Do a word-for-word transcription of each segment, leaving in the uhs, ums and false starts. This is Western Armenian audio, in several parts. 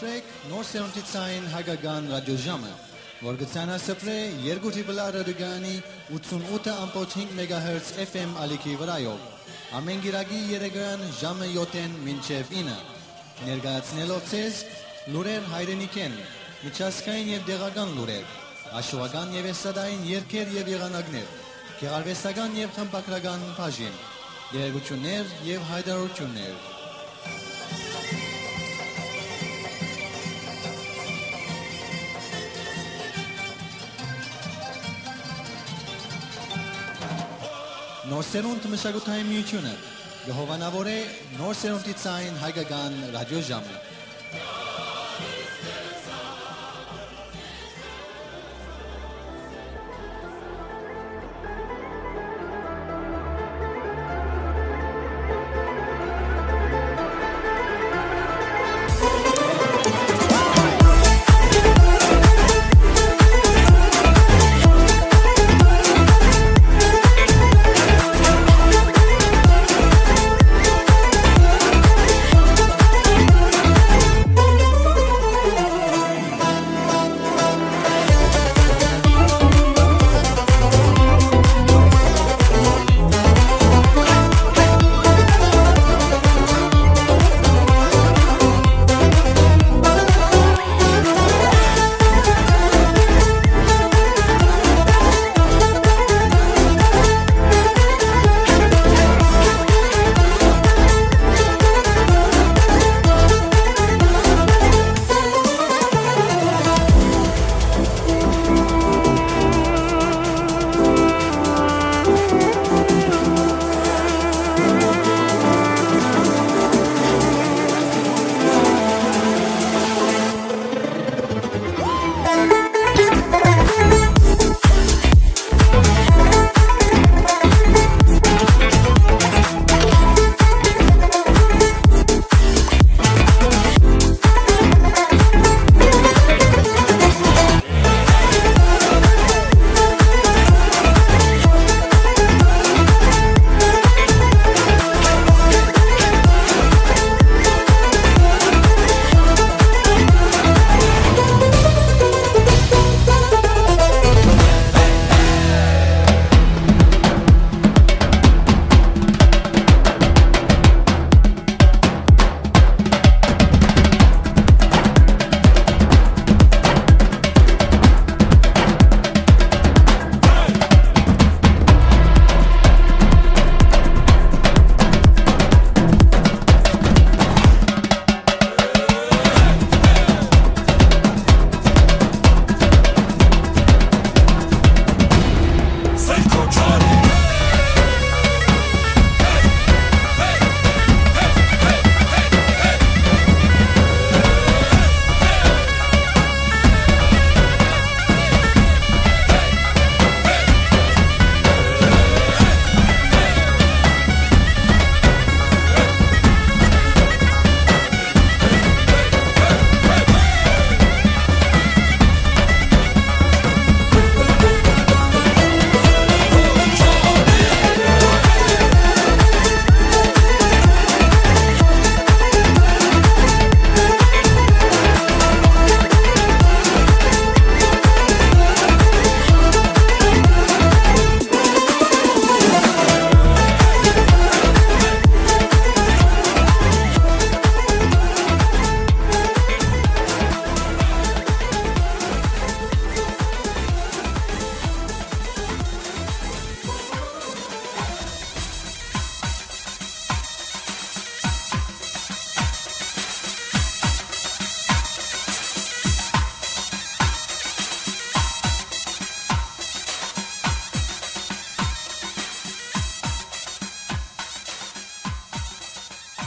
Նոր սերունդի ցային հայկական ռադիոժամը, որ կը ցանասփռէ երկու դիպլա ռադիոկայանի ութսունութ ըմբոց հինգ մեգահերց F M ալիքի վրայով, ամէն կիրակի երեկոյեան ժամը յոթ մինչեւ ինը, ներկայացնելով ձեզ լուրեր հայրենիքէն, միջազգային եւ տեղական լուրեր, հաշուական եւ էսթատային երգեր եւ եղանակներ, գեղարուեստական եւ խմբագրական բաժին, տեղեկութիւններ եւ յայտարարութիւններ։ Նոր սերունդ մշակութային միութիւնը կը հովանաւորէ նոր սերունդի ցային հայկական ռադիոժամը։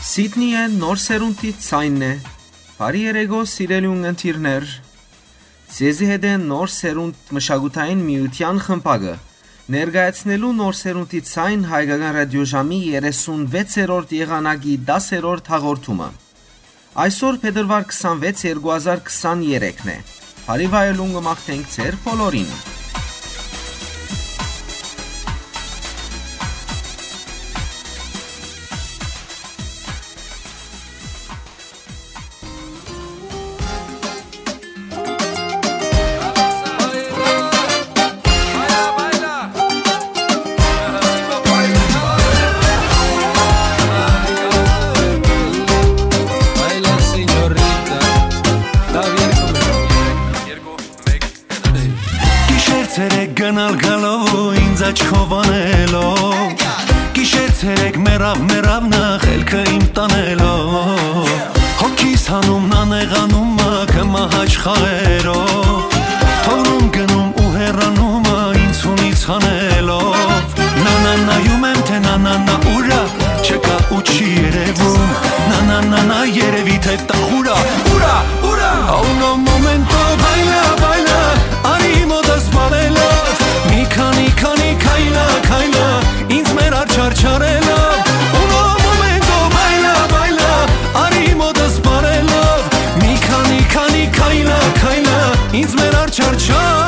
Սիդնիը նոր սերունդի ցայնն է։ Բարի երեկո, սիրելի ունգընտիրներ։ Ձեզի հետ է Նոր Սերունդ մշակութային միութեան խմբակը, ներկայացնելու Նոր Սերունդի ցայն հայկական ռադիոժամի երեսունվեցերորդ եղանակի դասերորդ հաղորդումը։ Այսօր փետրուար քսանվեց, երկու հազար քսաներեքն է։ Բարի վայելուն կը մաղթենք ձեր բոլորին։ Երեք գնալ գալով ու ինձ աչքով անելով, գիշեր ցերեկ մեռավ, մեռավ նախ ելքը իմ տանելով, հոգիս հանում նանեղանում մը, կը մահաճ խաղերով, թողնում գնում ու հեռանում մը, ինձ ունից հանելով, նանանայում եմ, թե նանանա ուրա, չկա ու չի երևում, նանանանա երևի, թե տախուրա, ուրա, ուրա, a uno momento, baila, baila, արի մոտս բարելով, մի քանի, քանի քայլա, քայլա, ինձ մեր աչարչարելով, uno momento, baila, baila, արի մոտս բարելով, մի քանի, քանի քայլա, քայլա, ինձ մեր աչարչարելով։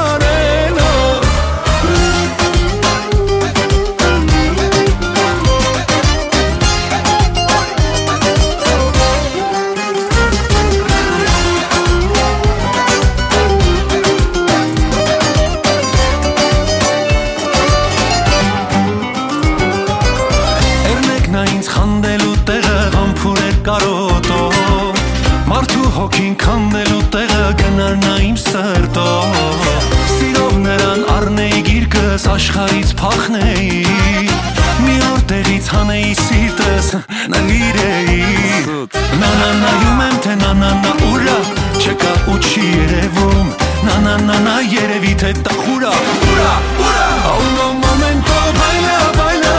Էրնեքնա ինձ խանդելու տեղը, համբուրեր կարոտով, մարդու հոգին քանդելու տեղը, կնարնա իմ սրտով, սիրով նրան առնեի գիրկս, աշխարհից փախնեի, մի օր տեղից հանեի սիրտս, նվիրեի։ Նանանայում եմ, թե նանանա ուրա, չկա ու չի երևում, նանանանա երևի, թե տախուրա, ուրա, ուրա, a uno momento, baila, baila,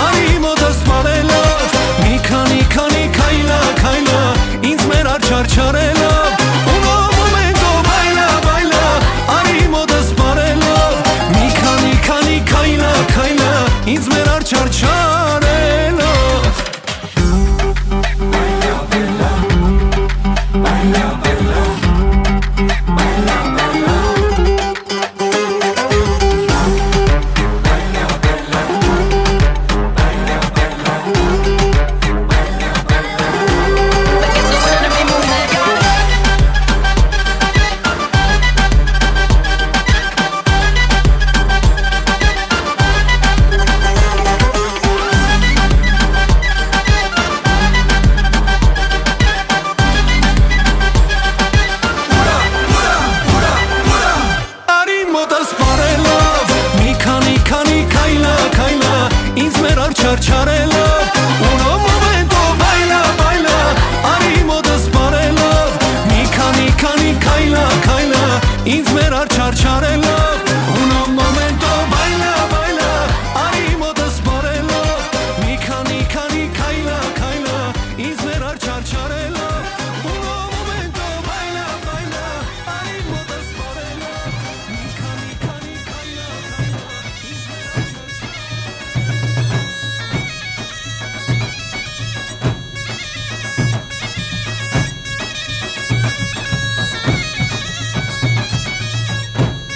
արի մոտս բարելով, մի քանի, քանի քայլա, քայլա, ինձ մեր աչարչարելով, uno momento, baila, baila, արի մոտս բարելով, մի քանի, քանի քայլա, քայլա, ինձ մեր աչարչարելով։ Արի մոտս բարելով, մի քանի, քանի քայլա, քայլա, ինձ մեր աչարչարելով, uno momento, baila, baila, արի մոտս բարելով, մի քանի, քանի քայլա, քայլա, ինձ մեր աչարչարելով, uno momento, baila, baila, արի մոտս բարելով, մի քանի, քանի քայլա, քայլա, ինձ մեր աչարչարելով, uno momento, baila, baila, արի մոտս բարելով, մի քանի, քանի քայլա, քայլա, ինձ մեր աչարչարելով։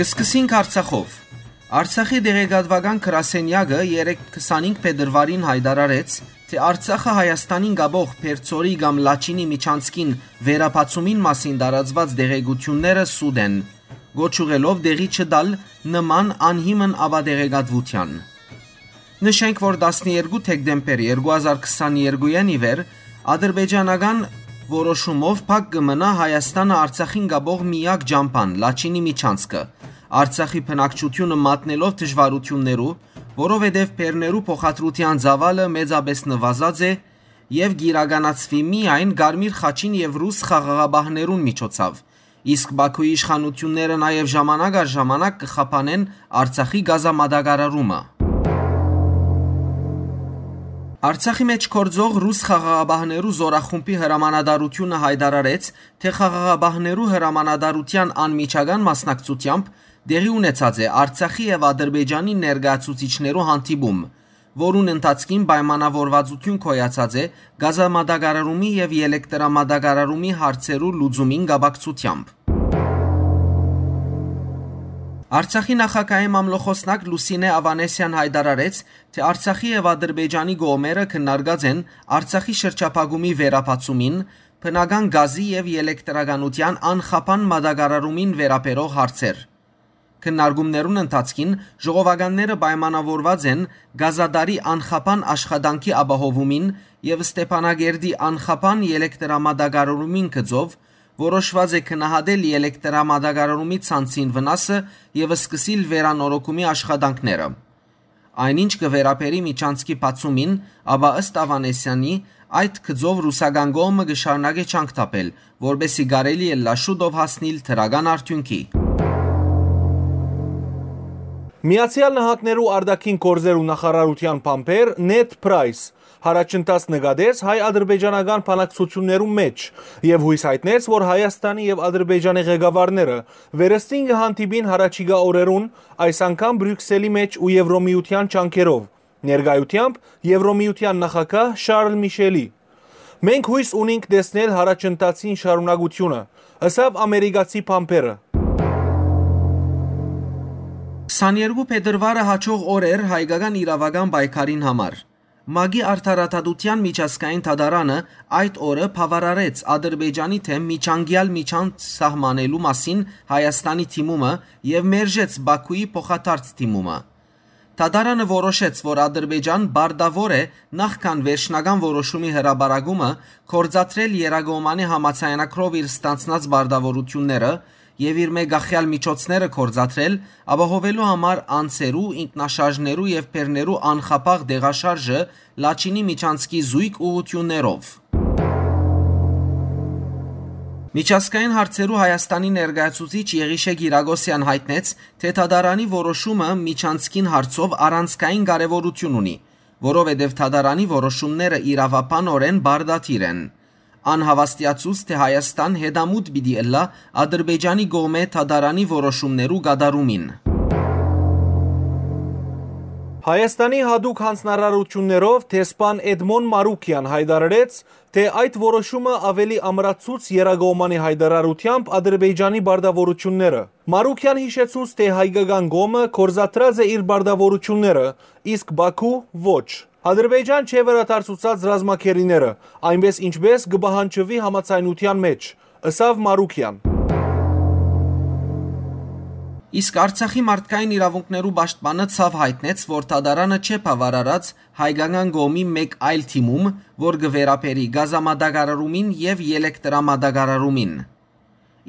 Կը սկսենք Արցախով։ Արցախի տեղեկատուական գրասենեակը երեկ քսանինգ փետրուարին յայտարարեց, թէ Արցախը Հայաստանին կապող Բերձորի կամ Լաչինի միջանցքին վերաբացումին մասին տարածուած տեղեկութիւնները սուտ են, կոչ ուղղելով տեղի չտալ նման անհիմն ապատեղեկատուութեան։ Նշենք, որ տասներկու դեկտեմբեր երկու հազար քսաներկուին ի վեր ադրբեջանական որոշումով փակ կը մնայ Հայաստանը Արցախին կապող միակ ճամբան՝ Լաչինի միջանցքը, Արցախի բնակչութիւնը մատնելով դժուարութիւններու, որովհետեւ բեռներու փոխադրութեան ծաւալը մեծապէս նուազած է եւ կիրականացուի միայն Կարմիր խաչին եւ ռուս խաղաղապահներուն միջոցաւ, իսկ Բաքուի իշխանութիւնները նաեւ ժամանակ առ ժամանակ կը խափանեն Արցախի գազամատակարարումը։ Արցախի մէջ գործող ռուս խաղաղապահներու զորախումբի հրամանատարութիւնը յայտարարեց, թէ խաղաղապահներու հրամանատարութեան անմիջական մասնակցութեամբ տեղի ունեցած է Արցախի եւ Ադրբեջանի ներկայացուցիչներու հանդիպում, որուն ընթացքին պայմանավորվածութիւն գոյացած է գազամատակարարումի եւ ելեկտրամատակարարումի հարցերու լուծումին կապակցութեամբ։ Արցախի նախագահի մամլոխօսնակ Լուսինե Ավանեսեան յայտարարեց, թէ Արցախի եւ Ադրբեջանի կողմերը քննարկած են Արցախի շրջափակումի վերաբացումին, բնական գազի եւ ելեկտրականութեան անխափան մատակարարումին վերաբերող հարցեր։ Քննարկումներուն ընթացքին ժողովականները պայմանաւորուած են Կազադարի անխափան աշխատանքի ապահովումին եւ Ստեփանակերտի անխափան ելեկտրամատակարարումին գծով, որոշուած է գնահատել ելեկտրամատակարարումի ցանցին վնասը եւ սկսիլ վերանորոգումի աշխատանքները։ Այն ինչ կը վերաբերի միջանցքի բացումին, ապա ըստ Աւանեսեանի, այդ գծով ռուսական կողմը կը շարունակէ ջանք թափել, որպէսզի կարելի ըլլայ շուտով հասնիլ դրական արդիւնքի։ Միացեալ Նահանգներու արտաքին գործերու նախարարութեան բանբեր Նեդ Պրայս յառաջընթաց նկատեց հայ-ադրբեջանական բանակցութիւններու մէջ եւ յոյս յայտնեց, որ Հայաստանի եւ Ադրբեջանի ղեկավարները վերստին կը հանդիպին յառաջիկայ օրերուն, այս անգամ Բրիւքսելի մէջ ու Եվրոմիութեան ջանքերով, ներկայութեամբ Եվրոմիութեան նախագահ Շարլ Միշելի։ «Մենք յոյս ունինք տեսնել յառաջընթացին շարունակութիւնը», ըսաւ ամերիկացի բանբերը։ Քսաներկու փետրուարը հաջող օր էր հայկական իրաւական պայքարին համար։ ՄԱԿ-ի Արդարադատութեան միջազգային դատարանը այդ օրը բաւարարեց Ադրբեջանի դէմ միջանկեալ միջանց սահմանելու մասին Հայաստանի դիմումը եւ մերժեց Բաքուի փոխադարձ դիմումը։ Դատարանը որոշեց, որ Ադրբեջան պարտաւոր է նախքան վերջնական որոշումի հրապարակումը գործադրել եռակողմանի համաձայնագրով իր ստանձնած պարտաւորութիւնները եւ իր մէկ ախեալ միջոցները գործադրել, ապահովելու համար անձերու, ինքնաշարժներու եւ բեռներու անխափաղ տեղաշարժը Լաչինի միջանցքի զոյգ ուղղութիւններով։ Միջազգային հարցերու Հայաստանի ներկայացուցիչ Եղիշէ Կիրակոսեան յայտնեց, թէ դատարանի որոշումը միջանցքին հարցով առանցքային կարեւորութիւն ունի, որովհետեւ դատարանի որոշումները իրաւաբանօրէն պարտադիր են։ Ան հաւաստիացուց, թէ Հայաստան հետամուտ պիտի ըլլայ Ադրբեջանի կողմէ դատարանի որոշումներու կատարումին։ Հայաստանի յատուկ յանձնարարութիւններով դեսպան Էդմոն Մարուկեան յայտարարեց, թէ այդ որոշումը աւելի ամրացուց եռակողմանի յայտարարութեամբ Ադրբեջանի պարտաւորութիւնները։ Մարուկեան յիշեցուց, թէ հայկական կողմը գործադրած է իր պարտաւորութիւնները, իսկ Բաքու՝ ոչ։ Ադրբեջան չէ վերադարձուցած ռազմագերիները, այնպէս ինչպէս կը պահանջուի համաձայնութեան մէջ, ըսաւ Մարուկեան։ Իսկ Արցախի մարդկային իրաւունքներու պաշտպանը ցաւ յայտնեց, որ դատարանը չէ բաւարարած հայկական կողմի մէկ այլ դիմում, որ կը վերաբերի գազամատակարարումին եւ ելեկտրամատակարարումին։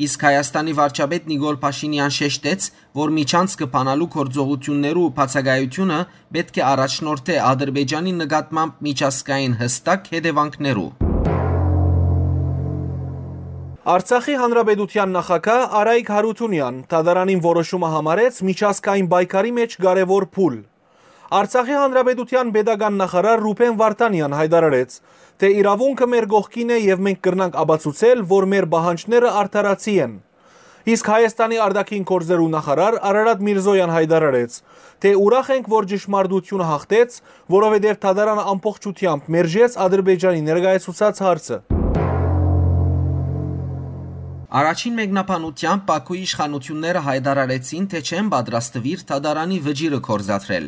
Իսկ Հայաստանի վարչապետ Նիկոլ Փաշինեան շեշտեց, որ միջանցքը բանալու գործողութիւններու բացակայութիւնը պէտք է առաջնորդէ Ադրբեջանի նկատմամբ միջազգային յստակ հետեւանքներու։ Արցախի Հանրապետութեան նախագահ Արայիկ Հարութունեան դատարանին որոշումը համարեց միջազգային պայքարի մէջ կարեւոր փուլ։ Արցախի Հանրապետութեան պետական նախարար Ռուբեն Վարդանեան յայտարարեց, թէ իրաւունքը մեր կողքին է եւ մենք կրնանք ապացուցել, որ մեր պահանջները արդարացի են։ Իսկ Հայաստանի արտաքին գործերու նախարար Արարատ Միրզոյան յայտարարեց, թէ ուրախ ենք, որ ճշմարտությունը յաղթեց, որովհետեւ դատարանը ամբողջութեամբ մերժեց Ադրբեջանի ներկայացուցած հարցը։ Առաջին մեկնաբանութեամբ Պաքուի իշխանութիւնները յայտարարեցին, թէ չեն պատրաստուիր դատարանի վճիռը գործադրել։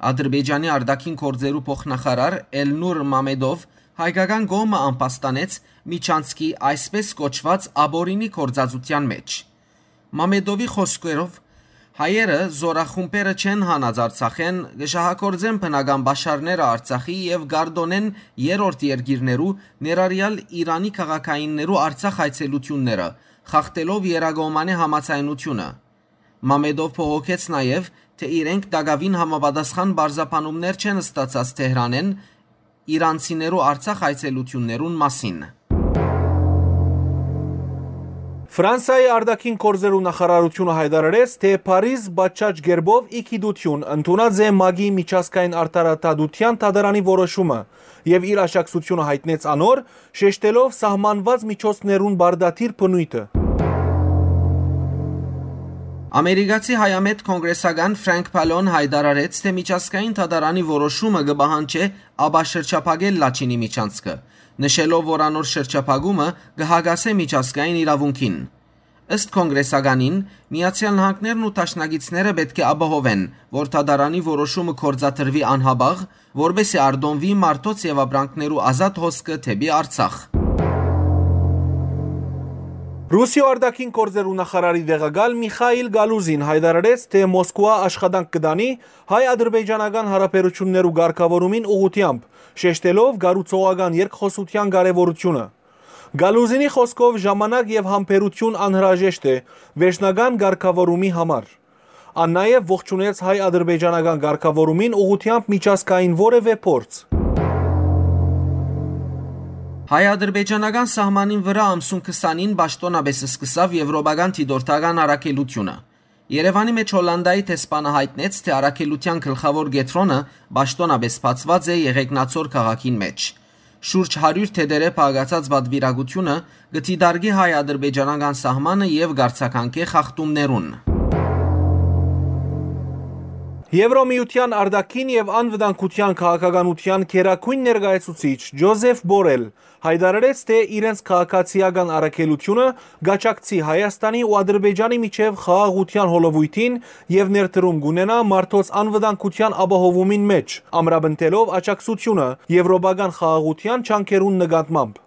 Ադրբեջանի արտաքին գործերու փոխնախարար Էլնուր Մամեդով հայկական կողմը ամբաստանեց միջանցքի այսպէս կոչուած աբորինի գործածութեան մէջ։ Մամեդովի խօսքերով, հայերը զորախումբերը չեն հանած Արցախէն, կը շահագործեն բնական պաշարները Արցախի եւ կարտօնեն երրորդ երկիրներու, ներառյալ Իրանի քաղաքայիններու Արցախ այցելութիւնները, խախտելով եռակողմանի համաձայնութիւնը։ Մամեդով բողոքեց նաեւ, թէ իրենք տակաւին համապատասխան պարզաբանումներ չեն ստացած Թեհրանէն իրանցիներու Արցախ այցելութիւններուն մասին։ Ֆրանսայի արտաքին գործերու նախարարութիւնը յայտարարեց, թէ Փարիզ պատշաճ կերպով ի գիտութիւն ընդունած է ՄԱԿ-ի միջազգային արդարադատութեան դատարանի որոշումը եւ իր աջակցութիւնը յայտնեց անոր, շեշտելով սահմանուած միջոցներուն պարտադիր բնոյթը։ Ամերիկացի հայամետ կոնգրեսական Ֆրանկ Փալոն յայտարարեց, թէ միջազգային դատարանի որոշումը կը պահանջէ ապաշրջափակել Լաչինի միջանցքը, նշելով, որ անոր շրջափակումը կը հակասէ միջազգային իրաւունքին։ Ըստ կոնգրեսականին, Միացեալ Նահանգներն ու դաշնակիցները պէտք է ապահովեն, որ դատարանի որոշումը գործադրուի անհապաղ, որպէսզի արտոնուի մարդոց եւ ապրանքներու ազատ հոսքը դէպի Արցախ։ Ռուսիոյ արտաքին գործերու նախարարի տեղակալ Միխայիլ Գալուզին յայտարարեց, թէ Մոսկուա աշխատանք կը տանի հայ-ադրբեջանական յարաբերութիւններու կարգաւորումին ուղղութեամբ, շեշտելով կառուցողական երկխօսութեան կարեւորութիւնը։ Գալուզինի խօսքով, ժամանակ եւ համբերութիւն անհրաժեշտ է վերջնական կարգաւորումի համար։ Ան նաեւ ողջունեց հայ-ադրբեջանական կարգաւորումին ուղղութեամբ միջազգային որեւէ փորձ։ Հայ-ադրբեջանական սահմանին վրայ ամսուն քսանին պաշտօնապէս սկսաւ եվրոպական դիտորդական առաքելութիւնը։ Երեւանի մէջ Հոլանտայի դեսպանը յայտնեց, թէ առաքելութեան գլխաւոր կեդրոնը պաշտօնապէս բացուած է Եղեգնաձոր քաղաքին մէջ։ Շուրջ հարիւր թետերէ փակացած պատուիրակութիւնը կը դիտարկի հայ-ադրբեջանական սահմանը եւ կարձագանքէ խախտումներուն։ Եվրոմիութեան արտաքին եւ անվտանգութեան քաղաքականութեան գերագոյն ներկայացուցիչ Ջոզեֆ Բորել յայտարարեց, թէ իրենց քաղաքացիական առաքելութիւնը կաջակցի Հայաստանի ու Ադրբեջանի միջեւ խաղաղութեան հոլովոյթին եւ ներդրում կունենայ մարդոց անվտանգութեան ապահովումին մէջ, ամրապնդելով աջակցութիւնը եվրոպական խաղաղութեան ջանքերուն նկատմամբ։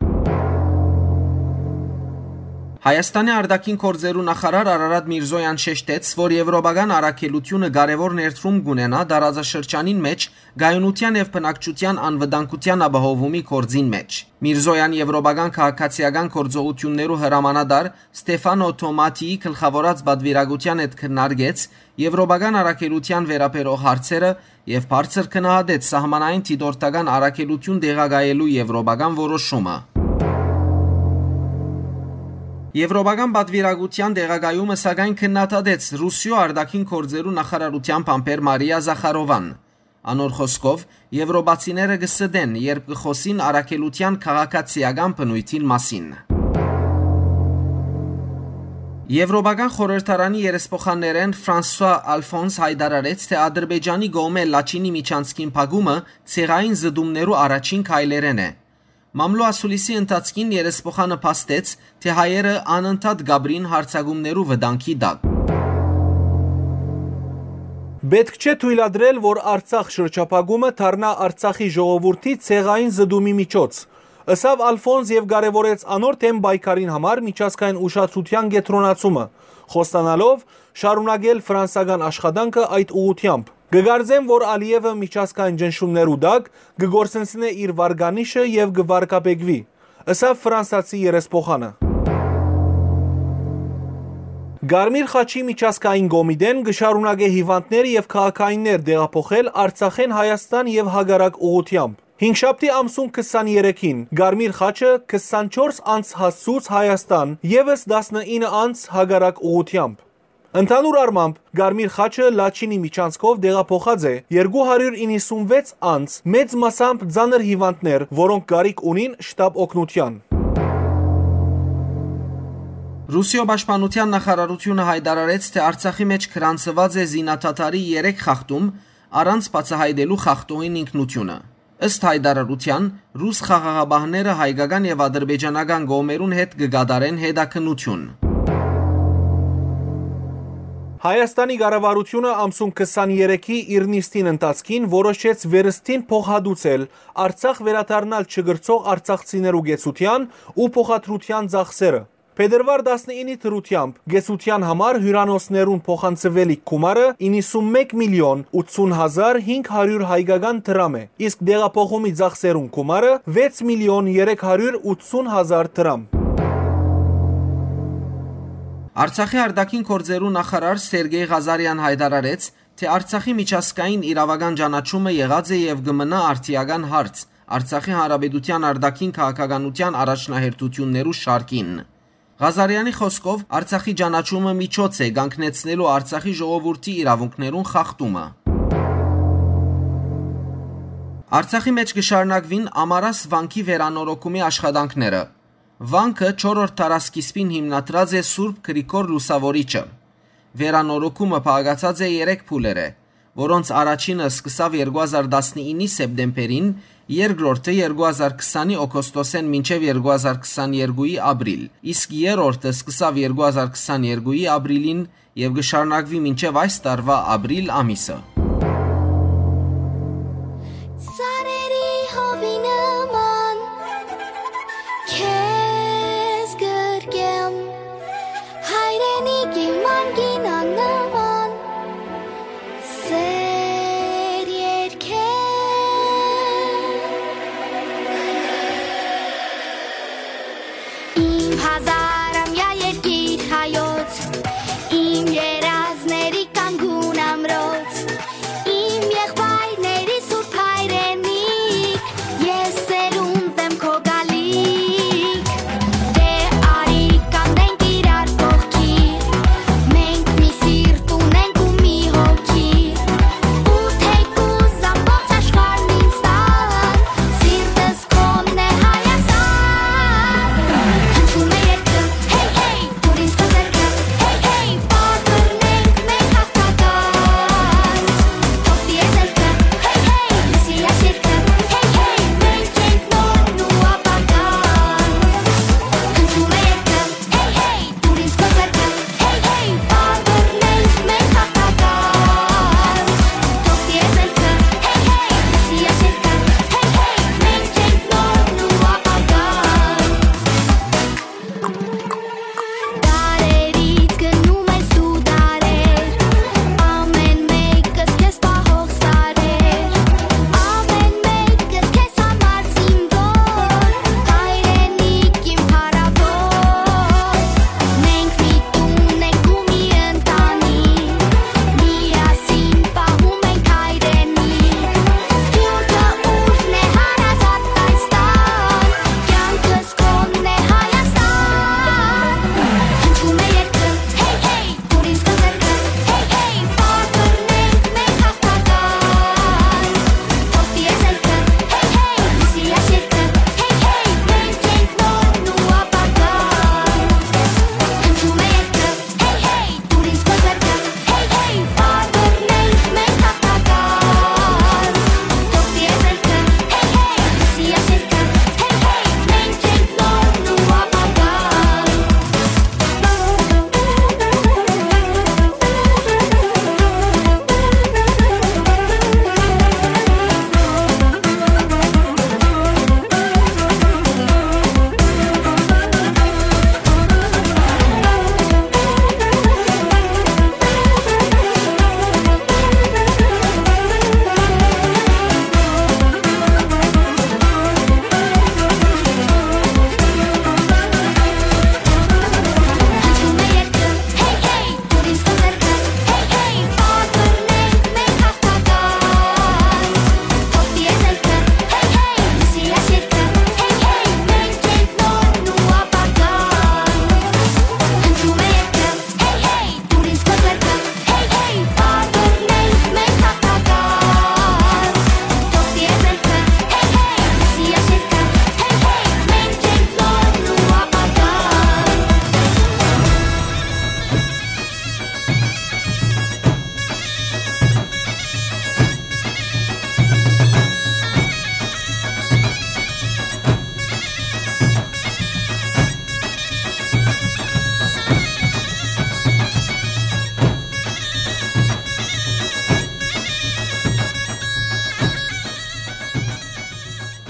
Հայաստանի արտաքին գործերու նախարար Արարատ Միրզոյան շեշտեց, որ եվրոպական առաքելութիւնը կարեւոր ներդրում կունենայ տարածաշրջանին մէջ կայունութեան եւ բնակչութեան անվտանգութեան ապահովումի գործին մէջ։ Միրզոյան եվրոպական քաղաքացիական գործողութիւններու հրամանատար Ստեֆանո Թոմաթիի գլխաւորած պատուիրակութեան հետ քննարկեց եվրոպական առաքելութեան վերաբերող հարցերը եւ բարձր գնահատեց սահմանային դիտորդական առաքելութիւն տեղակայելու եվրոպական որոշումը։ Եվրոպական պատուիրակութեան տեղակայումը, սակայն, քննադատեց Ռուսիոյ արտաքին գործերու նախարարութեան բանբեր Մարիա Զախարովան։ Անոր խօսքով, եվրոպացիները կը ստեն, երբ կը խօսին առաքելութեան քաղաքացիական բնոյթին մասին։ Եվրոպական խորհրդարանի երեսփոխաններէն Ֆրանսուա Ալֆոնս յայտարարեց, թէ Ադրբեջանի կողմէ Լաչինի միջանցքին փակումը ցեղային զտումներու առաջին քայլերէն է։ Մամլո ասուլիսի ընթացքին երեսփոխանը փաստեց, թէ հայերը անընդհատ կապրին յարձակումներու վտանգի տակ։ Պէտք չէ թոյլատրել, որ Արցախ շրջափակումը դառնայ Արցախի ժողովուրդի ցեղային զտումի միջոց, ըսաւ Ալֆոնս եւ կարեւորեց անոր դէմ պայքարին համար միջազգային ուշադրութեան կեդրոնացումը, խոստանալով շարունակել ֆրանսական աշխատանքը այդ ուղղութեամբ։ «Կը կարծեմ, որ Ալիևը միջազգային ճնշումներու տակ կը կորսնցնէ իր վարկանիշը եւ կը վարկաբեկուի», ըսաւ ֆրանսացի երեսփոխանը։ Կարմիր խաչի միջազգային կոմիտեն կը շարունակէ հիւանդներ եւ քաղաքայիններ տեղափոխել Արցախէն Հայաստան եւ հակառակ ուղղութեամբ։ Հինգշաբթի ամսուն քսաներեքին Կարմիր խաչը քսանչորս անձ հասցուց Հայաստան, եւս տասնինը անձ հակառակ ուղղութեամբ։ Ընդհանուր առմամբ, Կարմիր խաչը Լաչինի միջանցքով տեղափոխած է երկու հարիւր իննսունվեց անձ, մեծ մասամբ ծանր հիւանդներ, որոնք կարիք ունին շտապ օգնութեան։ Ռուսիոյ պաշտպանութեան նախարարութիւնը յայտարարեց, թէ Արցախի մէջ գրանցուած է զինադադարի երեք խախտում՝ առանց բացայայտելու խախտողին ինքնութիւնը։ Ըստ յայտարարութեան, ռուս խաղաղապահները հայկական եւ ադրբեջանական կողմերուն հետ կը կատարեն հետաքննութիւն։ Հայաստանի կառավարութիւնը ամսուն քսաներեքի իր նիստին ընթացքին որոշեց վերստին փոխհատուցել Արցախ վերադառնալ չկրցող արցախցիներու կեցութեան ու փոխադրութեան ծախսերը։ Փետրուար տասնինի դրութեամբ կեցութեան համար հիւրանոցներուն փոխանցուելիք գումարը իննսունմեկ միլիոն ութսուն հազար հինգ հարիւր հայկական դրամ է, իսկ տեղափոխումի ծախսերուն գումարը վեց միլիոն երեք հարիւր ութսուն հազար դրամ։ Արցախի արտաքին գործերու նախարար Սերգեյ Ղազարեան յայտարարեց, թէ Արցախի միջազգային իրավական ճանաչումը եղած է եւ կը մնայ արդիական հարց Արցախի Հանրապետութեան արտաքին քաղաքականութեան առաջնահերթութիւններու շարքին։ Ղազարեանի խօսքով, Արցախի ճանաչումը միջոց է կանգնեցնելու Արցախի ժողովուրդի իրաւունքներուն խախտումը։ Արցախի մէջ կը շարունակուին Ամարաս վանքի վերանորոգումի աշխատանքները։ Վանքը չորրորդ դարասկիզբին հիմնադրած է Սուրբ Գրիգոր Լուսաւորիչը։ Վերանորոգումը բաղկացած է երեք փուլերէ, որոնց առաջինը սկսաւ երկու հազար տասնինի սեպտեմբերին, երկրորդը երկու հազար քսանի օգոստոսէն մինչեւ երկու հազար քսաներկուի ապրիլ, իսկ երրորդը սկսաւ երկու հազար քսաներկուի ապրիլին եւ կը շարունակուի մինչեւ այս տարուայ ապրիլ ամիսը։ Ծառերի հովի նման քեզ գրկեմ։ Հազարամյա երկիր հայոց, իմ երազների կանգուն ամրոց, իմ եղբայրների սուրբ հայրենիք, ես սերունդ եմ քո գալիք։ Դե արի կանգնենք իրար կողքին, մենք մի սիրտ ունենք ու մի հոգի, ու թեկուզ ամբողջ աշխարհն ինձ տան, սիրտս քոնն է Հայաստան։ Հնչում է երգը, հեյ, հեյ, դուր ինձ քո ձեռքը, հեյ, հեյ, պատռնենք մենք հաղթական։ Թող տի էզելքը, հեյ, հեյ, լսի այս երգը, հեյ, հեյ, մենք ենք նորն ու ապագան։ Հնչում է երգը, հեյ, հեյ, դուր ինձ քո ձեռքը, հեյ, հեյ, պատռնենք մենք հաղթական։ Թող տի էզելքը, հեյ, հեյ, լսի այս երգը, հեյ, հեյ, մենք ենք նորն ու ապագան։ Դարերից գնում ես դու դարեր, ամեն մեկս քեզ պահող սարեր, ամեն մեկս քեզ համար զինվոր, հայրենիք իմ փառաւոր։ Մենք միտում ենք ու մի ընտանիք, միասին պահում ենք հայրենիք։ Սփիւռքը ուժն է, հարազատ այս տան, կյանքս քոնն է Հայաստան։ Հնչում է երգը, հեյ, հեյ, դուր ինձ քո ձեռքը, հեյ, հեյ, պատռնենք մենք հաղթական։ Թող տի էզելքը, հեյ, հեյ, լսի այս երգը, հեյ, հեյ, մենք ենք նորն ու ապագան։ Հնչում է երգը, հեյ, հեյ, դուր ինձ քո ձեռքը, հեյ, հեյ, պատռնենք մենք հաղթական։ Թող տի էզելքը, հեյ, հեյ, լսի այս երգը, հեյ, հեյ, մենք ենք նորն ու ապագան։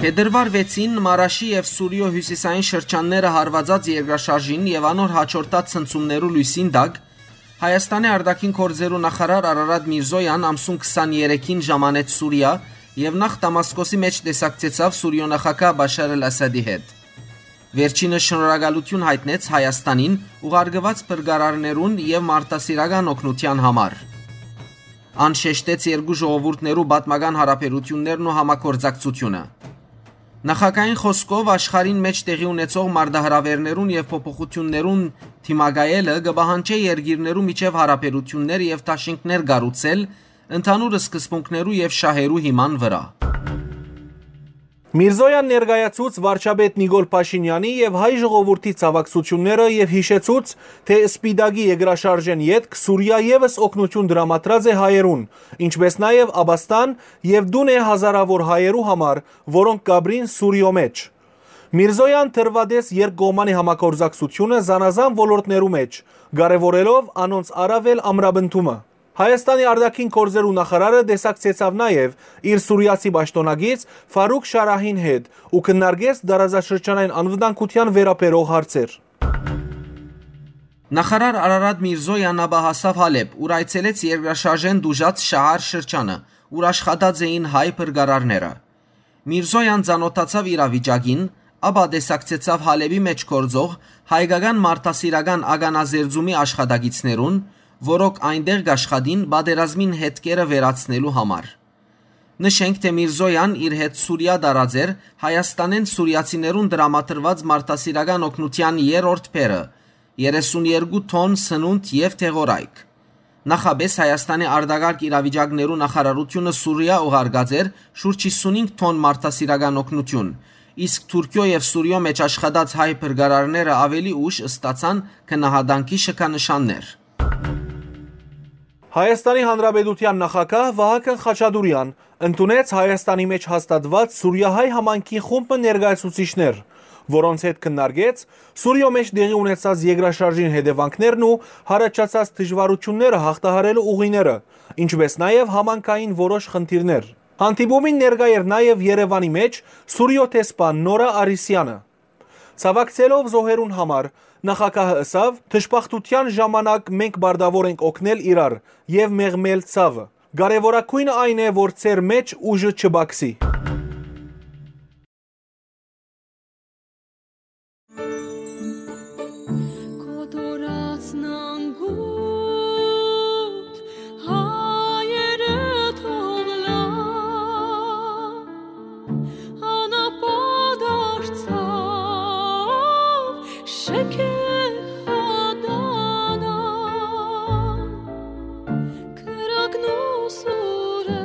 Փետրուար վեցին Մարաշի եւ Սուրիոյ հիւսիսային շրջանները հարուածած երկրաշարժին եւ անոր յաջորդած ցնցումներու լոյսին տակ, Հայաստանի արտաքին գործերու նախարար Արարատ Միրզոյան ամսուն քսաներեքին ժամանեց Սուրիա եւ նախ Դամասկոսի մէջ տեսակցեցաւ Սուրիոյ նախագահ Բաշար Ալ Ասադի հետ։ Վերջինը շնորհակալութիւն յայտնեց Հայաստանին ուղարկուած փրկարարներուն եւ մարդասիրական օգնութեան համար։ Ան շեշտեց երկու ժողովուրդներու պատմական յարաբերութիւններն ու համագործակցութիւնը։ Նախագահին խօսքով, աշխարհին մէջ տեղի ունեցող մարտահրաւէրներուն եւ փոփոխութիւններուն դիմակայելը կը պահանջէ երկիրներու միջեւ յարաբերութիւններ եւ դաշինքներ կառուցել ընդհանուր սկզբունքներու եւ շահերու հիման վրայ։ Միրզոյան ներկայացուց վարչապետ Նիկոլ Փաշինեանի եւ հայ ժողովուրդի ցաւակցութիւնները եւ յիշեցուց, թէ Սպիտակի երկրաշարժէն ետք Սուրիա եւս օգնութիւն տրամադրած է հայերուն, ինչպէս նաեւ ապաստան եւ տուն է հազարաւոր հայերու համար, որոնք կ'ապրին Սուրիոյ մէջ։ Միրզոյան դրուատես երկկողմանի համագործակցութիւնը զանազան ոլորտներու մէջ, կարեւորելով անոնց առաւել ամրապնդումը։ Հայաստանի արտաքին գործերու նախարարը տեսակցեցաւ նաեւ իր սուրիացի պաշտօնակից Ֆարուկ Շարահին հետ ու քննարկեց տարածաշրջանային անվտանգութեան վերաբերող հարցեր։ Նախարար Արարատ Միրզոյան ապա հասաւ Հալեբ, ուր այցելեց երկրաշարժէն տուժած Շահար շրջանը, ուր աշխատած էին հայ փրկարարները։ Միրզոյան ծանօթացաւ իրավիճակին, Ապա տեսակցեցաւ Հալէպի մէջ գործող հայկական մարդասիրական ականազերծումի աշխատակիցներուն, որոնք այնտեղ կաշխատին պատերազմին հետքերը վերացնելու համար։ Նշենք, թէ Միրզոյան իր հետ Սուրիա տարած էր Հայաստանէն սուրիացիներուն տրամադրուած մարդասիրական օգնութեան երրորդ փերը՝ երեսուն երկու թոն սնունդ եւ դեղորայք։ Նախապէս Հայաստանի արտակարգ իրավիճակներու նախարարութիւնը Սուրիա ուղարկած էր շուրջ հիսունհինգ թոն մարդասիրական օգնութիւն, իսկ Թուրքիոյ եւ Սուրիոյ մէջ աշխատած հայ փրկարարները աւելի ուշ ստացան գնահատանքի շքանշաններ։ Հայաստանի Հանրապետութեան նախագահ Վահագն Խաչատուրեան ընդունեց Հայաստանի մէջ հաստատուած սուրիահայ համայնքի խումբ մը ներկայացուցիչներ, որոնց հետ քննարկեց Սուրիոյ մէջ տեղի ունեցած երկրաշարժին հետեւանքներն ու յառաջացած դժուարութիւնները յաղթահարելու ուղիները, ինչպէս նաեւ համայնքային որոշ խնդիրներ։ Հանդիպումին ներկայ էր նաեւ Երեւանի մէջ Սուրիոյ դեսպան Նորա Արիսեանը։ Ցաւակցելով զոհերուն համար, նախագահը ըսաւ. «Դժբախտութեան ժամանակ մենք պարտաւոր ենք օգնել իրար եւ մեղմել ցաւը։ Կարեւորագոյնը այն է, որ ձեր մէջ ուժը չպակսի»։ Կոտորածն անգութ հայերը թող լան, անապա դարձաւ շքեղ ատանան, կրակն ու սուրը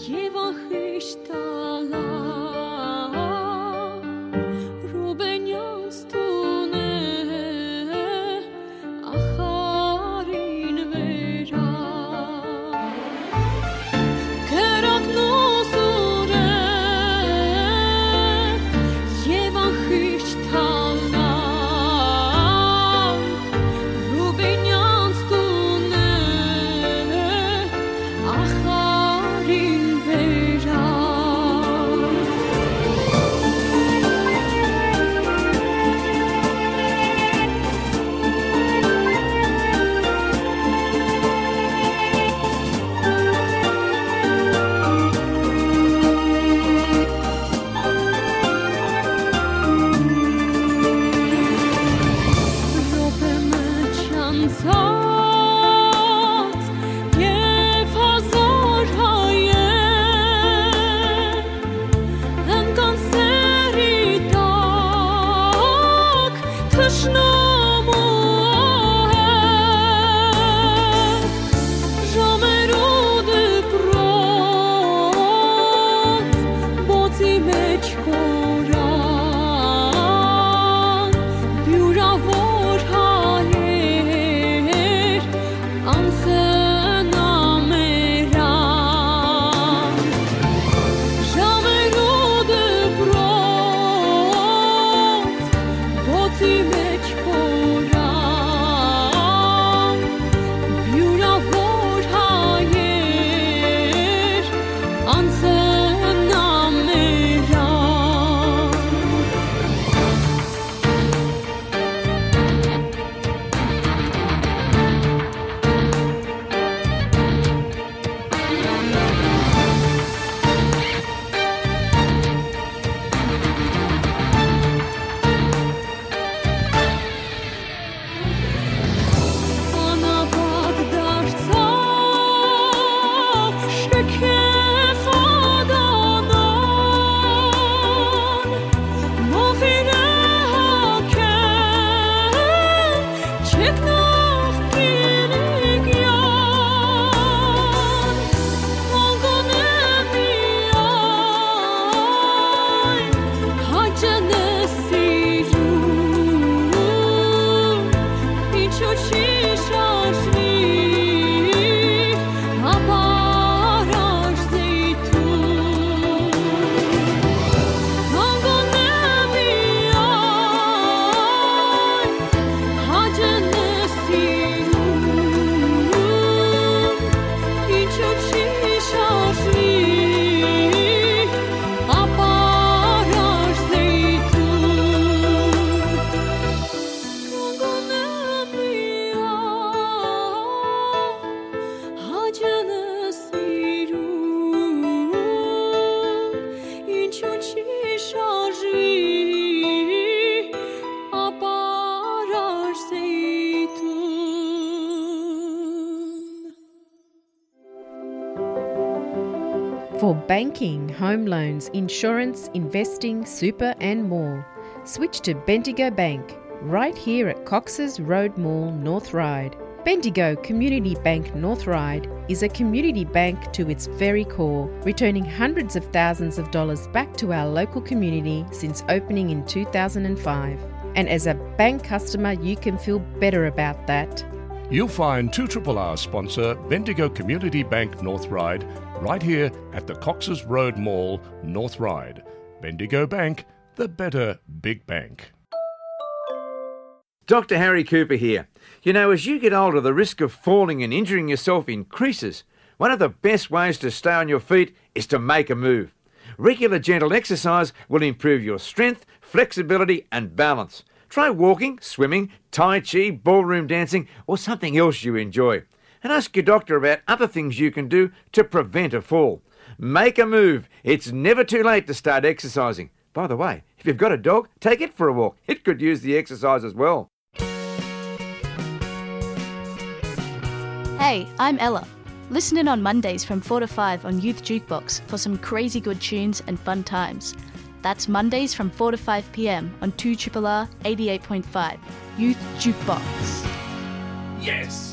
եւ անխիղճ տալան Ռուբենյանց տունը ախարին վերա։ Կրակն ու սուրը եւ անխիղճ Banking, home loans, insurance, investing, super, and more. Switch to Bendigo Bank, right here at Cox's Road Mall, North Ryde. Bendigo Community Bank North Ryde is a community bank to its very core, returning hundreds of thousands of dollars back to our local community since opening in two thousand and five. And as a bank customer, you can feel better about that. You'll find two triple R sponsor Bendigo Community Bank North Ryde right here at the Cox's Road Mall, North Ryde. Bendigo Bank, the better big bank. Doctor Harry Cooper here. You know, as you get older, the risk of falling and injuring yourself increases. One of the best ways to stay on your feet is to make a move. Regular gentle exercise will improve your strength, flexibility, and balance. Try walking, swimming, tai chi, ballroom dancing, or something else you enjoy. And ask your doctor about other things you can do to prevent a fall. Make a move. It's never too late to start exercising. By the way, if you've got a dog, take it for a walk. It could use the exercise as well. Hey, I'm Ella. Listen in on Mondays from four to five on Youth Jukebox for some crazy good tunes and fun times. That's Mondays from four to five p m on two triple R eighty-eight point five, Youth Jukebox. Yes!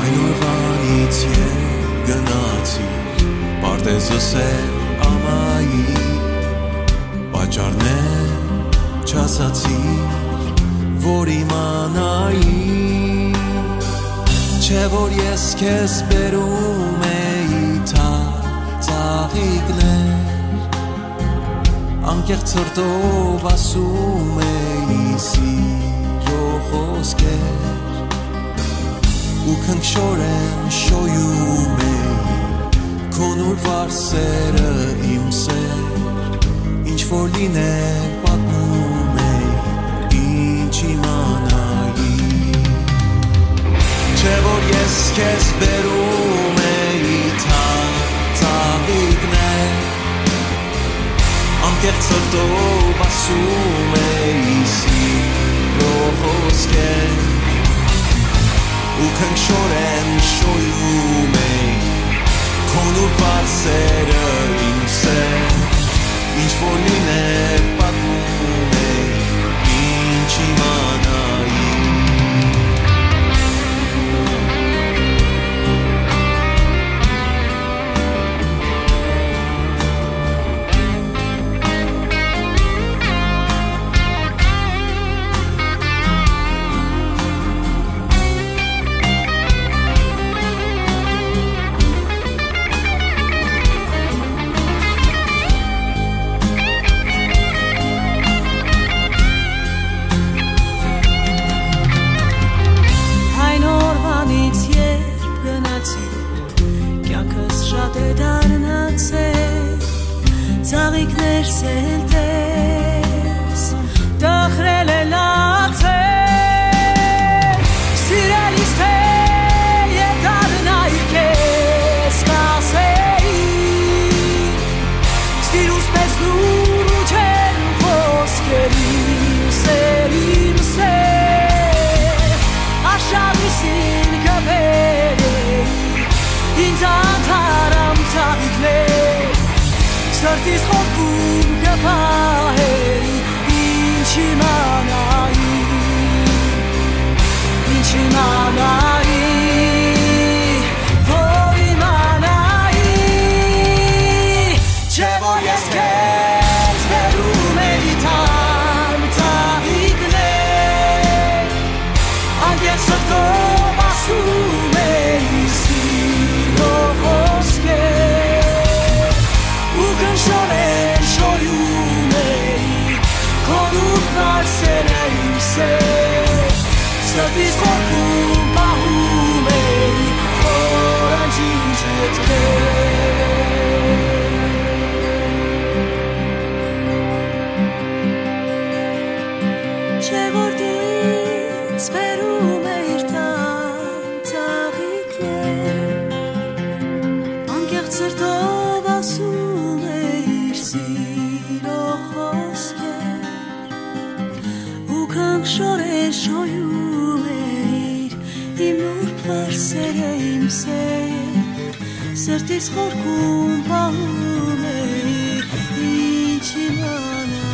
Այն օրուանից երբ գնացիր, պարտեզ ըսել ամայի, պատճառներ չասացիր, որ իմանայի, չէ՞ որ ես քեզ բերում էի թա-, ծաղիկներ, անկեղծ սրտով ասում էի սիրո խոսքեր, ու քնքշորեն շոյում էի քո նուրբ վարսերը, իմ սեր, ինչ որ լիներ, պատմում էի, ինչ իմանայի, չէ՞ որ ես քեզ բերում էի թա-, ծաղիկներ, անկեղծ սրտով ասում էի սիրո խոսքեր, ու քնքշորեն շոյում էի քո նուրբ վարսերը, իմ սեր, ինչ որ լիներ, պատմում էի, ինչ իմանայի։ Այն օրուանից երբ գնացի, կյանքս շատ է դառնացել, ծաղիկներ սելտես, տխրել է լացել, սիրելիս, թե եկարնայի քեզ կասեի, սիրուս մեծ լուրջ են խոսքեր, իմ սեր, իմ սեր, աշարիսին կբերեի, ինձ անթարամ ծաղիկներ, սրտիս խորքում կպահեի, ինչ իմանայի, ինչ իմանայի, որ իմանայի, չէ՞ Սրտիս խորքում պահում էի խոր անջինջը քեզ։ Չէ՞ որ դից բերում էիր թանկ ծաղիկներ, անկեղծ սրտով ասում էիր սիրո խոսքեր, ու քանք շորեր շոյում էիր իմ նուրբ վարսերը, իմ սեր, սրտիս խորքում պահում էի, ինչ իմանայի։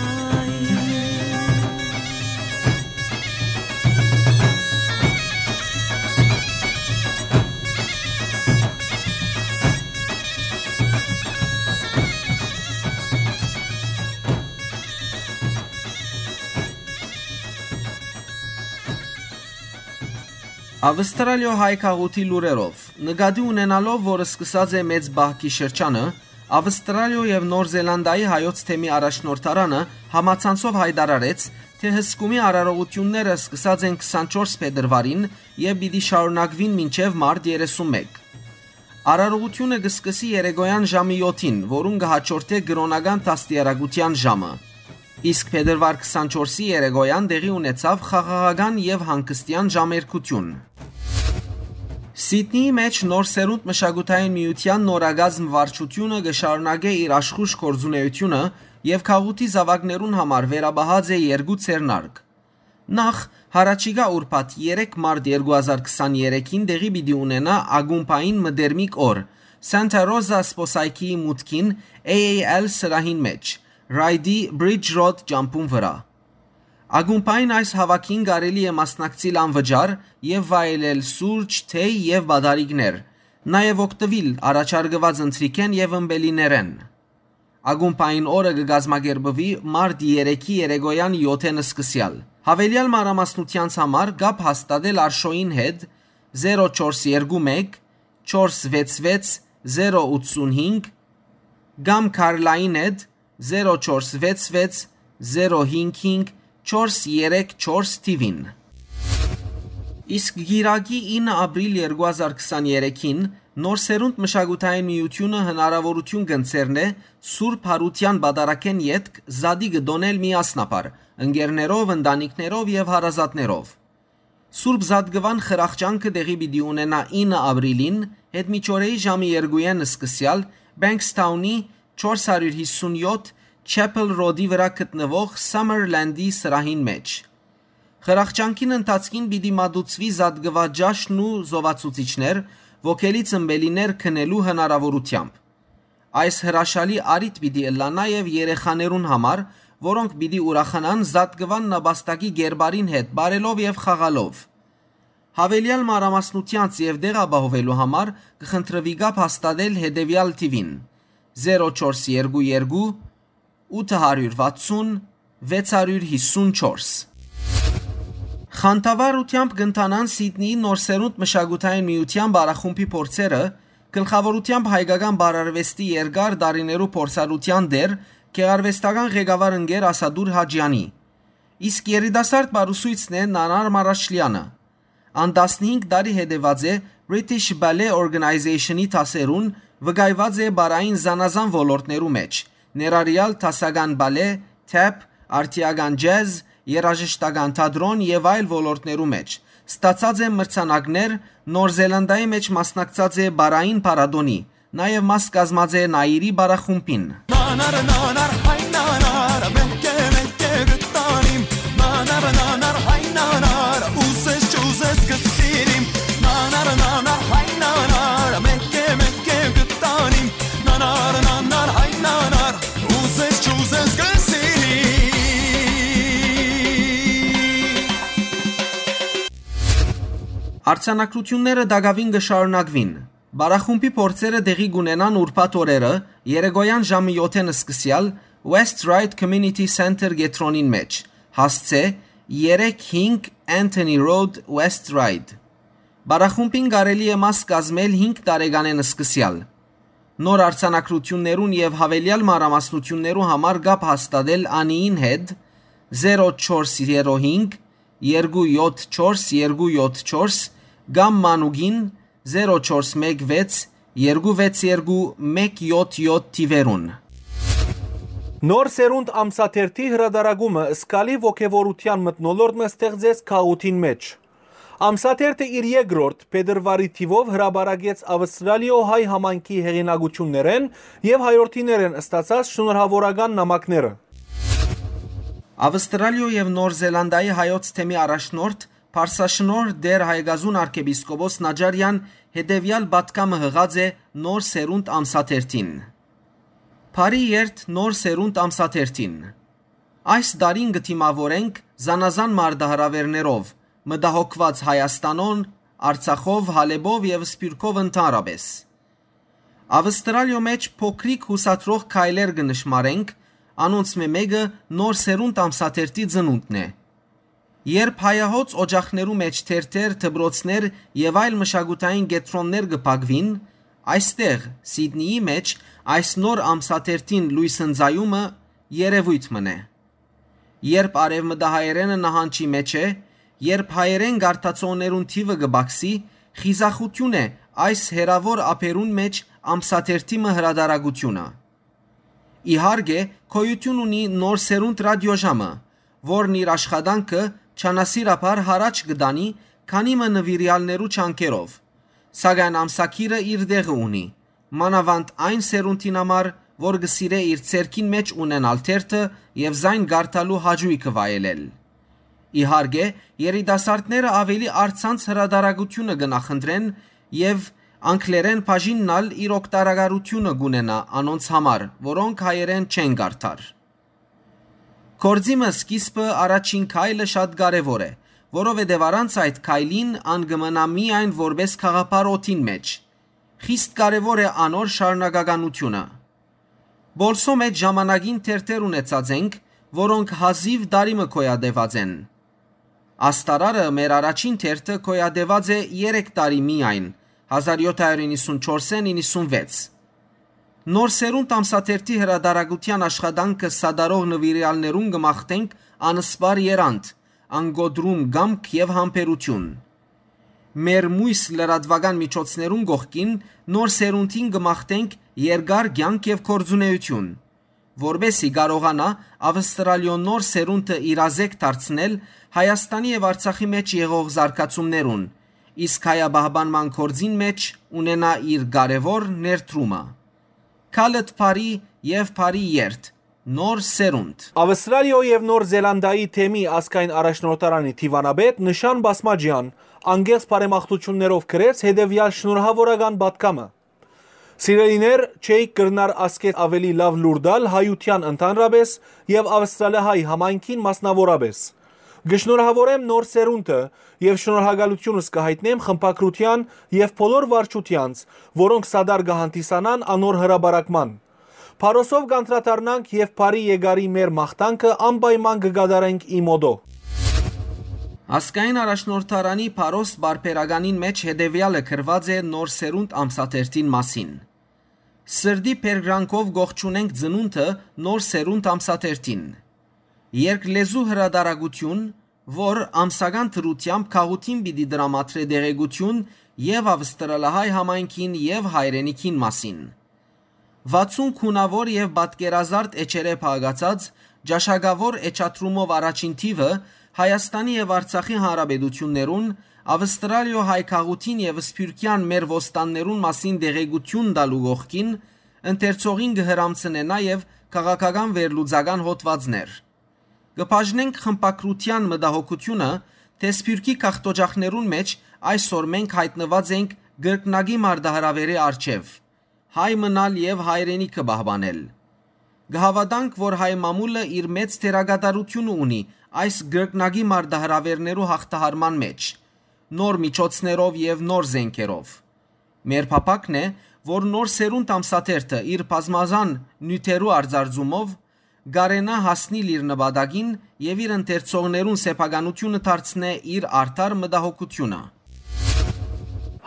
Ավստրալիոյ հայ գաղութի լուրերով։ Նկատի ունենալով, որ սկսած է մեծ պահքի շրջանը, Ավստրալիոյ եւ Նոր Զելանդիայի հայոց թեմի առաջնորդարանը համացանցով յայտարարեց, թէ հսկումի արարողութիւնները սկսած են քսանչորս փետրուարին եւ պիտի շարունակուին մինչեւ մարտ երեսունմէկ։ Արարողութիւնը կը սկսի երեկոյան ժամը յոթին, որուն կը հաջորդէ կրօնական դաստիարակութեան ժամը։ Իսկ փետրուար քսանչորսի երեկոյան տեղի ունեցաւ խաղաղական եւ հանգստեան ժամերգութիւն։ Սիդնիի մէջ Նոր Սերունդ մշակութային միութեան նորակազմ վարչութիւնը կը շարունակէ իր աշխուժ գործունէութիւնը եւ գաղութի զաւակներուն համար վերապահած է երկու ձեռնարկ։ Նախ, յառաջիկայ ուրբաթ երեք մարտ երկու հազար քսաներեքին տեղի պիտի ունենայ ակումբային մտերմիկ օր Սանտա Ռոզա սպոսայքիի մուտքին A A L սրահին մէջ, Ռայդի Բրիջ Ռոդ ճամբուն վրայ։ Ակումբային այս հաւաքին կարելի է մասնակցիլ անվճար եւ վայելել սուրճ, թեյ եւ պատարիկներ, նաեւ օգտուիլ առաջարկուած ընթրիքէն եւ ըմպելիներէն։ Ակումբային օրը կը կազմակերպուի մարտ երեքի երեկոյան յոթ-ին սկսեալ։ Յաւելեալ մանրամասնութեանց համար կապ հաստատել Արշոյին հետ, զերո չորս երկու մէկ, չորս վեց վեց, զերո ութսուն հինգ, կամ Քարլային հետ, զերո չորս վեց վեց, զերո հինգ հինգ, չորս երեք չորս թիւին։ Իսկ գիրագի ինը ապրիլ երկու հազար քսաներեքին Նոր Սերունդ մշակութային միութիւնը հնարաւորութիւն կ'ընձեռնէ Սուրբ Յարութեան պատարագէն ետք զատիկը տօնել միասնաբար, ընկերներով, ընտանիքներով եւ հարազատներով։ Սուրբ Զատկուան խրախճանքը տեղի պիտի ունենայ ինը ապրիլին, յետմիջօրեի ժամը երկուին սկսեալ, Բենքսթաունի չորս հարիւր հիսուն յոթ Չեփել Ռոդի վրայ գտնուող Սամերլենդի սրահին մէջ։ Խրախճանքին ընթացքին պիտի մատուցուի զատկուա ճաշն ու զովացուցիչներ, ոգելից ըմպելիներ քնելու հնարաւորութեամբ։ Այս հրաշալի առիթ պիտի ըլլայ նաեւ երեխաներուն համար, որոնք պիտի ուրախանան զատկուան նապաստակի կերպարին հետ պարելով եւ խաղալով։ Յաւելեալ մանրամասնութեանց եւ տեղ ապահովելու համար կը խնդրուի կապ հաստատել հետեւեալ թիւին՝ զերո չորս երկու երկու, ութ հարիւր վաթսուն, վեց հարիւր հիսուն չորս։ Խանդավառութեամբ կ'ընթանան Սիդնիի Նոր Սերունդ մշակութային միութեան պարախումբի փորձերը, գլխաւորութեամբ հայկական պարարուեստի երկար տարիներու փորձառութեան տէր, գեղարուեստական ղեկավար ընկեր Ասատուր Հաճեանի։ Իսկ երիտասարդ պարուսոյցն է Նանար Մարաշլեանը։ Ան տասնհինգ տարի հետեւած է British Ballet Organization-ի դասերուն, վկայուած է պարային զանազան ոլորտներու մէջ, ներառեալ դասական պալէ, թեփ, արդիական ջեզ, երաժշտական թատրոն եւ այլ ոլորտներու մէջ։ Ստացած է մրցանակներ, Նոր Զելանդիայի մէջ մասնակցած է պարային փառատոնի, նաեւ մաս կազմած է Նայիրի պարախումբին։ Նանար, նանար, հայ նանար, մեկը, մեկը գտանիմ։ Նանար, նանար, հայ նանար, ուզես չուզես կսիրիմ։ Նանար, նանար, հայ նանար, մեկը, մեկը գտանիմ։ Նանար, նանար, հայ նանար, ուզես չուզես կսիրիմ։ Արձանագրութիւնները տակաւին կը շարունակուին։ Պարախումբի փորձերը տեղի կունենան ուրբաթ օրերը, երեկոյան ժամը յոթ-ին սկսեալ West Ryde Community Center կեդրոնին մէջ, հասցէ երեք հինգ Anthony Road, West Ryde։ Պարախումբին կարելի է մաս կազմել հինգ տարեկանէն սկսեալ։ Նոր արձանագրութիւններուն եւ յաւելեալ մանրամասնութիւններու համար կապ հաստատել Անիին հետ, զերո չորս զերո հինգ, երկու յոթ չորս երկու յոթ չորս կամ մանուկին զերո չորս մեկ վեց երկու վեց երկու մեկ յոթ յոթ թիւերուն։ Նոր սերունդ ամսաթերթի հրադարակումը զգալի ոգեւորութեան մթնոլորտ մը ստեղծեց քաղաքին մէջ։ Ամսաթերթը իր երկրորդ փետրուարի թիւով հրապարակեց Ավստրալիոյ հայ համայնքի հեղինակութիւններէն եւ հայորդիներէն ստացած շնորհաւորական նամակները։ Ավստրալիոյ եւ Նոր Զելանդիայի հայոց թեմի առաջնորդ Փարսաշնորհ Տէր Հայկազուն արքեպիսկոպոս Նաջարեան հետեւեալ պատգամը յղած է Նոր Սերունդ ամսաթերթին։ Բարի երթ Նոր Սերունդ ամսաթերթին։ Այս տարին կը դիմաւորենք զանազան մարտահրաւէրներով, մտահոգուած Հայաստանով, Արցախով, Հալէպով եւ Սփիւռքով ընդհանրապէս։ Ավստրալիոյ մէջ փոքրիկ յուսադրող քայլեր կը նշմարենք, անոնցմէ մէկը Նոր Սերունդ ամսաթերթի ծնունդն է։ Երբ հայահոծ օճախներու մէջ թերթեր, դպրոցներ եւ այլ մշակութային կեդրոններ կը փակուին, այստեղ, Սիդնիի մէջ, այս նոր ամսաթերթին լոյս ընծայումը երեւոյթ մըն է։ Երբ արեւմտահայերէնը նահանջի մէջ է, երբ հայերէն կարդացողներուն թիւը կը պակսի, խիզախութիւն է այս հեռաւոր ափերուն մէջ ամսաթերթի մը հրադարակութիւնը։ Իհարկե, գոյութիւն ունի Նոր Սերունդ ռատիոժամը, որն իր աշխատանքը չանասիրաբար յառաջ կը տանի քանի մը նուիրեալներու ջանքերով, սակայն ամսագիրը իր տեղը ունի, մանաւանդ այն սերունդին համար, որ կը սիրէ իր ձեռքին մէջ ունենալ թերթը եւ զայն կարդալու հաճոյքը վայելել։ Իհարկե, երիտասարդները աւելի առցանց հրադարակութիւնը կը նախընտրեն եւ անգլերէն բաժինն ալ իր օգտակարութիւնը կունենայ անոնց համար, որոնք հայերէն չեն կարդար։ Գործի մը սկիզբը, առաջին քայլը շատ կարեւոր է, որովհետեւ առանց այդ քայլին ան կը մնայ միայն որպէս գաղափար օդին մէջ։ Խիստ կարեւոր է անոր շարունակականութիւնը։ Պոլսոյ մէջ ժամանակին թերթեր ունեցած ենք, որոնք հազիւ տարի մը գոյատեւած են։ Աստարարը մեր առաջին թերթը գոյատեւած է երեք տարի միայն, հազար յոթ հարիւր իննսունչորսէն իննսունվեց։ Նոր Սերունդ ամսաթերթի հրադարակութեան աշխատանքը սատարող նուիրեալներուն կը մաղթենք անսպառ երանդ, անկոտրում կամք եւ համբերութիւն։ Մեր միւս լրատուական միջոցներուն կողքին Նոր Սերունդին կը մաղթենք երկար կեանք եւ գործունէութիւն, որպէս զի կարողանայ Ավստրալիոյ Նոր Սերունդը իրազեկ դարձնել Հայաստանի եւ Արցախի մէջ եղող զարգացումներուն, իսկ հայապահպանման գործին մէջ ունենայ իր կարեւոր ներդրումը։ Քալըտ բարի եւ բարի երթ, Նոր Սերունդ։ Ավստրալիոյ եւ Նոր Զելանդիայի թեմի ազգային առաջնորդարանի դիւանապետ Նշան Բասմաջեան անկեղծ բարեմաղթութիւններով գրեց հետեւեալ շնորհաւորական պատգամը։ Սիրելիներ, չէիք կրնար ասկէ աւելի լաւ լուր տալ հայութեան ընդհանրապէս եւ ավստրալահայ համայնքին մասնաւորապէս։ Կը շնորհաւորեմ Նոր Սերունդը եւ շնորհակալութիւնս կը յայտնեմ խմբագրութեան եւ բոլոր վարչութեանց, որոնք սատար կը հանդիսանան անոր հրապարակման։ Փարոսով կ'անդրադառնանք եւ բարի եկարի մեր մաղթանքը անպայման կը կատարենք ի մօտո։ Ազգային առաջնորդարանի Փարոս պարբերականին մէջ հետեւեալը գրուած է Նոր Սերունդ ամսաթերթին մասին։ Սրտի բերկրանքով կողջունենք ծնունդը Նոր Սերունդ ամսաթերթին։ Երկլեզու հրադարակութիւն, որ ամսական դրութեամբ գաղութին պիտի տրամադրէ տեղեկութիւն եւ ավստրալահայ համայնքին եւ հայրենիքին մասին։ Վաթսուն գունաւոր եւ պատկերազարդ էջերէ փակացած ճաշակաւոր էջադրումով առաջին թիւը Հայաստանի եւ Արցախի հանրապետութիւններուն, Ավստրալիոյ հայ գաղութին եւ սփիւռքեան մեր ոստաններուն մասին տեղեկութիւն տալու կողքին, ընթերցողին կը հրամցնէ նաեւ քաղաքական վերլուծական հոդվածներ։ Կը բաժնենք խմբագրութեան մտահոգութիւնը, թէ սփիւռքի գաղթօճախներուն մէջ այսօր մենք յայտնուած ենք կրկնակի մարտահրաւէրի առջեւ՝ հայ մնալ եւ հայրենիքը պահպանել։ Կը հաւատանք, որ հայ մամուլը իր մեծ դերակատարութիւնը ունի այս կրկնակի մարտահրաւէրներու յաղթահարման մէջ, նոր միջոցներով եւ նոր զէնքերով։ Մեր փափաքն է, որ Նոր Սերունդ ամսաթերթը իր բազմազան նիւթերու արձարծումով կարենայ հասնիլ իր նպատակին եւ իր ընթերցողներուն սեփականութիւնը դարձնէ իր արդար մտահոգութիւնը։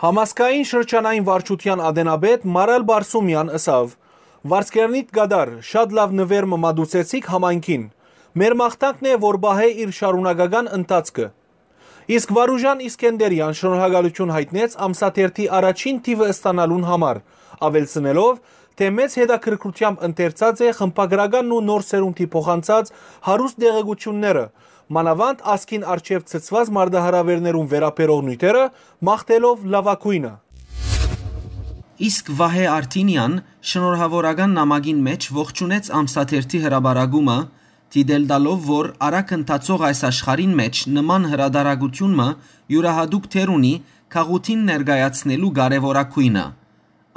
Համազգային շրջանային վարչութեան ատենապետ Մարալ Բարսումեան ըսաւ. «Վարձկերնիտ կատար, շատ լաւ նուեր մը մատուցեցիք համայնքին։ Մեր մաղթանքն է, որ պահէ իր շարունակական ընթացքը»։ Իսկ Վարուժան Իսկենդերեան շնորհակալութիւն յայտնեց ամսաթերթի առաջին թիւը ստանալուն համար, աւելցնելով, թէ մեծ հետաքրքրութեամբ ընթերցած է խմբագրականն ու նոր սերունդի փոխանցած հարուստ տեղեկութիւնները, մանաւանդ ազգին առջեւ ցցուած մարտահրաւէրներուն վերաբերող նիւթերը, մաղթելով լաւագոյնը։ Իսկ Վահէ Արթինեան շնորհաւորական նամակին մէջ ողջունեց ամսաթերթի հրապարակումը, դիտել տալով, որ արագ ընթացող այս աշխարհին մէջ նման հրատարակութիւն մը իւրայատուկ դեր ունի գաղութին ներկայացնելու կարեւորագոյնը։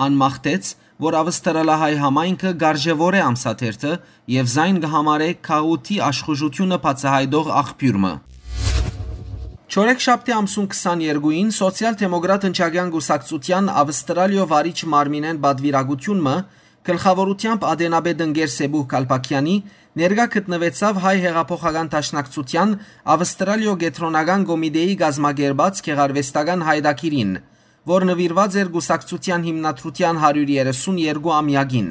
Ան մաղթեց, որ ավստրալահայ համայնքը կարժեւորէ ամսաթերթը եւ զայն կը համարէ գաղութի աշխուժութիւնը բացայայտող աղբիւր մը։ Չորեքշաբթի ամսուն քսաներկուին Սոցիալ-դեմոկրատ ընչակեան կուսակցութեան Ավստրալիոյ վարիչ մարմինէն պատուիրակութիւն մը գլխաւորութեամբ ատենապետ ընկեր Սեբուհ Քալպաքեանի ներկայ գտնուեցաւ Հայ հեղափոխական դաշնակցութեան Ավստրալիոյ կեդրոնական կոմիտէի կազմակերպած գեղարուեստական յայտագիրին, որ նուիրուած էր կուսակցութեան հիմնադրութեան հարիւր երեսուն երկու ամեակին։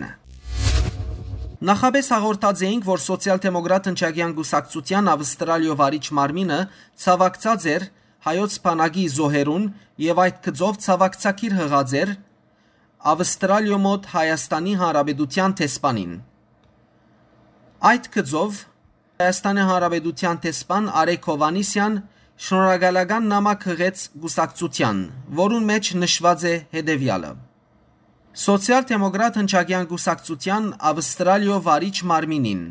Նախապէս հաղորդած էինք, որ Սոցիալ-դեմոկրատ ընչակեան կուսակցութեան Ավստրալիոյ վարիչ մարմինը ցաւակցած էր հայոց բանակի զոհերուն եւ այդ գծով ցաւակցագիր յղած էր Ավստրալիոյ մօտ Հայաստանի Հանրապետութեան դեսպանին։ Այդ գծով Հայաստանի Հանրապետութեան դեսպան Արեգ Հովհաննիսեան շնորհակալական նամակ յղեց կուսակցութեան, որուն մէջ նշուած է հետեւեալը. Սոցիալ-դեմոկրատ ընչակեան կուսակցութեան Ավստրալիոյ վարիչ մարմինին։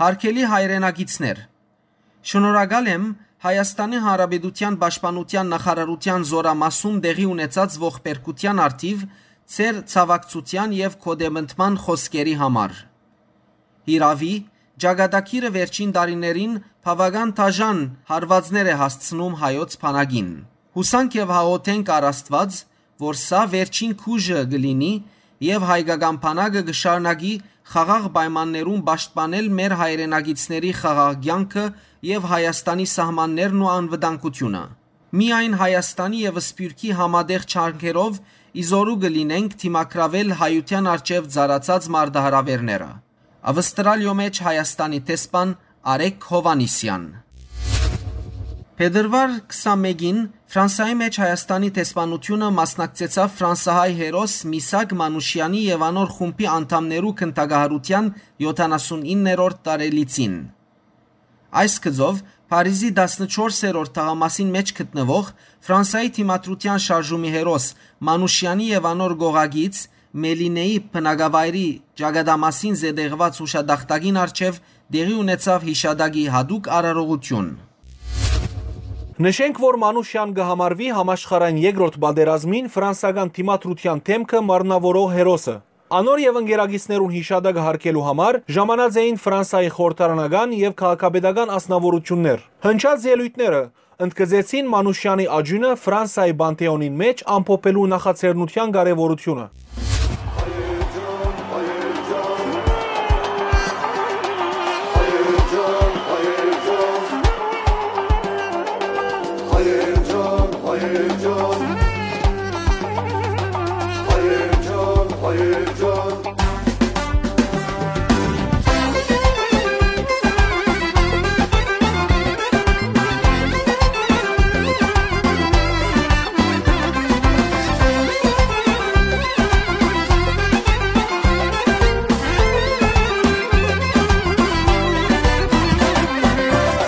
Հարգելի հայրենակիցներ, շնորհակալ եմ Հայաստանի Հանրապետութեան պաշտպանութեան նախարարութեան զօրամասում տեղի ունեցած ողբերգութեան առթիւ ձեր ցաւակցութեան եւ գօտեմտման խօսքերի համար։ Հիրաւի, ճակատագիրը վերջին տարիներին բաւական դաժան հարուածներ է հասցնում հայոց բանակին։ Յուսանք եւ հաղորդենք առ Աստուած, որ սա վերջին քուժը կը լինի եւ հայկական բանակը կը շարունակի խաղաղ պայմաններուն պաշտպանել մեր հայրենակիցների խաղաղ կեանքը եւ Հայաստանի սահմաններն ու անվտանգութիւնը։ Միայն Հայաստանի եւ Սփիւռքի համատեղ ջանքերով ի զօրու կը լինենք դիմագրաւել հայութեան առջեւ ծառացած մարտահրաւէրները։ Ավստրալիոյ մէջ Հայաստանի դեսպան Արեգ Հովհաննիսեան։ Փետրուար քսանմէկին Ֆրանսայի մէջ Հայաստանի դեսպանութիւնը մասնակցեցաւ ֆրանսահայ հերոս Միսակ Մանուշեանի եւ անոր խումբի անդամներու գնդակահարութեան յոթանասունիններորդ տարելիցին։ Այս գծով Փարիզի տասնչորսերորդ թաղամասին մէջ գտնուող Ֆրանսայի դիմադրութեան շարժումի հերոս Մանուշեանի եւ անոր կողակից Մելինեի բնակավայրի ճակատամասին զետեղուած յուշատախտակին առջեւ տեղի ունեցաւ յիշատակի յատուկ արարողութիւն։ Նշենք, որ Մանուշեան կը համարուի համաշխարհային երկրորդ պատերազմին ֆրանսական դիմադրութեան դէմքը մարմնաւորող հերոսը։ Անոր եւ ընկերակիցներուն յիշատակը յարգելու համար ժամանած էին Ֆրանսայի խորհրդարանական եւ քաղաքապետական անձնաւորութիւններ։ Հնչած ելոյթները ընդգծեցին Մանուշեանի աճիւնը Ֆրանսայի Պանթէոնին մէջ ամփոփելու նախաձեռնութեան կարեւորութիւնը։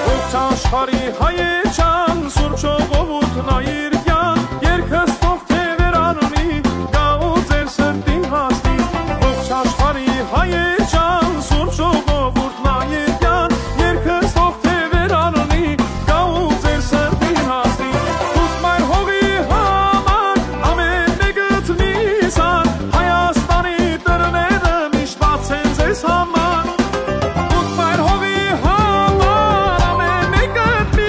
Ողջ աշխարհի հայեչան, Սուրբ ժողովուրդն այրկյան, երկս թող թեւեր առնի, գաղ ու ձեր սրտին հասնի։ Ողջ աշխարհի հայեչան, Սուրբ ժողովուրդն այրկյան, երկս թող թեւեր առնի, գաղ ու ձեր սրտին հասնի։ Դուք մայր հողի համար ամեն մեկդ միզան, Հայաստանի դռները միշտ բաց են ձեզ համար։ Դուք մայր հողի համար ամեն մեկդ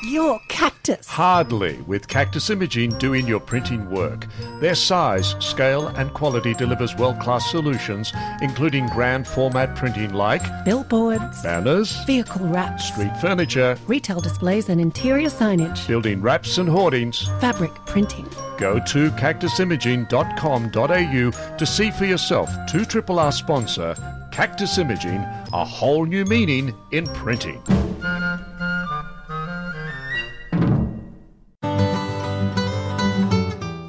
your cactus. Hardly, with Cactus Imaging doing your printing work. Their size, scale, and quality delivers world class solutions, including grand format printing like billboards, banners, vehicle wraps, street furniture, retail displays, and interior signage, building wraps and hoardings, fabric printing. Go to cactus imaging dot com dot a u to see for yourself two triple R sponsor Cactus Imaging, a whole new meaning in printing.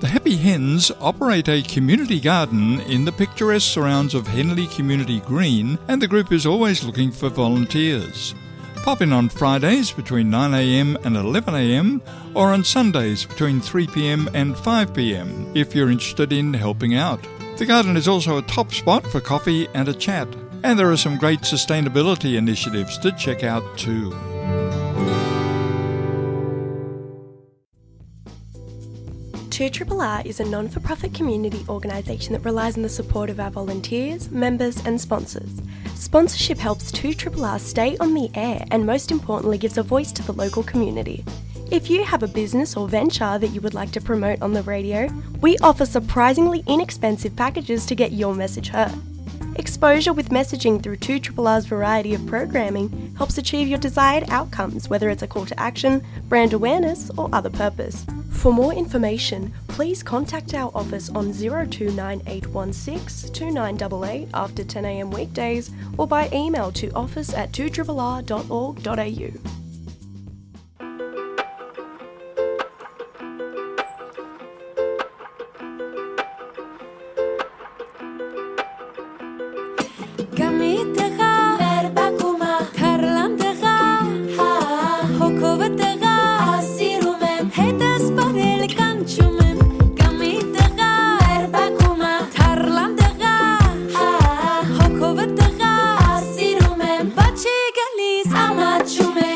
The Happy Hens operate a community garden in the picturesque surrounds of Henley Community Green, and the group is always looking for volunteers. Pop in on Fridays between nine a m and eleven a m, or on Sundays between three p m and five p m if you're interested in helping out. The garden is also a top spot for coffee and a chat, and there are some great sustainability initiatives to check out too. Two R R R is a non for profit community organisation that relies on the support of our volunteers, members, and sponsors. Sponsorship helps two R R R stay on the air and, most importantly, gives a voice to the local community. If you have a business or venture that you would like to promote on the radio, we offer surprisingly inexpensive packages to get your message heard. Exposure with messaging through two R R R's variety of programming helps achieve your desired outcomes, whether it's a call to action, brand awareness, or other purpose. For more information, please contact our office on zero two nine eight one six two nine eight eight after ten a m weekdays or by email to office at two R R R dot org dot a u. Կամի տղա, մեր բակումը, թարլան տղա, հա, հոգովը տղա, սիրում եմ, հետս պարել կանչում եմ, կամի տղա, մեր բակումը, թարլան տղա, հա, հոգովը տղա, սիրում եմ, բաչի գալիս, ամաչում է,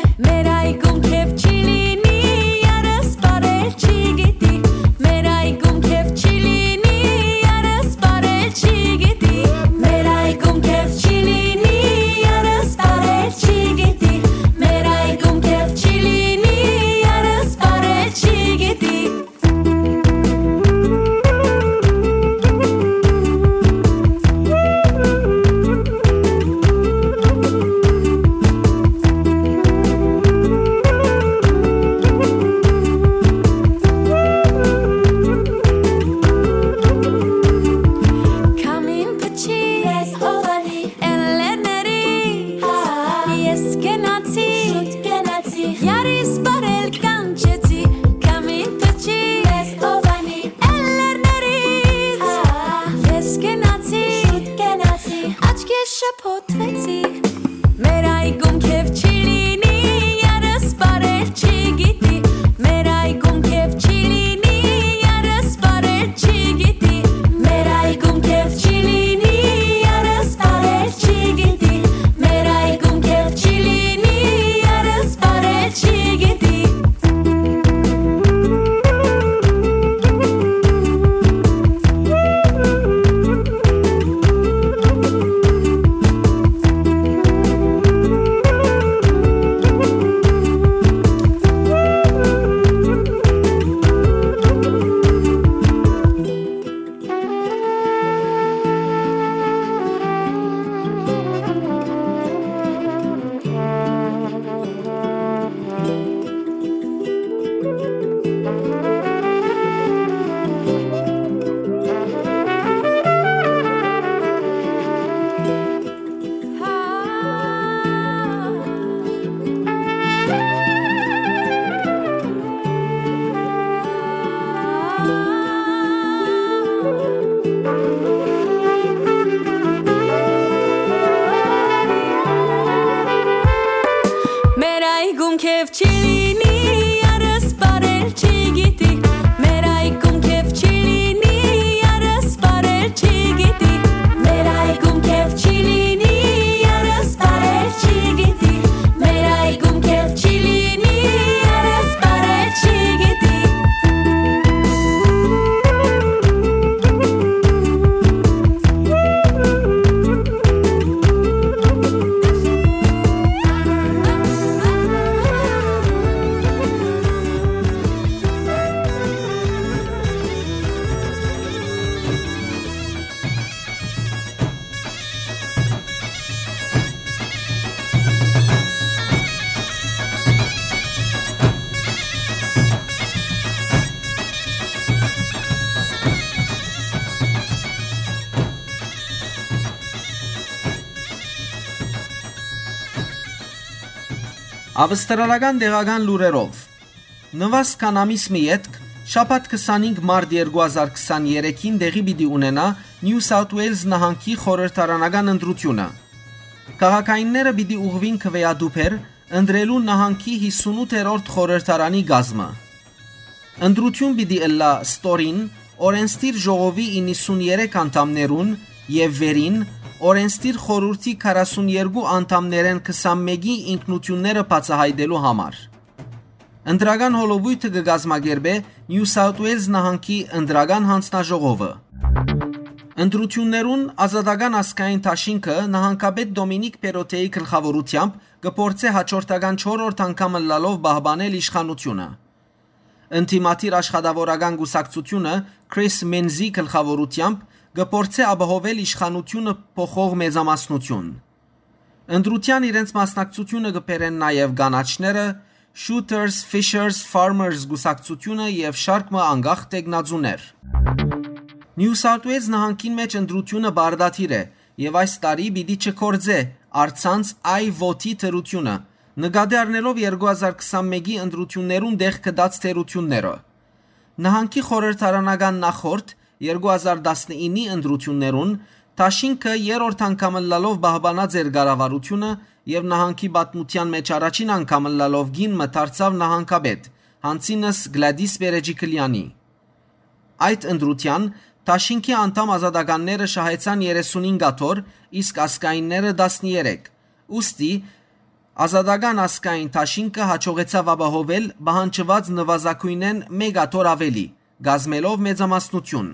Ավստրալական տեղական լուրերով։ Նուազ քան ամիս մը ետք, շաբաթ քսանհինգ մարտ երկու հազար քսաներեքին, տեղի պիտի ունենայ Նիու Սաութ Ուէյլզ նահանգի խորհրդարանական ընտրութիւնը։ Քաղաքայինները պիտի ուղղուին քվեատուփեր, ընտրելու նահանգի յիսունութերորդ խորհրդարանի կազմը։ Ընտրութիւն պիտի ըլլայ ստորին, օրենսդիր ժողովի իննսուններեք անդամներուն եւ վերին, օրենսդիր խորհուրդի քառասուներկու անդամներէն քսանմէկի ինքնութիւնները բացայայտելու համար։ Ընտրական հոլովոյթը կը կազմակերպէ Նիու Սաութ Ուէյլզ նահանգի ընտրական յանձնաժողովը։ Ընտրութիւններուն Ազատական ազգային դաշինքը նահանգապետ Դոմինիկ Պերոթեի գլխաւորութեամբ կը փորձէ հաջորդական չորրորդ անգամ ըլլալով պահպանել իշխանութիւնը։ Ընդդիմադիր աշխատաւորական կուսակցութիւնը Քրիս Մենզի գլխաւորութեամբ կը փորձէ ապահովել իշխանութիւնը փոխող մեծամասնութիւն։ Ընտրութեան իրենց մասնակցութիւնը կը բերեն նաեւ կանաչները, Shooters, Fishers, Farmers կուսակցութիւնը եւ շարք մը անկախ թեկնածուներ։ Նիու Սաութ Ուէյլզ նահանգին մէջ ընտրութիւնը պարտադիր է եւ այս տարի պիտի չգործէ առցանց այ վոթի թերութիւնը, նկատի առնելով երկու հազար քսանմէկի ընտրութիւններուն տեղ գտած թերութիւնները։ Նահանգի խորհրդարանական նախորդ երկու հազար տասնիննի ընտրութիւններուն դաշինքը երրորդ անգամ ըլլալով պահպանած էր կառավարութիւնը եւ նահանգի պատմութեան մէջ առաջին անգամ ըլլալով կին մը դարձաւ նահանգապետ, յանցինս Գլադիս Պերեջիկլեանի։ Այդ ընտրութեան դաշինքի անդամ ազատականները շահեցան երեսունհինգ աթոռ, իսկ ազգայինները տասներեք։ Ուստի Ազատական ազգային դաշինքը յաջողեցաւ ապահովել պահանջուած նուազագոյնէն մէկ աթոռ աւելի, կազմելով մեծամասնութիւն։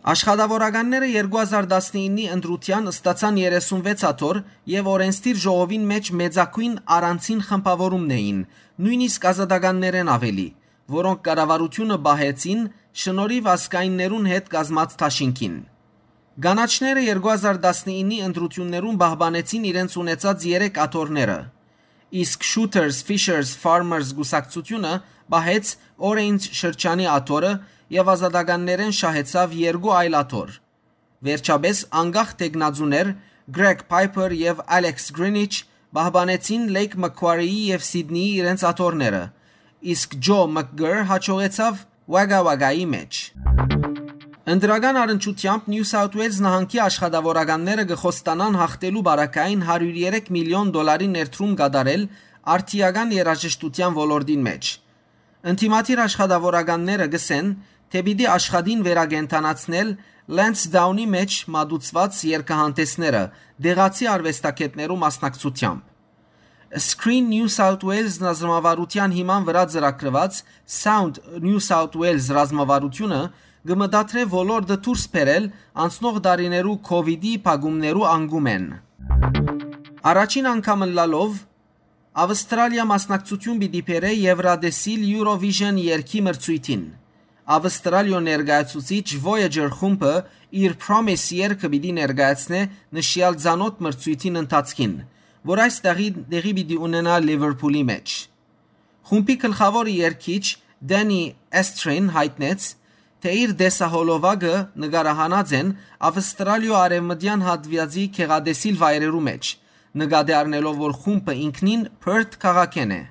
Աշխատաւորականները երկու հազար տասնիննի ընտրութեան ստացան երեսունվեց աթոռ եւ օրենսդիր ժողովին մէջ մեծագոյն առանձին խմբաւորումն էին, նոյնիսկ ազատականներէն աւելի, որոնք կառավարութիւնը պահեցին շնորհիւ ազգայիններուն հետ կազմած դաշինքին։ Կանաչները երկու հազար տասնիննի ընտրութիւններուն պահպանեցին իրենց ունեցած երեք աթոռները, իսկ Shooters, Fishers, Farmers կուսակցութիւնը պահեց Orange շրջանի աթոռը եւ ազատականներէն շահեցաւ երկու այլ աթոռ։ Վերջապէս անկախ թեկնածուներ Greg Piper եւ Alex Greenwich պահպանեցին Lake Macquarie-ի եւ Սիդնիի իրենց աթոռները, իսկ Joe McGirr յաջողեցաւ Wagga Wagga-ի մէջ։ Ընտրական առնչութեամբ Նիու Սաութ Ուէյլզ նահանգի աշխատաւորականները կը խոստանան յաղթելու պարագային հարիւր երեք միլիոն դոլարի ներդրում կատարել արդիական երաժշտութեան ոլորտին մէջ։ Ընդդիմադիր աշխատաւորականները կ'ըսեն, թէ պիտի աշխատին վերակենդանացնել Lansdowne-ի մէջ մատուցուած երգահանտեսները՝ տեղացի արուեստագէտներու մասնակցութեամբ։ Screen New South Wales ռազմավարութեան հիման վրայ ծրագրուած Sound New South Wales ռազմավարութիւնը կը մտադրէ ոլորտը դուրս բերել անցնող տարիներու COVID-ի փակումներու անկումէն։ Առաջին անգամ ըլլալով, Ավստրալիա մասնակցութիւն պիտի բերէ Եվրատեսիլ Eurovision երգի մրցոյթին։ Ավստրալիոյ ներկայացուցիչ Voyager խումբը իր Promise երգը պիտի ներկայացնէ նշեալ ծանօթ մրցոյթին ընթացքին, որ այս տեղի, տեղի պիտի ունենայ Լիվերփուլի մէջ։ Խումբի գլխաւոր երգիչ Դենի Էսթրին յայտնեց, թէ իր տեսահոլովակը նկարահանած են Ավստրալիոյ արեւմտեան հատուածի գեղատեսիլ վայրերու մէջ, նկատի առնելով, որ խումբը ինքնին Perth քաղաքէն է։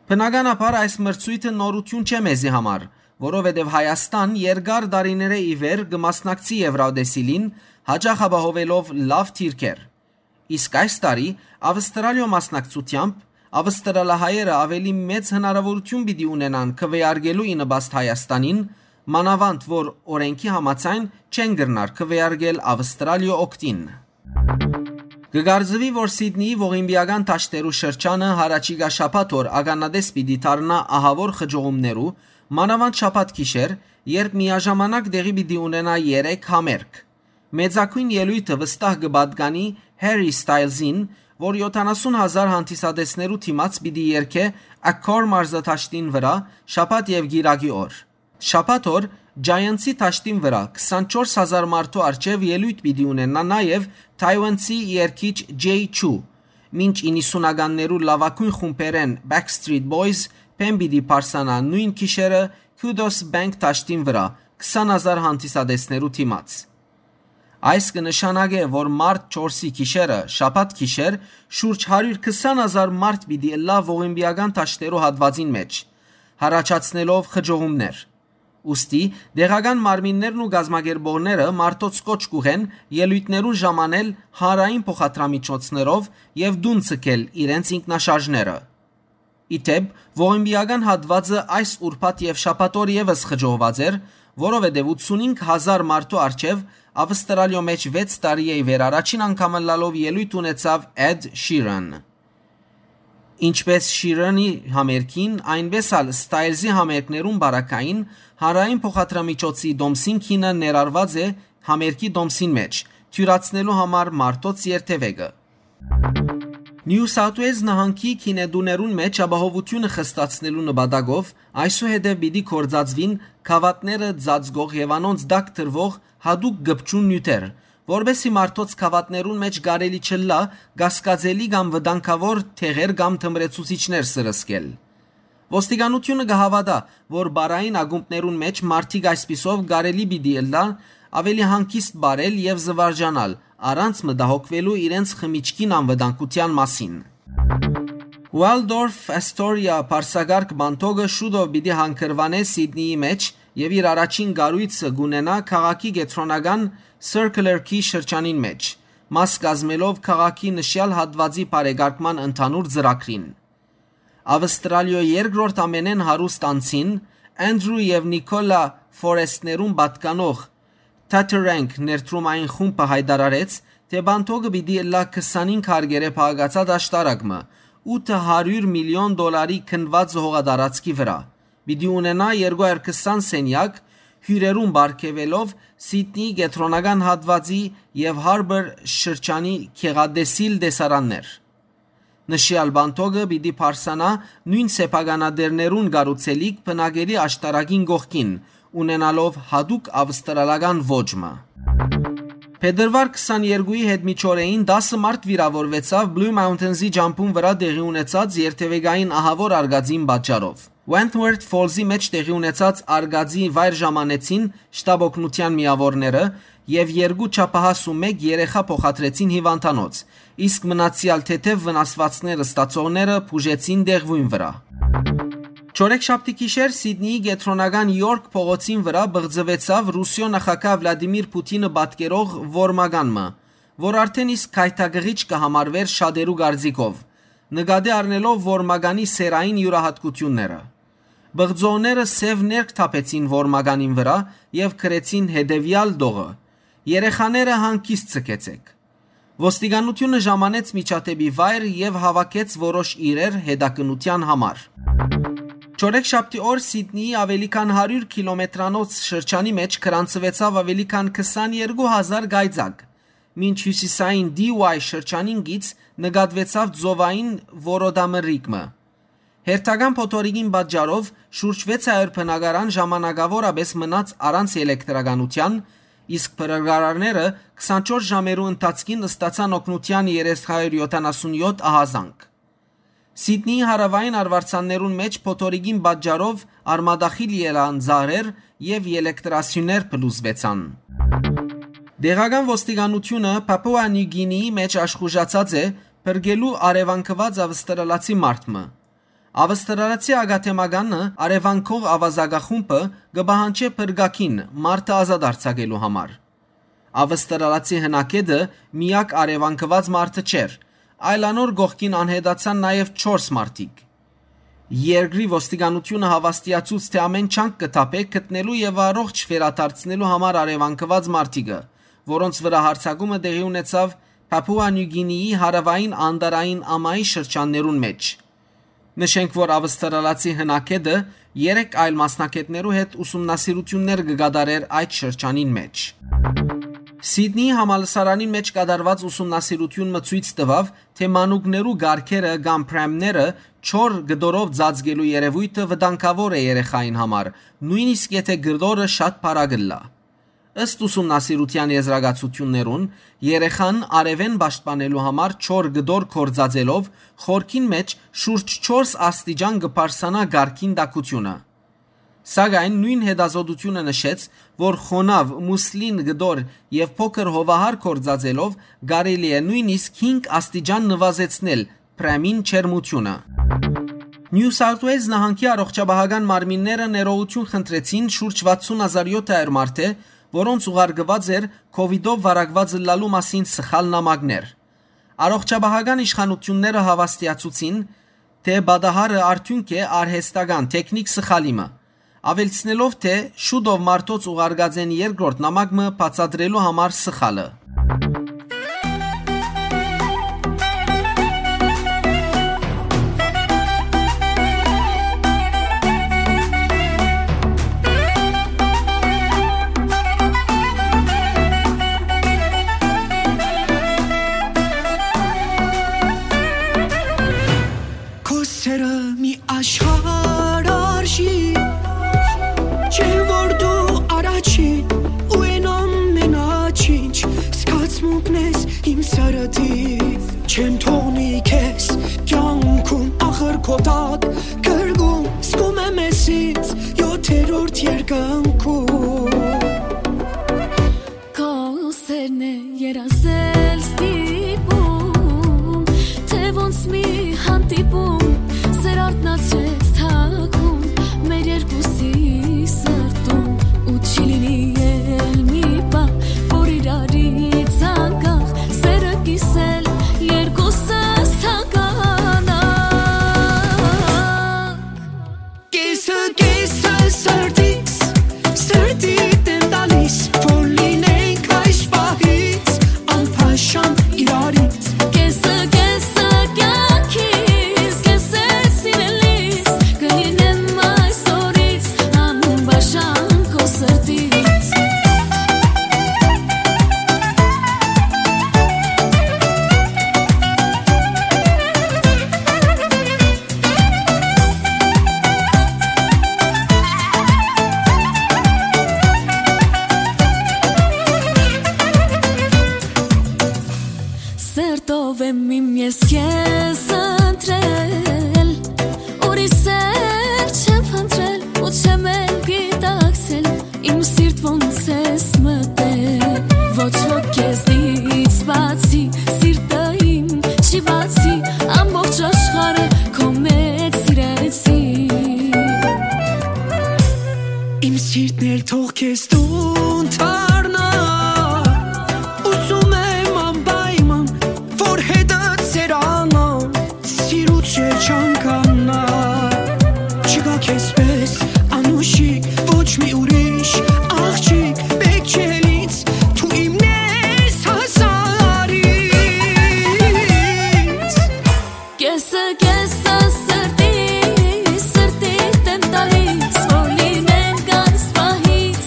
Բնականաբար այս մրցոյթը նորութիւն չէ մեզի համար, որովհետեւ Հայաստան երկար տարիներէ ի վեր կը մասնակցի Եվրատեսիլին, յաճախ ապահովելով լաւ դիրքեր։ Իսկ այս տարի Ավստրալիոյ մասնակցութեամբ ավստրալահայերը աւելի մեծ հնարաւորութիւն պիտի ունենան քուէարկելու ի նպաստ Հայաստանին, մանաւանդ որ օրէնքի համաձայն չեն կրնար քուէարկել Ավստրալիոյ օգտին։ Կը կարծուի, որ Սիդնիի ողիմպիական դաշտերու շրջանը յառաջիկայ շաբաթ օր ականատես պիտի դառնայ ահաւոր խճողումներու, մանաւանդ շաբաթ գիշեր, երբ միաժամանակ տեղի պիտի ունենայ երեք համերգ։ Մեծագոյն ելոյթը վստահ կը պատկանի Harry Styles-ին, որ յոթանասուն հազար հանդիսատեսներու դիմաց պիտի երգէ Accor մարզադաշտին վրայ շաբաթ եւ կիրակի օր։ Շաբաթ օր Giants-ի դաշտին վրայ քսանչորս հազար մարդու առջեւ ելոյթ պիտի ունենայ նաեւ թաիուանցի երգիչ Jay Chou, մինչ իննսունականներու լաւագոյն խումբերէն Backstreet Boys բեմ պիտի պարսանայ նոյն գիշերը Kudos Bank դաշտին վրայ քսան հազար հանդիսատեսներու դիմաց։ Այս կը նշանակէ, որ մարտ չորսի գիշերը, շաբաթ գիշեր, շուրջ հարիւր քսան հազար մարդ պիտի ըլլայ ողիմպիական դաշտերու հատուածին մէջ, յառաջացնելով խճողումներ։ Ուստի, տեղական մարմիններն ու կազմակերպողները մարդոց կոչ կուղեն ելոյթներուն ժամանել հանրային փոխադրամիջոցներով եւ տուն ցկել իրենց ինքնաշարժները։ Ի դէպ, ողիմպիական հատուածը այս ուրբաթ եւ շաբաթ օր եւս խճողուած էր, որովհետեւ ութսունհինգ հազար մարդու առջեւ Ավստրալիոյ մէջ վեց տարի է ի վեր առաջին անգամ ըլլալով ելոյթ ունեցաւ Էդ Շիրան։ Ինչպէս Շիրանի համերգին, այնպէս ալ Ստայլզի համերգներուն բարակային հանրային փոխադրամիջոցի տոմսին գինը ներառուած է համերգի տոմսին մէջ, թիւրացնելու համար մարդոց երթեւեկը։ Նիու Սաութ Ուելզ նահանգի գինետուներուն մէջ ապահովութիւնը խստացնելու նպատակով այսուհետեւ պիտի գործածուին գաւաթները ծածկող եւ անոնց տակ դրուող յատուկ կպչուն նիւթեր, որպէս զի մարդոց գաւաթներուն մէջ կարելի չըլլայ կասկածելի կամ վտանգաւոր թեղեր կամ թմրեցուցիչներ սրսկել։ Ոստիկանութիւնը կը հաւատայ, որ պարային ակումբներուն մէջ մարդիկ այսպիսով կարելի պիտի ըլլայ աւելի հանգիստ պարել եւ զուարճանալ, առանց մտահոգուելու իրենց խմիչքին անվտանգութեան մասին։ Waldorf Astoria պարսակարգ պանթոգը շուտով պիտի հանգրուանէ Սիդնիի մէջ եւ իր առաջին կառոյցը կունենայ քաղաքի կեդրոնական Circular Quay շրջանին մէջ, մաս կազմելով քաղաքի նշեալ հատուածի բարեկարգման ընդհանուր ծրագրին։ Ավստրալիոյ երկրորդ ամենէն հարուստ անձին, Andrew եւ Nicola Forest-ներուն պատկանող Tatarank ներդրումային խումբը յայտարարեց, թէ պանթոգը պիտի ըլլայ քսանհինգ հարկերէ փակացած աշտարակ մը, ութը հարիւր միլիոն դոլարի քննուած հողատարածքի վրայ։ Պիտի ունենայ երկու հարիւր քսան սենեակ, հիւրերուն պարգեւելով Սիդնիի կեդրոնական հատուածի եւ Harbour շրջանի գեղատեսիլ տեսարաններ։ Նշեալ պանթոգը պիտի պարսանայ նոյն սեփականատէրներուն կառուցելիք բնակելի աշտարակին կողքին, ունենալով յատուկ ավստրալական ոճ մը։ Փետրուար քսաներկուի հետ միջօրեին տասը մարդ վիրաւորուեցաւ Blue Mountains-ի ճամբուն վրայ տեղի ունեցած երթեւեկային ահաւոր արկածին պատճառով։ Wentworth Falls-ի մէջ տեղի ունեցած արկածի վայր ժամանեցին շտապօգնութեան միաւորները եւ երկու չափահաս ու մէկ երեխայ փոխադրեցին հիւանդանոց, իսկ մնացեալ թեթեւ վնասուածներ ստացողները բուժեցին տեղւոյն վրայ։ Չորեքշաբթի գիշեր Սիդնիի կեդրոնական Յորք փողոցին վրայ բղծուեցաւ Ռուսիոյ նախագահ Վլադիմիր Պութինը պատկերող որմական մը, որ արդէն իսկ գայթակղիչ կը համարուէր շատերու կարծիքով, նկատի առնելով որմականի սեռային իւրայատկութիւնները։ Բղծողները սեւ ներք թափեցին որմականին վրայ եւ գրեցին հետեւեալ տողը. «Երեխաները հանգիստ ձգեցէք»։ Ոստիկանութիւնը ժամանեց միջադէպի վայր եւ հաւաքեց որոշ իրեր հետաքննութեան համար։ Չորեքշաբթի օր Սիդնիի աւելի քան հարիւր քիլոմետրանոց շրջանի մէջ գրանցուեցաւ աւելի քան քսաներկու հազար կայծակ, մինչ հիւսիսային Դի Ուայ շրջանին գից նկատուեցաւ ծովային որոտամրրիկ մը։ Հերթական փոթորիկին պատճառով շուրջ վեց հարիւր բնակարան ժամանակաւորապէս մնաց առանց էլեկտրականութեան, իսկ փրկարարները քսանչորս ժամերու ընթացքին ստացան օգնութեան երեք հարիւր յոթանասուն յոթ ահազանգ։ Սիդնիի հարաւային արուարձաններուն մէջ փոթորիկին պատճառով արմատախիլ ելան ծառեր եւ էլեկտրասիւներ փլուզուեցան։ Տեղական ոստիկանութիւնը Պապուա Նիու Գինիի մէջ աշխուժացած է փրկելու արեւանքուած ավստրալացի մարդ մը։ Ավստրալացի ակադեմիականը արեւանքող աւազակախումբը կը պահանջէ փրկագին մարդը ազատ արձակելու համար։ Ավստրալացի հնագետը միակ արեւանքուած մարդը չէր, այլ անոր կողքին անհետացան նաեւ չորս մարդիկ։ Երկրի ոստիկանութիւնը հաւաստիացուց, թէ ամէն ջանք կը թափէ գտնելու եւ առողջ վերադարձնելու համար արեւանքուած մարդիկը, որոնց վրայ յարձակումը տեղի ունեցաւ Պապուա Նիու Գինիի հարաւային անտառային ամայի շրջաններուն մէջ։ Նշենք, որ ավստրալացի հնագետը երեք այլ մասնագետներու հետ ուսումնասիրութիւններ կը կատարէր այդ շրջանին մէջ։ Սիդնիի համալսարանին մէջ կատարուած ուսումնասիրութիւն մը ցոյց տուաւ, թէ մանուկներու կառքերը կամ պրեմները չոր կտորով ծածկելու երեւոյթը վտանգաւոր է երեխային համար, նոյնիսկ եթէ կտորը շատ փառ ըլլայ։ Ըստ ուսումնասիրութեան եզրակացութիւններուն, երեխան արեւէն պաշտպանելու համար չոր կտոր գործածելով խորքին մէջ շուրջ չորս աստիճան կը բարձրանայ կառքին տաքութիւնը։ Սակայն նոյն հետազօտութիւնը նշեց, որ խոնաւ, մուսլին կտոր եւ փոքր հովահար գործածելով կարելի է նոյնիսկ հինգ աստիճան նուազեցնել պրեմին ջերմութիւնը։ Նիու Սաութ Ուէյլզ նահանգի առողջապահական մարմինները ներողութիւն խնդրեցին շուրջ վաթսուն հազար յոթ հարիւր մարդէ, որոնց ուղարկուած էր COVID-ով վարակուած ըլլալու մասին սխալ նամակներ։ Առողջապահական իշխանութիւնները հաւաստիացուցին, թէ պատահարը արդիւնք է արհեստական թեքնիք սխալի մը, աւելցնելով, թէ շուտով մարդոց ուղարկած են երկրորդ նամակ մը բացատրելու համար սխալը։ Քո սերը մի աշխարհ արժի, չեմ որ դու առաջին ու են ամենաչինչ, զգացմունքն ես իմ սրտի, չեմ թողնի քեզ կյանքում, ախր քո տակ կրկում, զգում եմ ես ինձ յոթերորդ երկնքում։ Քո սերն է երազել ստիպում, թէ ոնց մի հանդիպում, սեր արթնացրեց թաքուն մեր երկուսի սրտում, ու չի լինի էլ մի պահ, որ իրարից անկախ սերը կիսել երկուսս հագանակ։ Կեսը, կեսը սրտից, սրտիդ եմ տալիս, որ լինենք այս պահից անփաշան իրարից։ Կեսը, կեսը կյանքիս, կեսը սիրելիս, կլինեմ այսօրից անփաշան քո սրտից։ Սրտով եմ իմ ես քեզ ընտրել, ուրիշ սեր չեմ փնտրել ու չեմ էլ գիտակցել, իմ սիրտ ոնց ես մտել, ոչ ոք քեզնից բացի, սիրտը իմ չի բացի, ամբողջ աշխարհը քո մեծ սիրեցի։ Իմ սիրտն էլ թող քեզ տուն դառնայ, ուզում եմ անպայման, որ հետդ սերանամ, սիրուց չէ չանկանայ, չկա քեզպես անուշիկ ոչ մի ուրիշ աղջիկ, պէտք չէ ինձ, դու իմն ես հազարից։ Կեսը, կեսը սրտի, սրտիդ եմ տալիս, որ լինենք այս պահից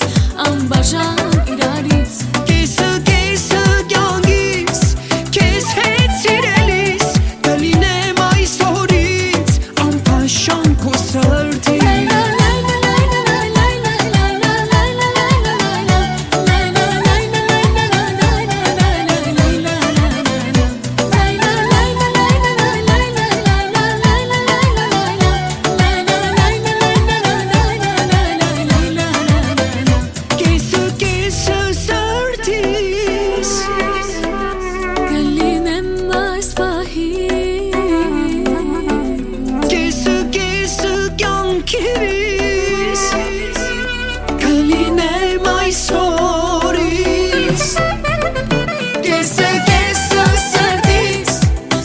անբաժան իրարից։ Կեսը, կեսը կյանքիս, քեզ հետ սիրելիս, կլինեմ այսօրից անփաշան քո սրտի։ Կեսը, կեսը սրտիս, կլինեմ այս պահին, կեսը, կեսը կյանքիս, կլինեմ այսօրից, կեսը, կեսը սրտիս,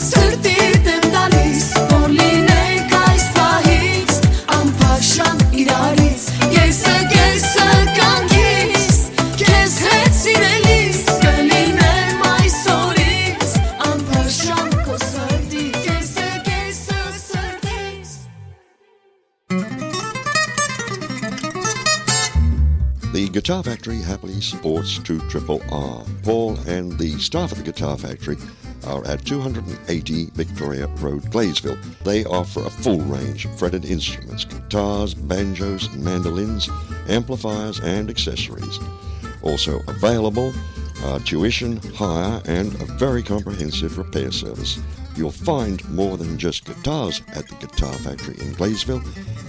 սրտիդ եմ տալիս, որ լինենք այս պահից անփաշան իրարից, կեսը, կեսը կյանքիս, քեզ հետ սիրելիս, կլինեմ այսօրից անփաշան քո սրտի, կեսը, կեսը սրտիս։ The Guitar Factory happily supports two triple R. Paul and the staff at the Guitar Factory are at two hundred and eighty Victoria Road, Gladesville. They offer a full range of fretted instruments, guitars, banjos, mandolins, amplifiers, and accessories. Also available are tuition, hire, and a very comprehensive repair service. You'll find more than just guitars at the Guitar Factory in Gladesville,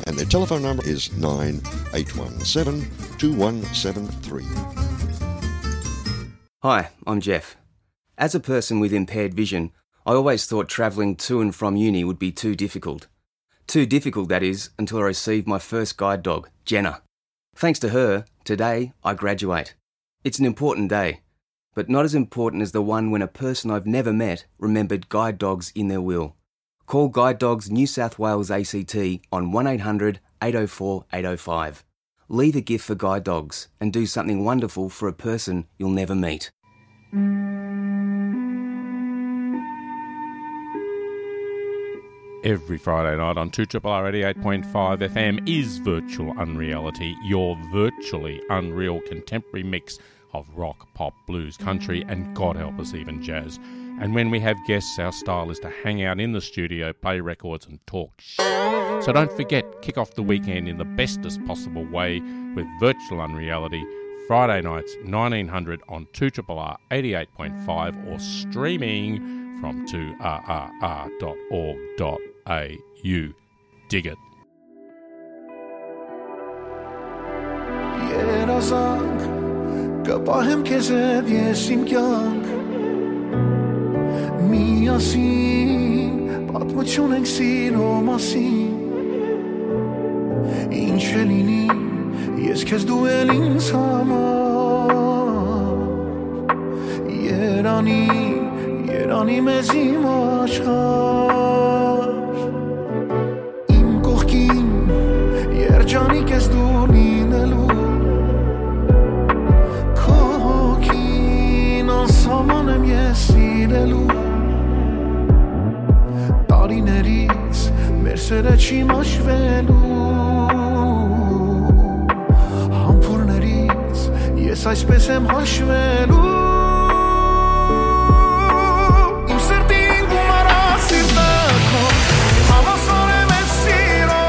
and their telephone number is nine eight one seven two one seven three. Hi, I'm Jeff. As a person with impaired vision, I always thought travelling to and from uni would be too difficult. Too difficult, that is, until I received my first guide dog, Jenna. Thanks to her, today I graduate. It's an important day, but not as important as the one when a person I've never met remembered guide dogs in their will. Call Guide Dogs New South Wales A C T on one eight hundred eight oh four eight oh five. Leave a gift for Guide Dogs and do something wonderful for a person you'll never meet. Every Friday night on two triple R eighty-eight point five F M is Virtual Unreality, your virtually unreal contemporary mix of rock, pop, blues, country, and God help us, even jazz. And when we have guests, our style is to hang out in the studio, play records, and talk sh-. So don't forget, kick off the weekend in the bestest possible way with Virtual Unreality, Friday nights, nineteen hundred on two triple R eighty-eight point five or streaming from two R R R dot org dot A U. Dig it. Երազանք, կը պահեմ քեզ հետ ես իմ կյանք։ Միասին պատմություն ենք սիրո մասին։ Ինչ է լինի, ես քեզ, դու էլ ինձ համար։ Երանի, երանի մեզ իմ աշխարհ։ Իմ կողքին երջանիկ ես դու լինելու, քո հոգին անսահման եմ ես սիրելու, տարիներից մեր սերը չի մաշվելու, համբուրներից ես այսպես եմ հաշվելու։ Իմ սրտին գումարած սիրտը քո, հավասար եմ ես սիրո,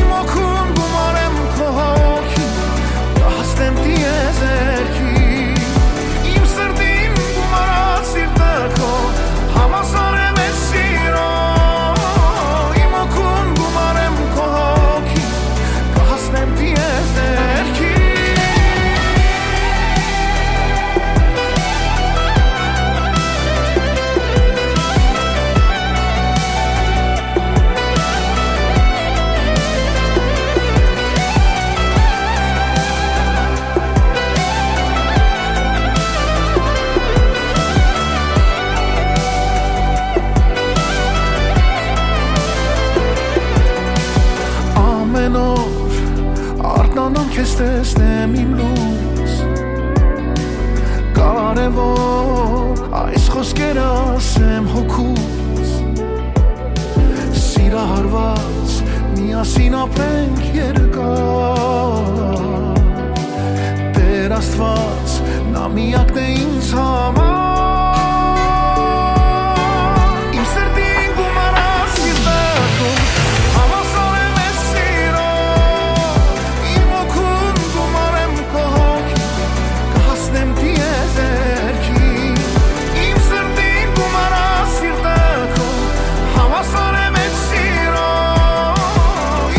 իմ օգուն գումարեմ քո հոգի, կհասնեմ տիեզերքի։ Իմ սրտին գումարած սիրտը քո, հավասար եմ ես սիրո, իմ օգուն գումարեմ քո հոգի, կհասնեմ տիեզերքի։ Ամեն օր արթնանամ քեզ տեսնեմ իմ լույս, կարևոր այս խոսքերը ասեմ հոգուս, սիրահարված միասին ապրենք երկար, Տեր Աստված, նա միակն է ինձ համար։ Իմ սրտին գումարած սիրտը քո, հավասար եմ ես սիրո, իմ օգուն գումարեմ քո հոգի, կհասնեմ տիեզերքի։ Իմ սրտին գումարած սիրտը քո, հավասար եմ ես սիրո,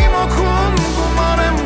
իմ օգուն գումարեմ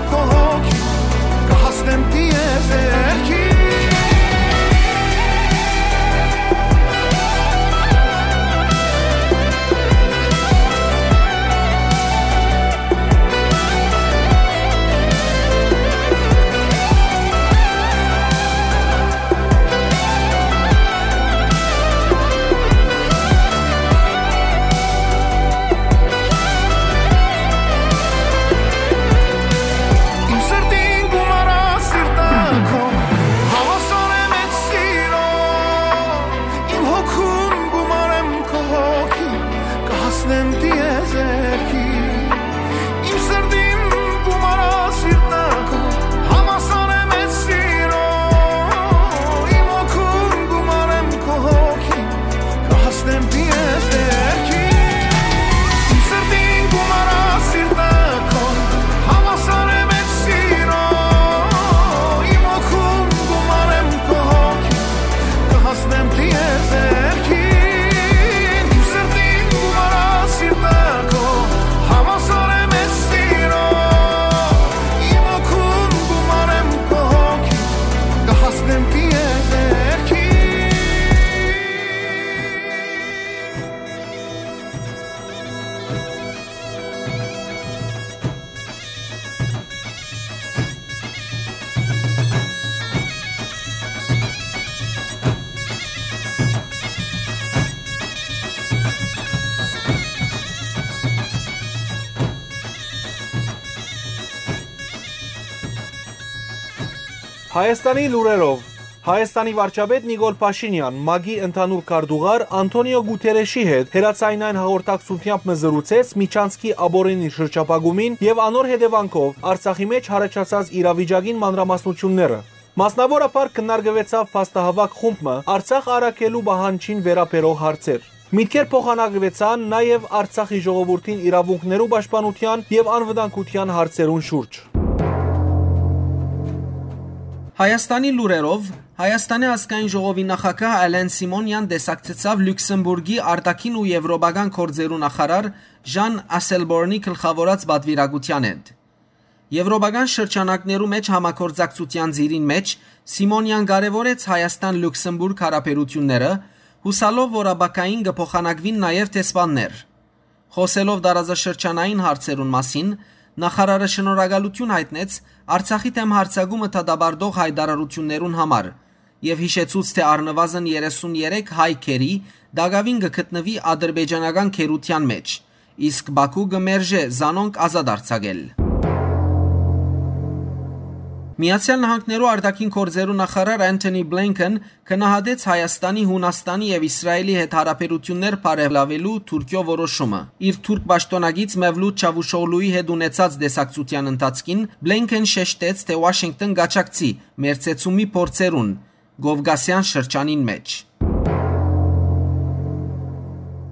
Հայաստանի լուրերով։ Հայաստանի վարչապետ Նիկոլ Փաշինեան ՄԱԿ-ի ընդհանուր քարտուղար Անթոնիո Գութերեշի հետ հեռաձայնային հաղորդակցութեամբ մը զրուցեց Միչանցքի աբօրինի շրջափակումին եւ անոր հետեւանքով Արցախի մէջ յառաջացած իրավիճակին մանրամասնութիւնները։ Մասնաւորաբար քննարկուեցաւ փաստահաւաք խումբ մը Արցախ առաքելու պահանջին վերաբերող հարցեր։ Միտքեր փոխանակուեցան նաեւ Արցախի ժողովուրդին իրաւունքներու պաշտպանութեան եւ անվտանգութեան հարցերուն շուրջ։ Հայաստանի լուրերով, Հայաստանի ազգային ժողովի նախագահ Ալեն Սիմոնեան տեսակցեցաւ Լյուքսեմբուրգի արտաքին ու եվրոպական գործերու նախարար Ժան Ասելբորնի գլխաւորած պատուիրակութեան հետ։ Եվրոպական շրջանակներու մէջ համագործակցութեան ծիրին մէջ Սիմոնեան կարեւորեց Հայաստան-Լյուքսեմբուրգ հարաբերութիւնները, յուսալով որ ապագային կը փոխանակուին նաեւ դեսպաններ։ Խօսելով տարածաշրջանային հարցերուն մասին, նախարարը շնորհակալութիւն յայտնեց Արցախի դէմ յարձակումը դատապարտող յայտարարութիւններուն համար եւ յիշեցուց, թէ առնուազն երեսուն երեք հայ գերի տակաւին կը գտնուի ադրբեջանական գերութեան մէջ, իսկ Բաքու կը մերժէ զանոնք ազատ արձակել։ Միացեալ Նահանգներու արտաքին գործերու նախարար Անթոնի Բլինքեն գնահատեց Հայաստանի, Յունաստանի եւ Իսրայելի հետ հարաբերութիւններ բարելաւելու Թուրքիոյ որոշումը։ Իր թուրք պաշտօնակից Մևլութ Չավուշօղլուի հետ ունեցած տեսակցութեան ընթացքին Բլինքեն շեշտեց, թէ Ուաշինկտոն կաջակցի մերձեցումի փորձերուն Կովկասեան շրջանին մէջ։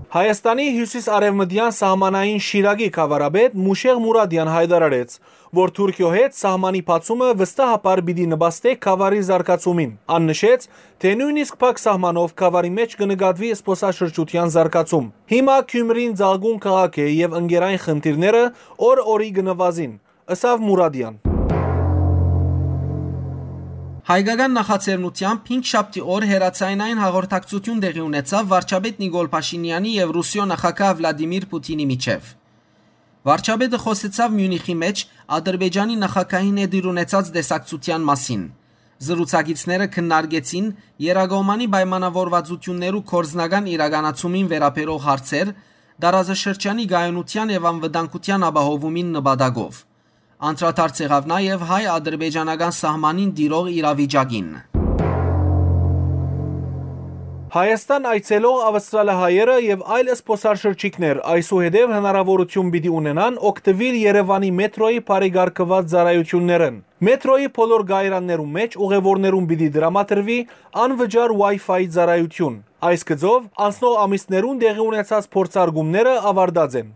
Հայաստանի հիւսիս-արեւմտեան սահմանային Շիրակի գաւառապետ Մուշեղ Մուրադեան յայտարարեց, որ Թուրքիոյ հետ սահմանի բացումը վստահաբար պիտի նպաստէ գաւառի զարգացումին։ Ան նշեց, թէ նոյնիսկ փակ սահմանով գաւառի մէջ կը նկատուի զբօսաշրջութեան զարգացում։ Հիմա Գիւմրին ծաղկուն քաղաք է եւ ընկերային խնդիրները օր օրի կը նուազին, ըսաւ Մուրադեան։ Հայկական նախաձեռնութեամբ հինգշաբթի օր հեռաձայնային հաղորդակցութիւն տեղի ունեցաւ վարչապետ Նիկոլ Փաշինեանի եւ Ռուսիոյ նախագահ Վլադիմիր Պութինի միջեւ։ Վարչապետը խօսեցաւ Միունիխի մէջ Ադրբեջանի նախագահին հետ իր ունեցած տեսակցութեան մասին։ Զրուցակիցները քննարկեցին երկկողմանի պայմանաւորուածութիւններու գործնական իրականացումին վերաբերող հարցեր, տարածաշրջանի կայունութեան եւ անվտանգութեան ապահովումին նպատակով։ Անդրադարձ եղաւ նաեւ հայ-ադրբեջանական սահմանին տիրող իրավիճակին։ Հայաստան այցելող ավստրալահայերը եւ այլ զբօսաշրջիկներ այսուհետեւ հնարաւորութիւն պիտի ունենան օգտուիլ Երեւանի մեթրոյի բարեկարգուած ծառայութիւններէն։ Մեթրոյի բոլոր կայարաններուն մէջ ուղեւորներուն պիտի տրամադրուի անվճար Wi-Fi ծառայութիւն։ Այս գծով անցնող ամիսներուն տեղի ունեցած փորձարկումները աւարտած են։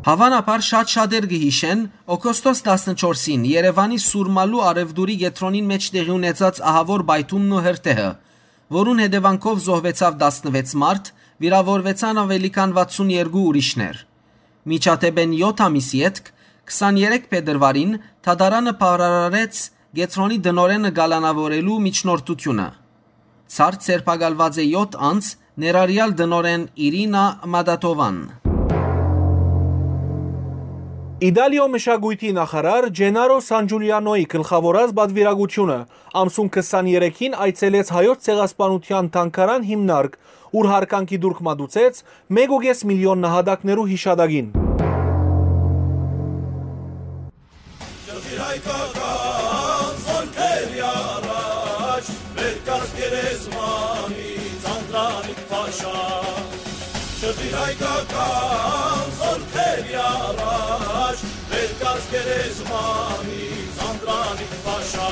Հաւանաբար շատ շատեր կը յիշեն, օգոստոս տասնչորսին Երեւանի Սուրմալու առեւտուրի կեդրոնին մէջ տեղի ունեցած ահաւոր պայթումն ու հրդեհը, որուն հետեւանքով զոհուեցաւ տասնվեց մարդ, վիրաւորուեցան աւելի քան վաթսուն երկու ուրիշներ։ Միջադէպէն եօթ ամիս ետք, քսաներեք փետրուարին, դատարանը բաւարարեց կեդրոնի տնօրէնը կալանաւորելու միջնորդութիւնը։ Ցարդ ձերբակալուած է եօթ անձ, ներառեալ տնօրէն Իրինա Մադատովան։ Իտալիոյ մշակոյթի նախարար Ջենարո Սանջուլիանոյի գլխաւորած պատուիրակութիւնը ամսուն քսաներեքին այցելեց Հայոց ցեղասպանութեան թանգարան հիմնարկ, ուր յարգանքի տուրք մատուցեց մէկ ու կէս միլիոն նահատակներու յիշատակին։ Շրջիր հայկական զորքերի առաջ, վեր կաց գերեզմանից, Անդրանիկ փաշա։ Շրջիր հայկական զորքերի առաջ, վեր կաց գերեզմանից, Անդրանիկ փաշա։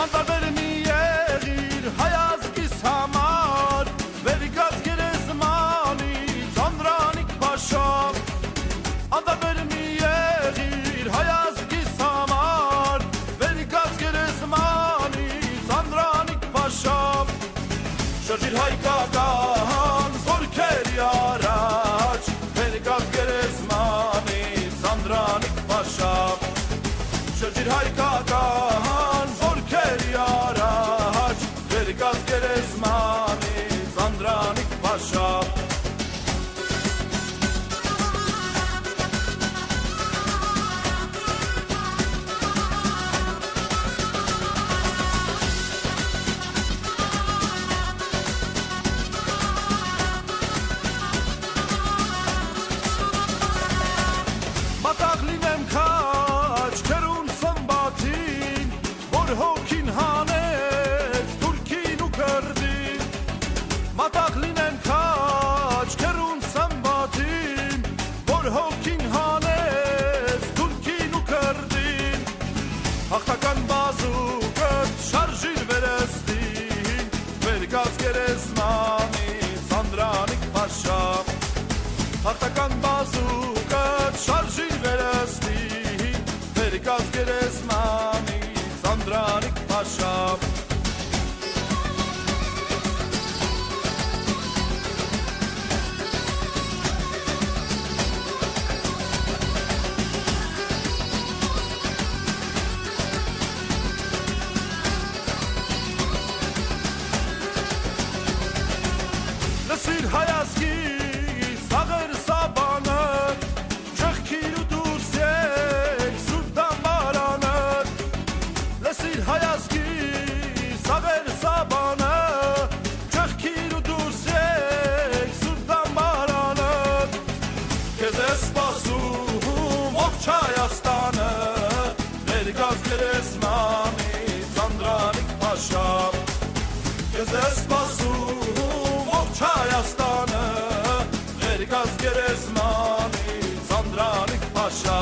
Անտարբեր մի եղիր հայ ազգիս համար, վեր կաց գերեզմանից, Անդրանիկ փաշա։ Անտարբեր մի եղիր հայ ազգիս համար, վեր կաց գերեզմանից, Անդրանիկ փաշա։ Շրջիր հայկական զորքերի առաջ, վեր կաց գերեզմանից, Անդրանիկ փաշա։ Շրջիր հայկական զորքերի առաջ, վեր կաց գերեզմանից, Անդրանիկ փաշա։ Հաղթական բազուկը շարժիր վերստին, վեր կաց գերեզմանի Սանդրանիկ փաշա։ Հաղթական բազուկը շարժիր վերստին, վեր կաց գերեզմանի Սանդրանիկ փաշա։ Լսիր հայ ազգի սաղեր սաբանը, չեղքիր ու դուրս եք սուրբ դամբարանը։ Լսիր հայ ազգի սաղեր սաբանը, չեղքիր ու դուրս եք սուրբ դամբարանը։ Քեզ է սպասում ողջ Հայաստանը, ներկաց գերեզմանի Սանդրանիկ փաշա։ Քեզ է սպասում ողջ Հայաստանը, ներկաց գերեզմանի Սանդրանիկ փաշա։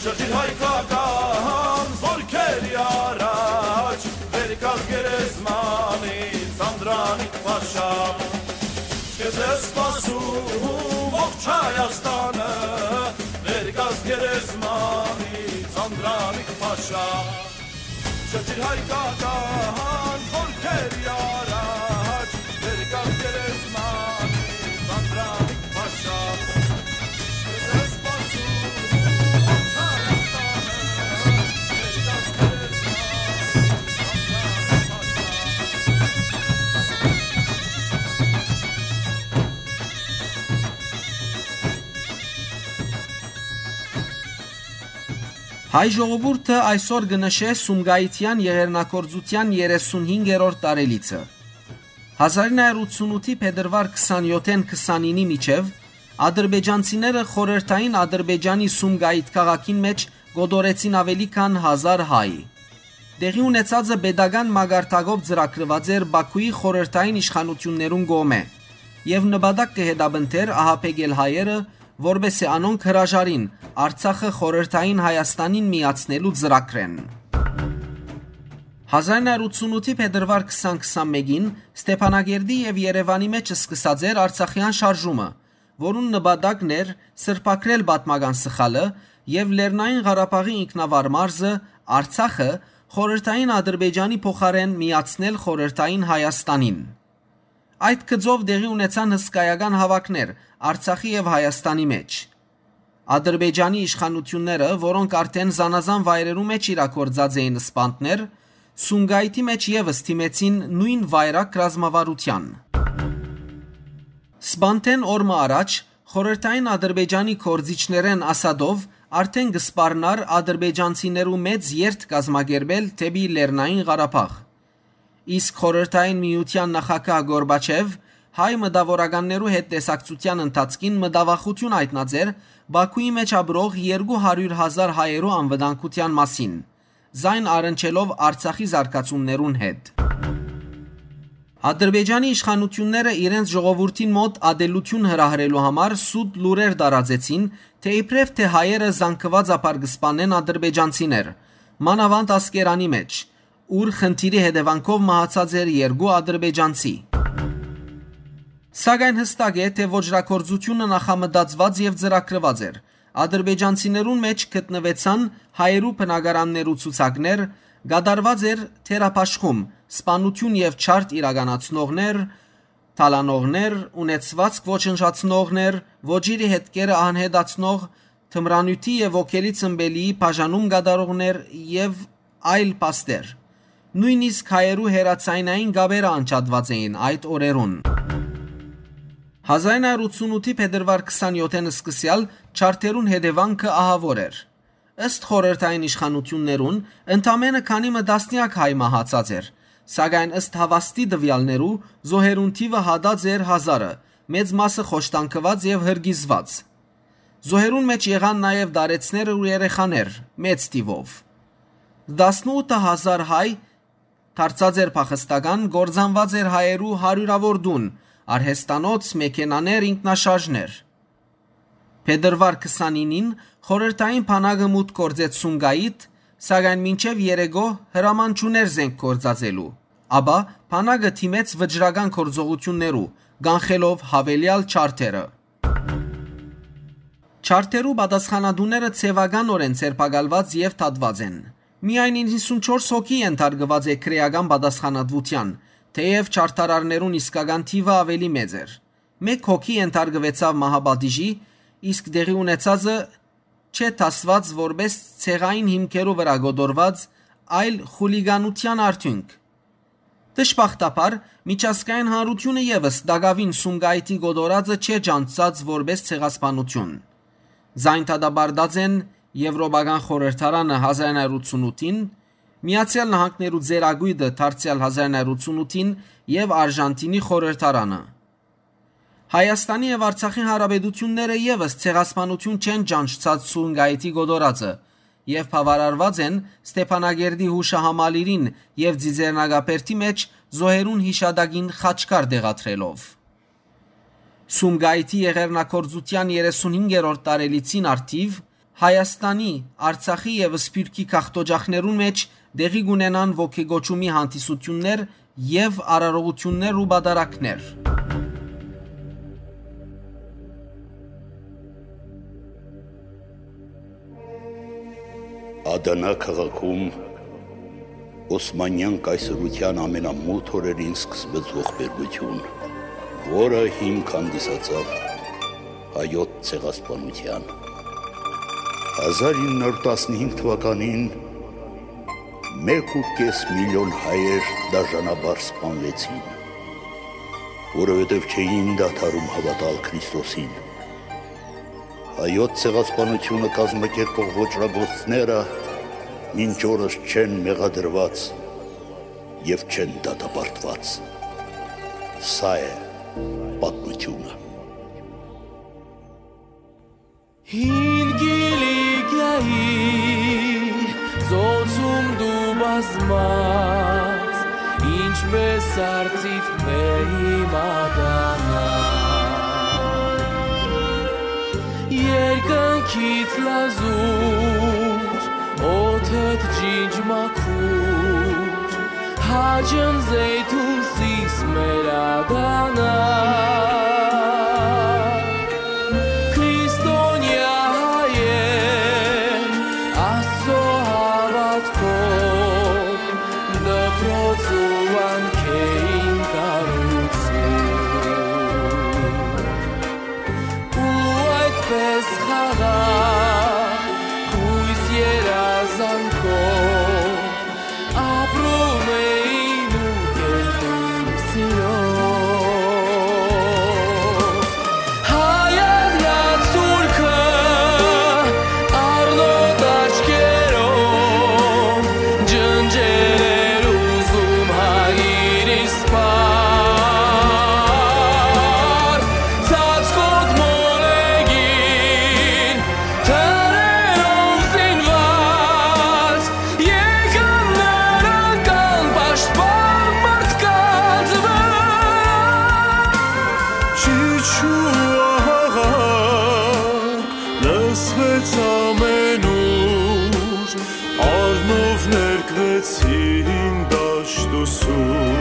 Շրջիր հայկական զորքերի առաջ, ներկաց գերեզմանի Սանդրանիկ փաշա։ Քեզ է սպասում ողջ Հայաստանը, ներկաց գերեզմանի Սանդրանիկ փաշա։ Շրջիր հայկական զորքերի առաջ, ներկաց գերեզմանի Սանդրանիկ փաշա։ Քեզ է սպասում ողջ Հայաստանը, ներկաց գերեզմանի Սանդրանիկ փաշա։ Հայ ժողովուրդը այսօր կը նշէ Սումգայիթեան եղեռնագործութեան երեսունհինգերորդ տարելիցը։ Հազար ինը հարյուր ութսունութի փետրուար քսանյոթ-ին քսանինի միջեւ ադրբեջանցիները խորհրդային Ադրբեջանի Սումգայիթ քաղաքին մէջ կոտորեցին աւելի քան հազար հայ։ Տեղի ունեցածը պետական մակարդակով ծրագրուած էր Բաքուի խորհրդային իշխանութիւններուն կողմէ եւ նպատակ կը հետապնդէր ահաբեկել հայերը, որպէս զի անոնք հրաժարին Արցախը խորհրդային Հայաստանին միացնելու ծրագրէն։ Հազար ինը հարյուր ութսունութի փետրուար քսան քսանմէկին Ստեփանակերտի եւ Երեւանի մէջ սկսած էր Արցախեան շարժումը, որուն նպատակն էր սրբագրել պատմական սխալը եւ Լեռնային Ղարաբաղի ինքնավար մարզը՝ Արցախը, խորհրդային Ադրբեջանի փոխարէն միացնել խորհրդային Հայաստանին։ Այդ գծով տեղի ունեցան հսկայական հաւաքներ Արցախի եւ Հայաստանի մէջ։ Ադրբեջանի իշխանութիւնները, որոնք արդէն զանազան վայրերու մէջ իրագործած էին սպանդներ, Սումգայիթի մէջ եւս դիմեցին նոյն վայրագ ռազմավարութեան։ Սպանդէն օր մը առաջ խորհրդային Ադրբեջանի գործիչներէն Ասադով արդէն կը սպառնար ադրբեջանցիներու մեծ երթ կազմակերպել դէպի Լեռնային Ղարաբաղ։ Իսկ խորհրդային միութեան նախագահ Գորբաչեւ հայ մտաւորականներու հետ տեսակցութեան ընթացքին մտավախութիւն յայտնած էր Բաքուի մէջ ապրող երկու հարիւր հազար հայերու անվտանգութեան մասին, զայն առնչելով Արցախի զարգացումներուն հետ։ Ադրբեջանի իշխանութիւնները իրենց ժողովուրդին մօտ ատելութիւն հրահրելու համար սուտ լուրեր տարածեցին, թէ իբրեւ թէ հայերը զանգուածաբար կը սպանեն ադրբեջանցիներ, մանաւանդ Ասկերանի մէջ, ուր խնդիրի հետեւանքով մահացած էր երկու ադրբեջանցի։ Սակայն յստակ է, թէ ոճրագործութիւնը նախամտածուած եւ ծրագրուած էր։ Ադրբեջանցիներուն մէջ գտնուեցան հայերու բնակարաններու ցուցակներ, կատարուած էր թերաբաշխում, սպանութիւն եւ ջարդ իրականացնողներ, թալանողներ, ունեցուածք ոչնչացնողներ, ոճիրի հետքերը անհետացնող, թմրանիւթի եւ ոգելի ցմբելիի բաժանում կատարողներ եւ այլ փաստեր։ Նոյնիսկ հայերու հեռաձայնային կապերը անջատուած էին այդ օրերուն։ Հազար ինը հարիւր ութսունութի փետրուար քսանյոթ-ին սկսեալ ջարդերուն հետեւանքը ահաւոր էր։ Ըստ խորհրդային իշխանութիւններուն, ընդամենը քանի մը տասնեակ հայ մահացած էր, սակայն ըստ հաւաստի տուեալներու, զոհերուն թիւը յատած էր հազարը, մեծ մասը խոշտանգուած եւ հրկիզուած։ Զոհերուն մէջ եղան նաեւ տարեցներ ու երեխաներ, մեծ թիւով։ Տասնութ հազար հայ դարձած էր փախստական, կործանուած էր հայերու հարիւրաւոր տուն, արհեստանոց, մեքենաներ, ինքնաշարժներ։ Փետրուար քսանինին խորհրդային բանակը մուտք գործեց Սումգայիթ, սակայն մինչեւ երեգոյ հրաման չուներ զենք գործածելու, ապա բանակը դիմեց վճռական գործողութիւններու, կանխելով յաւելեալ չարթերը։ Չարթերու պատասխանատուները ձեւականօրէն ձերբակալուած եւ դատուած են։ Միայն իննսունչորս հոգի ենթարկուած է քրէական պատասխանատուութեան, թէեւ չարդարարներուն իսկական թիւը աւելի մեծ էր։ Մէկ հոգի ենթարկուեցաւ մահապատիժի, իսկ տեղի ունեցածը չէ դասուած որպէս ցեղային հիմքերու վրայ կոտորուած, այլ խուլիգանութեան արդիւնք։ Դժբախտաբար, միջազգային հանրութիւնը եւս տակաւին Սումգայիթի կոտորածը չէ ճանչցած որպէս ցեղասպանութիւն։ Զայն դատապարտած են Եվրոպական խորհրդարանը հազար նոյ հարիւր ութսունութին, Միացեալ Նահանգներու ծերակոյտը դարձեալ հազար նոյ հարիւր ութսունութին եւ Արժանտինի խորհրդարանը։ Հայաստանի եւ Արցախի հանրապետութիւնները եւս ցեղասպանութիւն չեն ճանչցած Սումգայիթի կոտորածը եւ բաւարարուած են Ստեփանակերտի յուշահամալիրին եւ Ծիծեռնակաբերդի մէջ զոհերուն յիշատակին խաչքար տեղադրելով։ Սումգայիթի եղեռնագործութեան երեսունհինգերորդ տարելիցին առթիւ Հայաստանի, Արցախի եւ Սփիւռքի գաղթօճախներուն մէջ տեղի կունենան ոգեկոչումի հանդիսութիւններ եւ արարողութիւններ ու պատարագներ։ Ադանա քաղաքում Օսմանեան կայսրութեան ամենամութ օրերին սկսվեց ողբերգութիւն, որը հիմք հանդիսացաւ հայոց ցեղասպանութեան։ Հազար ինը հարիւր տասնհինգ թուականին մէկ ու կէս միլիոն հայեր դաժանաբար սպանուեցին, որովհետեւ չէին դադարում հաւատալ Քրիստոսին։ Հայոց ցեղասպանութիւնը կազմակերպող ոճրագործները մինչ օրս չեն մեղադրուած եւ չեն դատապարտուած։ Սա է պատմութիւնը։ Հին Կիլիկիայի ծոցում դու բազմած, ինչպես արծիվ բեհի մատանա։ Երկնքից լազուր, օդդ ջինջ մաքուր, հաճն զեյթուն սիս մեր ադանա։ Քրիստոնեայ հայեր, Աստծո հաւատքով, դպրոց ու վանքէին կառուցում։ Ու այդպես խաղաղ, յոյս երազանքով, ապրում էին ու կերտում սիրով։ Հայ Ադնա թուրքը առնոտ աչքերով ջնջել էր ուզում հայրիս պար։ Ծածկոտ մոլեգին թրերով զինված եկան նրանք անպաշտպան մարդկանց վրա։ Ճիչ ու ահաղակ լսվեց ամենուր, առնով ներկվեցին դաշտուսում։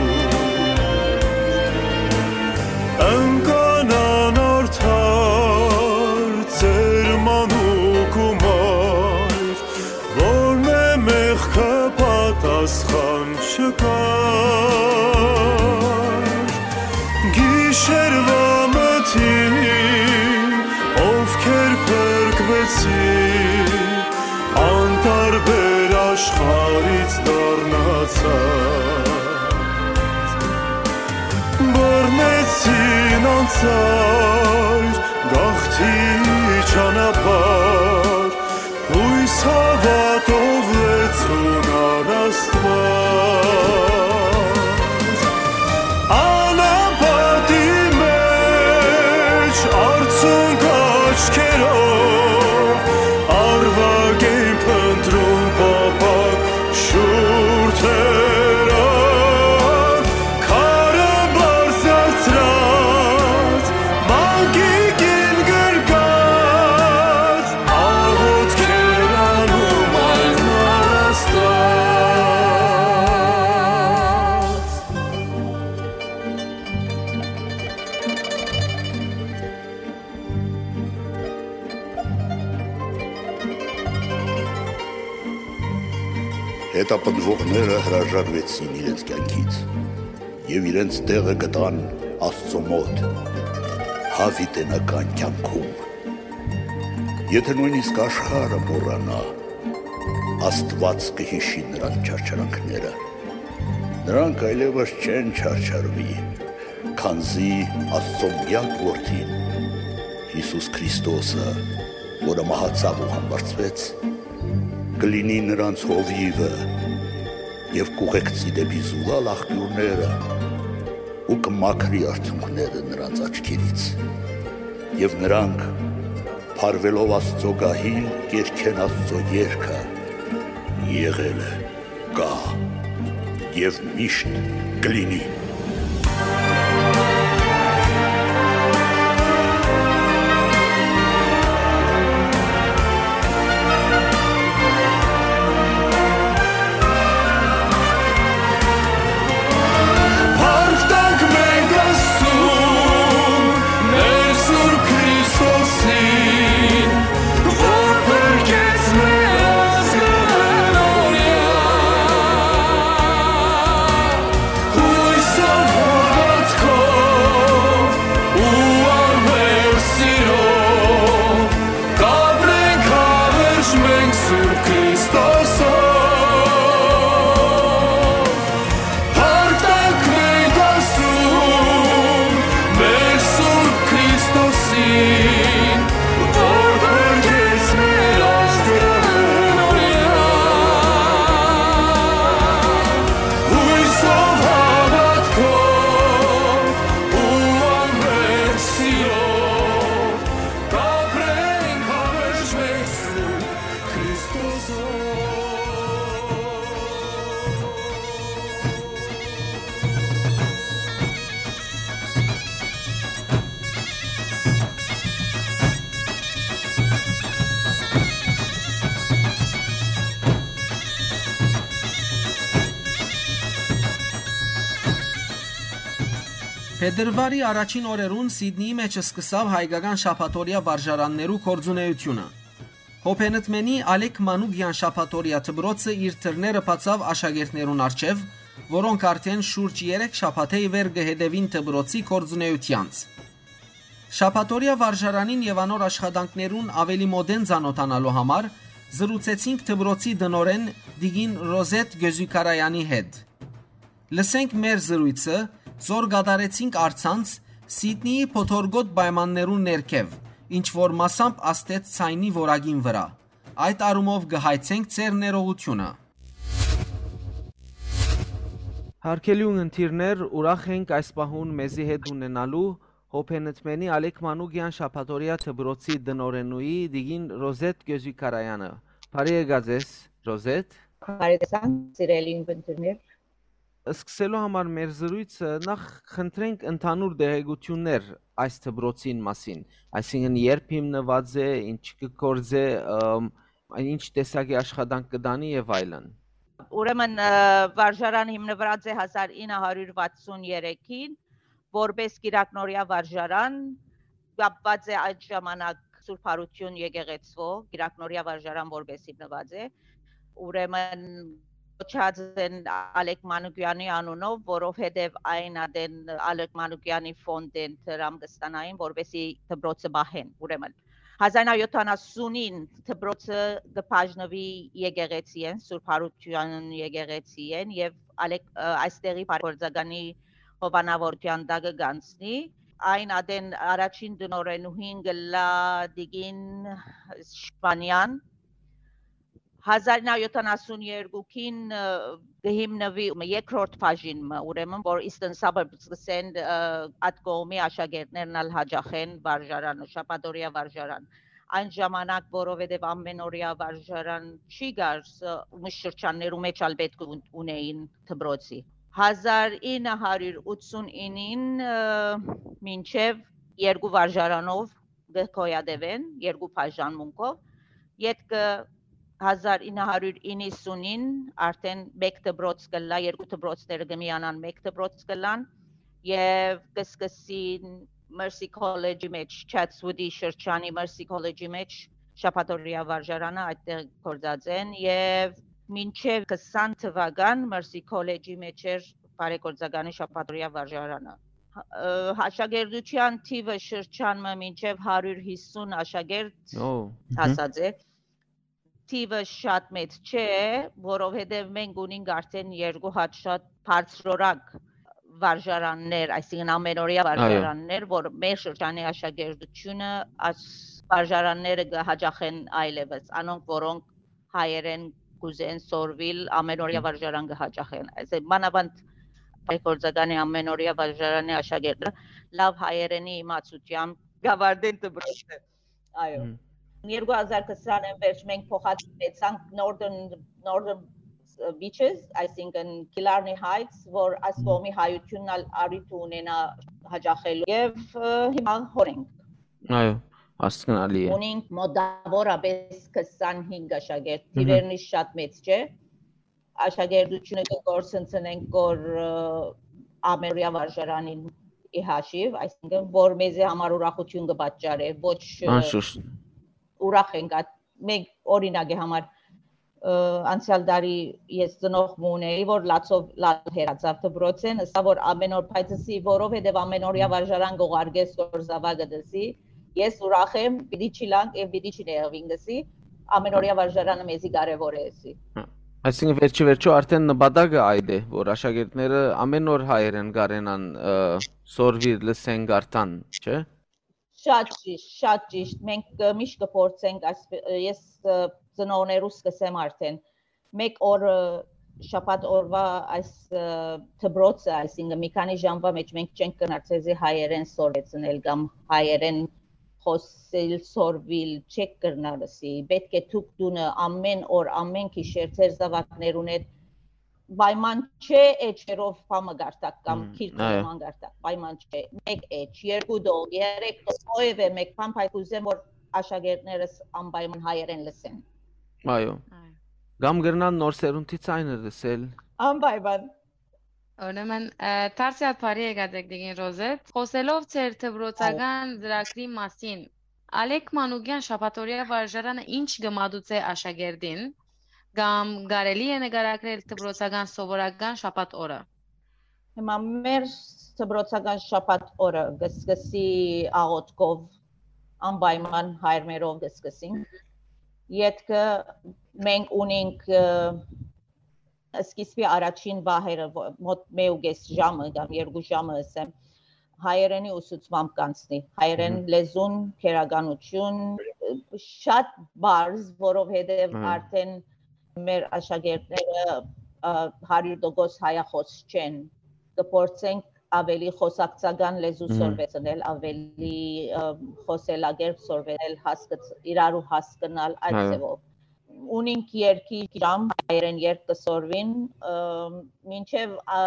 Ընկան անարդար ծեր մանուկ ու մայր, որմէ մեղքը պատասխան չկար։ Գիշերուայ մթին, ովքեր փրկուեցին, անտարբեր աշխարհից դառնացած, բռնեցին անծայր գաղթի ճանապարհ, յոյս հաւատով լեցուն առ Աստուած։ Անապատի մէջ արցունք աչքերով Հետապնդողները հրաժարուեցին իրենց կեանքից եւ իրենց տեղը գտան Աստծո մօտ, յաւիտենական կեանքում։ Եթէ նոյնիսկ աշխարհը մոռանայ, Աստուած կը յիշի նրանց չարչարանքները։ Նրանք այլեւս չեն չարչարուի, քանզի Աստծո միակ Որդին, Յիսուս Քրիստոսը, որը մահացաւ ու համբարձուեց, կը լինի նրանց հովիւը եւ կ'ուղեկցի դէպի զուլալ աղբիւրները ու կը մաքրի արցունքները նրանց աչքերից։ Եւ նրանք, փարուելով Աստծո գահին, կ'երգեն Աստծո երգը. «Եղել է, կայ եւ միշտ կը լինի»։ Փառք տանք մենք Աստծուն, մեր Սուրբ Քրիստոսին, որ փրկեց մեր ազգը օրիա։ Յուսով, հավատքով ու անվերջ սիրով կ'ապրենք, հավերժ մենք Սուրբ Քրիստոսով։ Փառք տանք մենք Աստծուն, մեր Սուրբ Քրիստոսին, որ փրկեց մեր ազգը օրիա։ Յուսով, հավատքով ու անվերջ սիրով կ'ապրենք, հավերժ մենք Սուրբ Քրիստոսով։ Փետրուարի առաջին օրերուն Սիդնիի մէջ սկսաւ հայկական շաբաթօրեայ վարժարաններու գործունէութիւնը։ Հոբենտմենի Ալեք Մանուկեան շաբաթօրեայ դպրոցը իր դռները բացաւ աշակերտներուն առջեւ, որոնք արդէն շուրջ երեք շաբաթէ ի վեր կը հետեւին դպրոցի գործունէութեանց։ Շաբաթօրեայ վարժարանին եւ անոր աշխատանքներուն աւելի մօտէն ծանօթանալու համար զրուցեցինք դպրոցի տնօրէն տիկին Ռոզետ Գյոզիքարաեանի հետ։ Լսենք մեր զրոյցը, զոր կատարեցինք առցանց Սիդնիի փոթորկոտ պայմաններուն ներքեւ, ինչ որ մասամբ ազդեց ձայնի որակին վրայ։ Այդ առումով կը հայցենք ձեր ներողութիւնը։ Հարգելի ունգընտիրներ, ուրախ ենք այս պահուն մեզի հետ ունենալու Հոբենտմենի Ալեք Մանուկեան շաբաթօրեայ դպրոցի տնօրէնուհի տիկին Ռոզետ Գյոզիքարաեանը։ Բարի եկած ես, Ռոզետ։ Բարի տեսանք, սիրելի ունգընտիրներ։ Սկսելու համար մեր զրոյցը նախ խնդրենք ընդհանուր տեղեկութիւններ այս դպրոցին մասին, այսինքն երբ հիմնուած է, ինչ կը գործէ, ըմ, ինչ տեսակի աշխատանք կը տանի եւ այլն։ Ուրեմն, ը, վարժարան հիմնուած է հազար ինը հարիւր վաթսուն երեքին, որպէս կիրակնօրեայ վարժարան, կապուած է այդ ժամանակ Սուրբ Յարութիւն եկեղեցւոյ, կիրակնօրեայ վարժարան որպէս հիմնուած է։ Ուրեմն կոչած են Ալեք Մանուկեանի անունով, որովհետեւ այն ատեն Ալեք Մանուկեանի ֆոնդէն դրամ կը ստանային, որպէսզի դպրոցը պահեն, ուրեմն։ Հազար ինը հարիւր յոթանասունին դպրոցը կը բաժնուի եկեղեցիէն, Սուրբ Յարութեան եկեղեցիէն եւ Ալեք-, ը, այստեղի բարեգործականի հովանաւորութեան տակը կանցնի։ Այն ատեն առաջին տնօրէնուհին կ'ըլլայ տիկին Շպանեան։ Հազար ինը հարիւր յոթանասուն երկուին, ը, կը հիմնուի մը երկրորդ բաժին մը, ուրեմն, որ Eastern Suburbs կ'ըսեն, ը, այդ կողմի աշակերտներն ալ յաճախեն վարժարանը, շաբաթօրեայ վարժարան։ Այն ժամանակ, որովհետեւ ամենօրեայ վարժարան չի կար, ս-, միշտ շրջաններու մէջ ալ պէտք ուն-, ունէին դպրոցի։ Հազար ինը հարիւր ութսուն ինին, ը, մինչեւ երկու վարժարանով կը գոյատեւեն երկու բաժանմունքով։ Ետքը հազար ինը հարիւր իննսունին արդէն մէկ դպրոց կ'ըլլայ, երկու դպրոցները կը միանան, մէկ դպրոց կ'ըլլան եւ կը սկսին Mercy College-ի մէջ, Chatswood-ի շրջանի Mercy College-ի մէջ շաբաթօրեայ վարժարանը այդտեղ գործած են եւ մինչեւ քսան թուական Մըրսի քոլեջի մէջ էր բարեգործականի շաբաթօրեայ վարժարանը։ Ա, աշակերտութեան թիւը շրջան մը մինչեւ հարիւր հիսուն աշակերտ Ո, մհմ։ Հասած է։ Թիւը շատ մեծ չէ, որովհետեւ մենք ունենք արդեն երկու հատ շատ բարձրորակ վարժարաններ, այսինքն ամենօրեայ Այո։ վարժարաններ, որ մեր շրջանի աշակերտությունը այս վարժարանները կը հաճախեն այլևս, անոնք, որոնք հայերեն կուզեն սորվիլ, ամենօրեայ Մհմ։ վարժարան կը հաճախեն։ Այսինքն, մանաւանդ բարեգործականի ամենօրեայ վարժարանի աշակերտը լաւ հայերենի իմացութեամբ կավարտեն դպրոցը։ Այո։ Մհմ։ Երկու հազար քսանին վերջ մենք փոխադրեցանք Northern, Northern Beaches, այսինքն Killarney Heights, որ այս Մհմ։ կողմի հայությունն ալ առիթ ունենայ հաճախելու։ Եւ, ը, հիմա հոն ենք։ Այո, հասկնալի է։ Ունենք մոտավորապես քսանհինգ աշակերտ, Մհմ։ Թիվերնի շատ մեծ չէ։ Աշակերտությունը կը կորսնցնենք կոր, ը, ամերույա վարժարանին ի հաշիվ, այսինքն որ մեզի համար ուրախություն կը պատճառէ, ոչ, ը, Անշուշտ։ Ուրախ ենք այդ, մենք օրինակի համար, ը, անցյալ տարի ես ծնող մը ունեի, որ լացով լալ հեռացավ դպրոցեն, ըսա որ ամեն օր փայտսի, որովհետև ամեն օրյա Մհմ։ վարժարան կողարկես կոր զավակը դսի, ես ուրախ եմ, պիտի չիլանք եւ պիտի չնեղվին գսի, ամեն օրյա վարժարանը մեզի կարեւոր է էսի։ Հա, այսինքն վերջի վերջո արդեն նպատակը այդ է, որ աշակերտները ամեն օր հայերեն կարենան, ը, սորվիր, լսեն, կարդան, չէ՞։ Շատ ճիշտ, շատ ճիշտ։ Մենք, ը, միշտ կփորձենք, այս, ը, ես, ը, ծնողներուս կսեմ արդեն, մեկ օր, ը, շաբաթ օրվա այս, ը, դպրոցը, այսինքն մի քանի ժամվա մեջ մենք չենք կրնար ձեզի հայերեն սորվեցնել կամ հայերեն խոսել, սորվիլ չեք կրնար ըսի։ Պետք է դուք տունը ամեն օր, ամեն գիշեր ձեր զավակներուն հետ պայման չէ էջերով բամը գարտակ կամ Մհմ, գիրքը այո։ նման գարտակ, պայման չէ։ Մեկ էջ, երկու դող, երեք դող, ովևէ մեկ բան, բայց կուզեմ, որ աշակերտներս անպայման հայերեն լսեն։ Այո։ Այո։ Կամ կրնան նոր սերունդի ցայնը լսել։ Անպայման։ Ուրեմն, ը, դարձյալ բարի եկած եք, Տիկին Ռոզետ։ Խոսելով ձեր դպրոցական Այո։ ծրագրի մասին, Ալեք Մանուկեան շաբաթօրեայ վարժարանը ի՞նչ կը մատուցէ աշակերտին, կամ կարելի՞ է նկարագրել դպրոցական սովորական շաբաթ օրը։ Հիմա մեր դպրոցական շաբաթ օրը կը սկսի աղօթքով, անպայման հայրմերով կը սկսենք։ Ետքը մենք ունենք, ը, սկիզբի առաջին պահերը, ո-, մոտ մէկ ու կես ժամը կամ երկու ժամը, ըսեմ, հայերենի ուսուցմամբ կանցնի։ Հայերեն Մհմ։ լեզուն, քերականություն, շատ բարձ, որովհետև Մհմ։ արդեն մեր աշակերտները, ը, հարյուր տոկոս հայախոս չեն։ Կփորձենք ավելի խոսակցական լեզու Մհմ։ սորվեցնել, ավելի, ը, խոսելակերպ սորվեցնել, հասկց-, իրարու հասկնալ այդ Այո։ ձևով։ Ունինք երկի ժամ, հայերեն երգ կը սորվին, ը, մինչև, ա,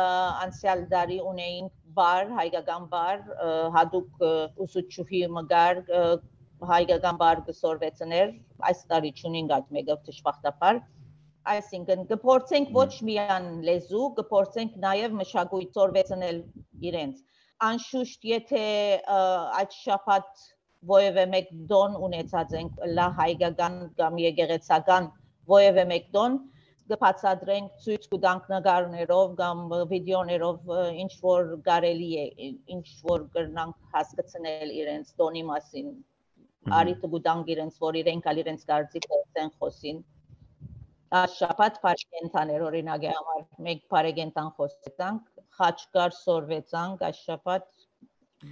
անցյալ տարի ունեինք բառ, հայկական բառ, ը, հատուկ, ը, ուսուցչուհի մը կար, ը, հայկական բառ կը սորվեցներ, այս տարի չունինք այդ մեկը, դժբախտաբար։ Այսինքն, կփորձենք Մհմ։ ոչ միայն լեզու, կփորձենք նաև մշակույթ սորվեցնել իրենց։ Անշուշտ, եթե, ը, այդ շաբաթ ովևէ մեկ տոն ունեցած ենք, լա հայկական կամ եկեղեցական ովևէ մեկ տոն, կը բացատրենք, ցոյց կու տանք նկարներով կամ վիդեոներով, ը, ինչ որ կարելի է, ինչ որ կրնանք հասկցնել իրենց տոնի մասին, Մհմ։ առիթը կու տանք իրենց, որ իրենք ալ իրենց կարծիքը ասեն, խոսին։ Այս շաբաթ բարեկենդաներ, օրինակի համար, մենք բարեկենդան խոսեցանք, խաչքար սորվեցանք, այս շաբաթ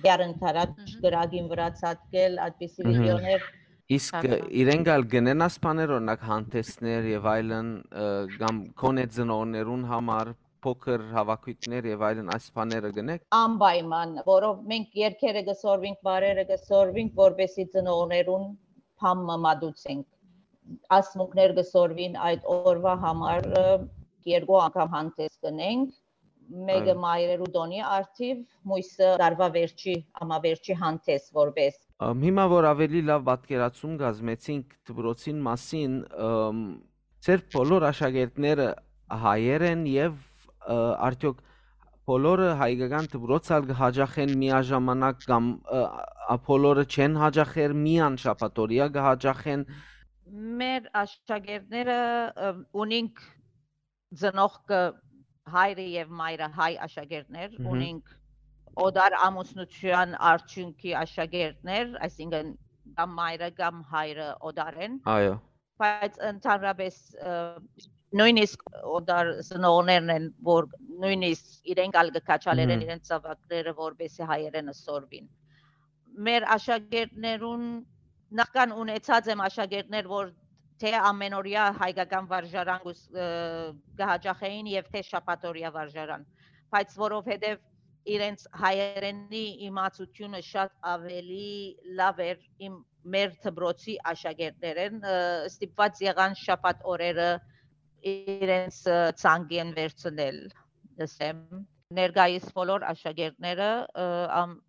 դեռ ընդառաջ Մհմ։ կրակին վրայ ցատկել, այդպիսի Մհմ։ վիդեոներ։ Իսկ, Ահա։ ը, իրենք ալ կ'ընեն այս բաներ, օրինակ, հանդեսներ եւ այլն, ը, կամ քոնե ծնողներուն համար փոքր հավաքույթներ եւ այլն, այս բաները կ'ընեք։ Անպայման, որով մենք երկերը կը սորվենք, բարերը կը սորվենք, որպեսզի ծնողներուն բան մը մատուցենք։ Ասմունքներ կը սորվին այդ օրվա համար, ը, երկու անգամ հանդես կ'ընենք, մեկը Այո։ մայրերու տոնի առթիվ, մոյսը տարվա վերջի, ամավերջի հանդես որպես։ Ամ, հիմա որ ավելի լաւ պատկերացում կազմեցինք դպրոցին մասին, ըմ, ձեր բոլոր աշակերտները հայեր են եւ, ը, արդյոք բոլորը հայկական դպրոց ալ կը հաճախեն միաժամանակ կամ, ը, ա, բոլորը չեն հաճախեր, միան շաբաթօրյա կը հաճախեն։ Մեր աշակերտները, ը, ունինք ծնողքը, հայրը եւ մայրը հայ աշակերտներ, Մհմ։ Ունինք օտար ամուսնութեան արդիւնքի աշակերտներ, այսինքն կամ մայրը կամ հայրը օտար են, Այո։ բայց ընդհանրապէս, ը, նոյնիսկ օտար ծնողներն են, որ նոյնիսկ իրենք ալ կը քաչալերեն Մհմ։ իրենց զաւակները, որպեսզի հայերէնը սորվին։ Մեր աշակերտներուն, նախքան ունեցած եմ աշակերտներ, որ թէ ամենօրեայ հայկական վարժարան կուս-, ը, կը հաճախէին եւ թէ շաբաթօրեայ վարժարան, բայց որովհետեւ իրենց հայերէնի իմացութիւնը շատ աւելի լաւ էր իմ, մեր դպրոցի աշակերտներէն, ը, ստիպուած եղան շաբաթ օրերը իրենց, ը, ցանկին վերցնել, ըսեմ։ Ներկայիս բոլոր աշակերտները, ը, ամ-,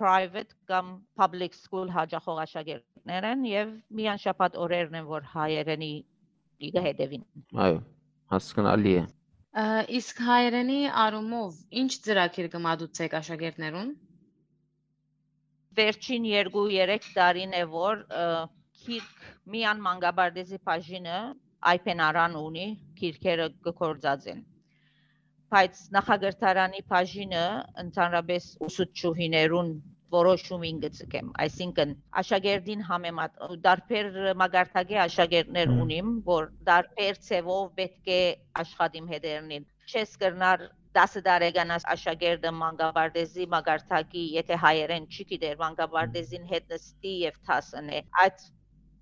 private կամ public school հաճախող աշակերտներ են եւ միան շաբաթ օրերն են, որ հայերէնի կը հետեւին։ Այո, հասկանալի է։ Ա, իսկ հայերենի առումով ի՞նչ ծրագիր կը մատուցէք աշակերտներուն։ Վերջին երկու-երեք տարին է, որ, ը, գիրք միան մանկապարտեզի բաժինը Այփեն Արան ունի, գիրքերը կը գործածեն։ Բայց նախակրթարանի բաժինը ընդհանրապէս ուսուցչուհիներուն որոշումին կը ձգեմ, այսինքն աշակերտին համեմատ, տարբեր մակարդակի աշակերտներ Մհմ։ ունիմ, որ տարբեր ձևով պէտք է աշխատիմ հետերնին։ Չես կրնար տասը տարեկան աս-, աշակերտը մանկապարտեզի մակարդակի, եթե հայերեն չի գիտեր, մանկապարտեզին հետ նստի եւ դաս ընէ։ Այդ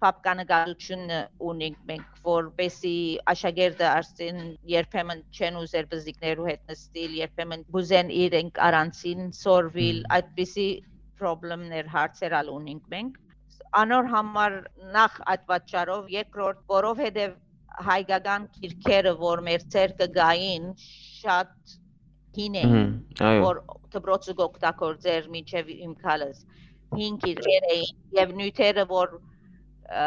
փափկանկարութիւնը ունենք մենք, որպեսզի աշակերտը արդեն երբեմն չեն ուզեր բզիկներու հետ նստիլ, երբեմն կուզեն իրենք առանցին սորվիլ, Մհմ։ այդպիսի պրոբլեմներ, հարցեր ալ ունենք մենք։ Անոր համար նախ այդ պատճառով, երկրորդ, որովհետեւ հայկական գիրքերը, որ մեր ձեռքը գային, շատ հին էին, Մհմ, այո։ որ դպրոցը կօգտագործեր մինչեւ իմ քալս։ Հին գիրքեր էին եւ նիւթերը, որ, ը,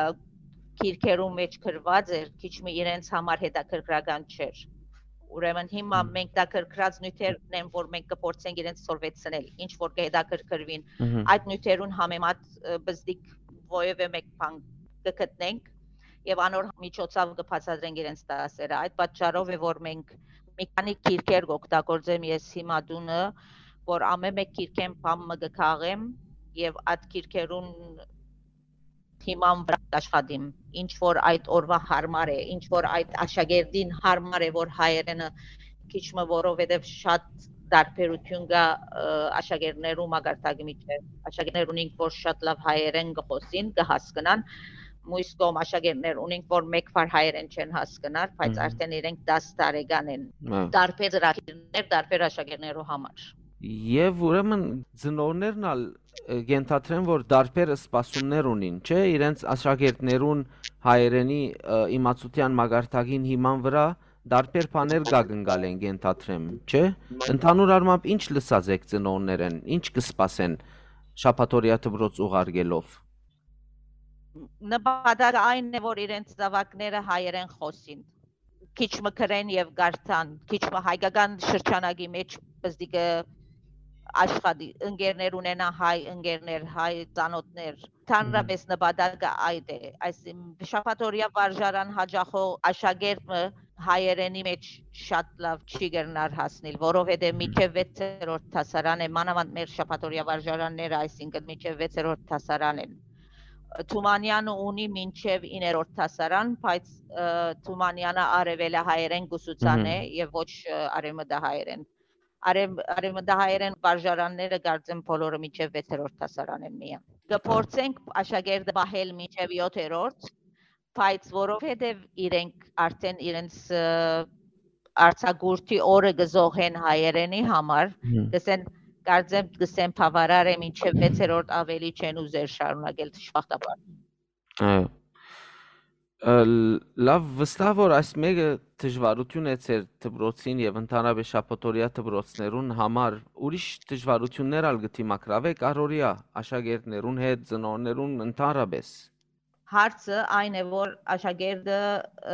գիրքերու մեջ գրված էր, քիչ մը իրենց համար հետաքրքրական չէր։ Ուրեմն հիմա Մհմ։ մենք դա գրգռած նիւթերն են, որ մենք կփորձենք իրենց սորվեցնել, ինչ որ կհետաքրքրվին։ Մհմ։ Այդ նիւթերուն համեմատ, ը, բզդիկ որեւէ մէկ բան կը գտնենք եւ անոր միջոցով կը բացատրենք իրենց դասերը։ Այդ պատճառով է, որ մենք մի քանի գիրքեր կօգտագործեմ ես հիմա տունը, որ ամէն մէկ գիրքէն բան մը կը քաղեմ եւ այդ գիրքերուն հիման վրայ կաշխատիմ, ինչ որ այդ օրուայ հարմար է, ինչ որ այդ աշակերտին հարմար է, որ հայերէնը քիչ մը, որովհետեւ շատ տարբերութիւն կայ, ը, աշակերտներու մակարդակի միջեւ։ Աշակերտներ ունենք, որ շատ լաւ հայերէն կը խօսին, կը հասկնան, մյուս կողմ աշակերտներ ունենք, որ մէկ բառ հայերէն չեն հասկնար, բայց Մհմ։ արդեն իրենք տաս տարեկան են։ Հա։ Տարբեր ծրագիրներ, տարբեր աշակերտներու համար։ Եւ ուրեմն ծնողներն ալ, ը, կ'ենթադրեն, որ տարբեր սպասումներ ունին, չէ՞, իրենց աշակերտներուն հայերենի, ը, իմացութեան մակարդակին հիման վրայ տարբեր բաներ կակնկալեն, կ'ենթադրեմ, չէ՞։ Ընդհանուր առմամբ ի՞նչ լսած էք ծնողներէն, ի՞նչ կը սպասեն շաբաթօրեայ դպրոց ուղարկելով։ Նպատակը այն է, որ իրենց զաւակները հայերեն խօսին, քիչ մը գրեն եւ կարդան, քիչ մը հայկական շրջանակի մեջ պզդիկը աշխատի, ընկերներ ունենա, հայ ընկերներ, հայ ծանոթներ։ Մհմ։ Ընդհանրապես նպատակը այդ է։ Այս իմ շաբաթօրեայ վարժարան հաճախող աշակերտ մը հայերենի մեջ շատ լաւ չի կրնար հասնիլ, որովհետեւ Մհմ։ մինչեւ վեցերորդ դասարան է, մանավանդ մեր շաբաթօրեայ վարժարանները, այսինքն մինչեւ վեցերորդ դասարան են։ Թումանյանը ունի մինչեւ իներորդ դասարան, բայց, ը, Թումանյանը արեւելահայերեն կուսուցան Մհմ։ է եւ ոչ, ը, արեւմտահայերեն։ Արեւ-, արեւմտահայերեն վարժարանները կարծեմ բոլորը մինչեւ վեցերորդ դասարան են միան։ Կը փորձենք աշակերտը պահել մինչեւ յոթերորդ, բայց որովհետեւ իրենք արդեն իրենց, ը, արձակուրդի օրը կը զոհեն հայերենի համար, Մհմ։ կսեն, կարծեմ, կսեն բավարար է, մինչեւ վեցերորդ ավելի չեն ուզեր շարունակել, դժբախտաբար։ Այո։ Ը, լավ, վստահ որ այս մեկը դժվարություն է ձեր դպրոցին եւ ընդհանրապես շաբաթօրեայ դպրոցներուն համար, ուրիշ դժվարություններ ալ կը դիմագրավեք առօրեայ աշակերտներուն հետ, ծնողներուն ընդհանրապես։ Հարցը այն է, որ աշակերտը,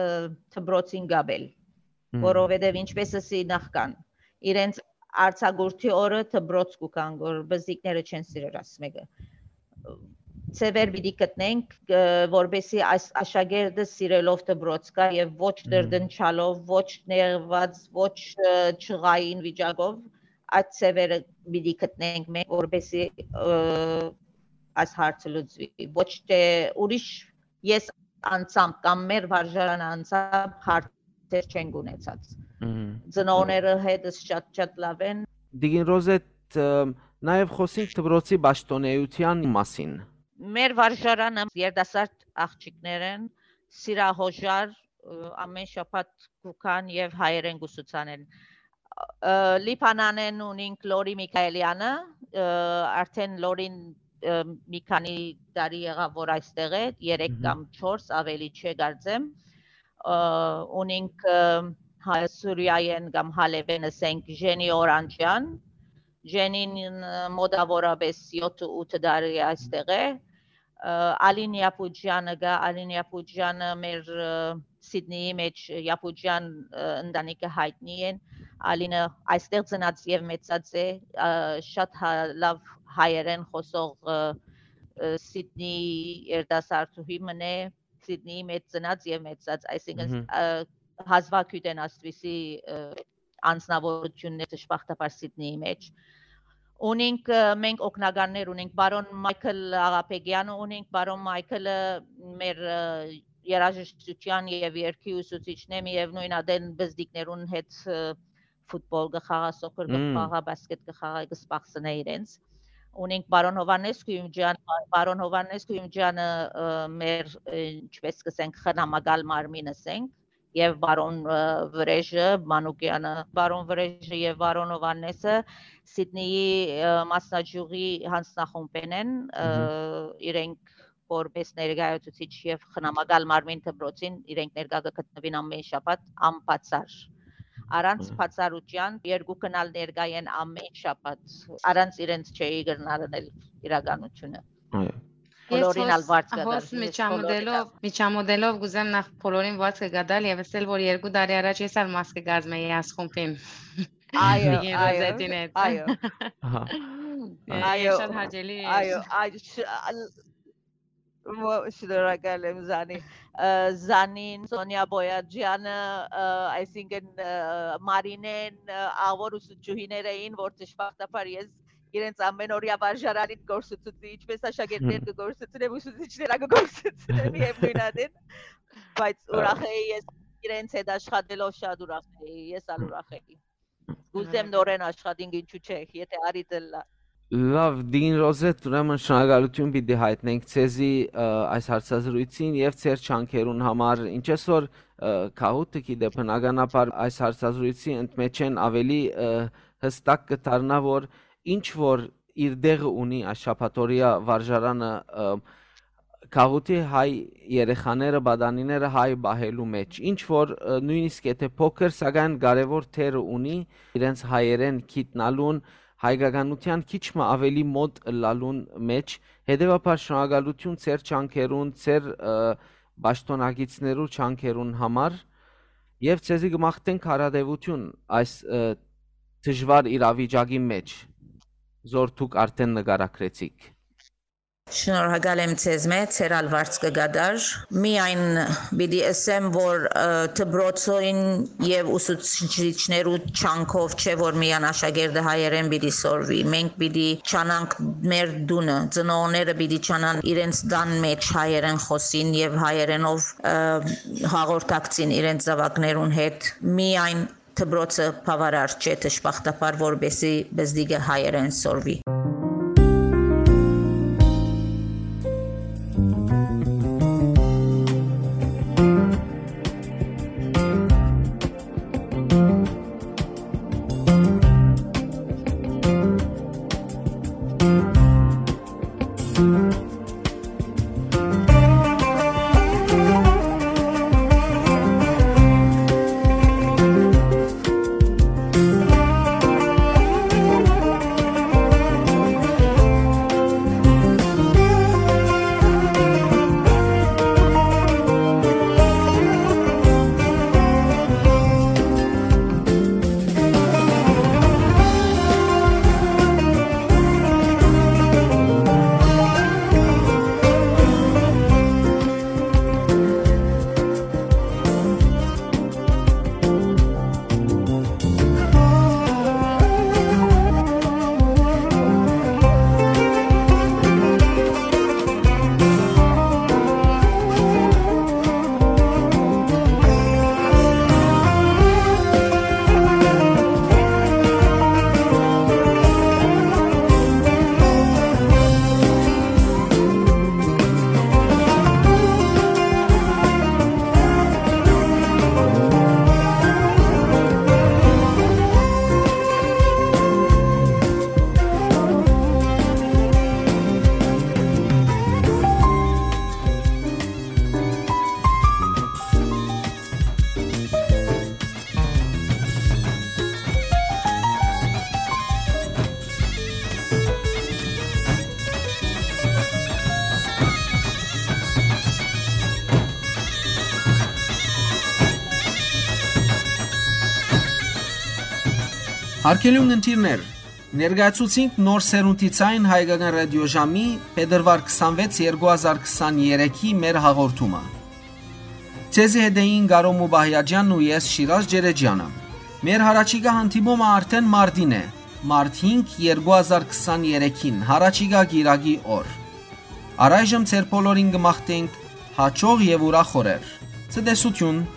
ը, դպրոցին գաբել, Մհմ։ որովհետեւ ինչպես ասի նախքան, իրենց արձակուրդի օրը դպրոց կու գան, որ բզիկները չեն սիրեր, աս մեկը։ Ձեւեր պիտի գտնենք, ը, որպեսզի այս աշակերտը սիրելով դպրոց գայ եւ ոչ Մհմ։ տրտնջալով, ոչ նեղված, ոչ, ը, ջղային վիճակով, այդ ձեւերը պիտի գտնենք մենք, որպեսզի, ը, այս հարցը լուծուի։ Ոչ թե ուրիշ ես անձամբ կամ մեր վարժարանը անձամբ հարցեր չենք ունեցած։ Մհմ։ Ծնողները հետս շատ, շատ լաւ են։ Տիկին Ռոզետ, ը, նաեւ խօսենք դպրոցի պաշտօնէութեան մասին։ Մեր վարժարանը երիտասարդ աղջիկներ են, սիրահոժար, ը, ամէն շաբաթ կու գան եւ հայերէն կու սուցանեն։ Ը, Լիբանանէն ունինք Լորի Միքայելյանը, ը, արդէն Լորին, ը, մի քանի տարի եղաւ, որ այստեղ է, երեք Մհմ։ կամ չորս, ավելի չէ, կարծեմ։ Ը, ունինք, ը, հա-, Սուրիայէն կամ Հալեբէն, ըսենք, Ժենի Օրանջեան։ Ժենին, ը, մոտաւորապէս յոթ ութ տարի այստեղ է։ Ը, Ալին Յապուջյանը կայ, Ալին Յապուջյանը մեր, ը, Սիդնիի մէջ Յապուջյան, ը, ընտանիքը յայտնի են։ Ալինը այստեղ ծնած եւ մեծած է, ը, շատ հա-, լաւ հայերէն խօսող, ը, ը, Սիդնիի երիտասարդուհի մըն է, Սիդնիի մէջ ծնած եւ մեծած, այսինքն, Մհմ։ ը, հազվագիւտ են աստուիսի, ը, անձնաւորութիւններ դժբախտաբար Սիդնիի մէջ։ Ունինք, ը, մենք օգնականներ ունենք, պարոն Մայքլ Աղաբեգյանը ունինք, պարոն Մայքլը մեր, ը, երաժշտութեան եւ երգի ուսուցիչն է, միեւնոյն ատեն պզտիկներուն հետ, ը, ֆուտբոլ կը խաղայ, սոքր կը Մմ։ խաղայ, բասկետ կը խաղայ, կը սպասնէ իրենց։ Ունենք պարոն Հովհաննես Գոյումջան, պարոն Հովհաննես Գոյումջանը, ը, մեր, ը, ինչպես կ'ըսենք, խնամակալ մարմին ըսենք, եւ պարոն, ը, Վրեժը, Մանուկյանը, պարոն Վրեժը եւ պարոն Հովհաննեսը Սիդնիի, ը, մասնաճյուղի յանձնախումբէն են, ը, Մհմ։ իրենք որպես ներկայացուցիչ եւ խնամակալ մարմին դպրոցին իրենք ներկայ կը գտնուին ամէն շաբաթ անբացառ։ Առանց Մհմ։ բացառութեան երկուքն ալ ներկայ են ամէն շաբաթ, առանց իրենց չէի կրնար ընել իրականութիւնը։ Այո։ Ես Բոլորին ալ հոս, վարձ կը հոս տար, ես միջամտելով, բոլորին ալ։ միջամտելով կուզեմ նախ բոլորին վարձ կը գտալ եւ ասել, որ երկու տարի առաջ ես ալ մաս կը կազմեի այս խումբին։ Այո, Տիկին այո, Ռոզետին հետ։ այո։ Ահա։ Է, Այո, շատ հաճելի էր։ այո, այ, շ-, ալ-, ո-, շնորհակալ եմ, Զանի։ Ը, Զանին, Սոնիա Բոյաջյանը, ը, այսինքն, ը, Մարինեն, ը, աղոր ուսուցչուհիներ էին, որ դժբախտաբար ես իրենց ամէն օրեայ վարժարանին կորսուցուցի, ինչպես աշակերտներ կը կորսուցնեմ, ուսուցիչներ ա կը կորսուցնեմ, միեւնոյն ատեն, բայց Ա, ուրախ էի ես իրենց հետ աշխատելով, շատ ուրախ էի, ես ալ ուրախ էի։ Կուզեմ Շնորհակալ։ նորեն աշխատենք, ինչու՞ չէ, եթե արի դլլա։ Լավ, Տիկին Ռոզետ, ուրեմն շնորհակալութիւն պիտի հայտնենք ձեզի, ը, այս հարցազրույցին եւ ձեր ջանքերուն համար, ինչպես որ, ը, Քահուտը գիտէ, բնականաբար այս հարցազրույցի ընդմէջէն ավելի, ը, յստակ կը դառնայ, որ ինչ որ իր տեղը ունի այս շաբաթօրեայ վարժարանը, ը, գաղութի հայ երեխաները, պատանիները հայ պահելու մէջ, ինչ որ, ը, նոյնիսկ եթե փոքր, սակայն կարեւոր դերը ունի իրենց հայերէն գիտնալուն, հայկականութեան քիչ մը ավելի մօտ ըլլալուն մէջ, հետեւաբար շնորհակալութիւն ձեր ջանքերուն, ձեր, ը, պաշտօնակիցներու ջանքերուն համար եւ ձեզի կը մաղթենք հարատեւութիւն այս, ը, դժուար իրավիճակի մէջ, զոր դուք արդէն նկարագրեցիք։ Շնորհակալ եմ ձեզմէ, ձեր ալ վարձ կը կատար։ Միայն պիտի ըսեմ, որ, ը, դպրոցին եւ ուսուցիչներու ջանքով չէ, որ միայն աշակերտը հայերէն պիտի սորվի։ Մենք պիտի ջանանք մեր տունը, ծնողները պիտի ջանան իրենց տան մէջ հայերէն խօսին եւ հայերէնով, ը, հաղորդակցին իրենց զաւակներուն հետ։ Միայն դպրոցը բաւարար չէ, դժբախտաբար, որպեսզի պզտիկը հայերէն սորվի։ Հարգելի ունգընտիրներ, ներկայացուցինք Նոր Սերունդի Ձայն հայկական ռադիոժամի փետրուար քսանվեց երկու հազար քսաներեքի մեր հաղորդումը։ Ձեզի հետ էին Կարո Մուբահիաջյանն ու ես, Շիրազ Ջերեջյանը։ Մեր յառաջիկայ հանդիպումը արդեն մարտին է, մարտ հինգ երկու հազար քսաներեքին, յառաջիկայ կիրակի օր։ Առայժմ ձեր բոլորին կը մաղթենք հաճող եւ ուրախ օրեր։ Ցտեսություն։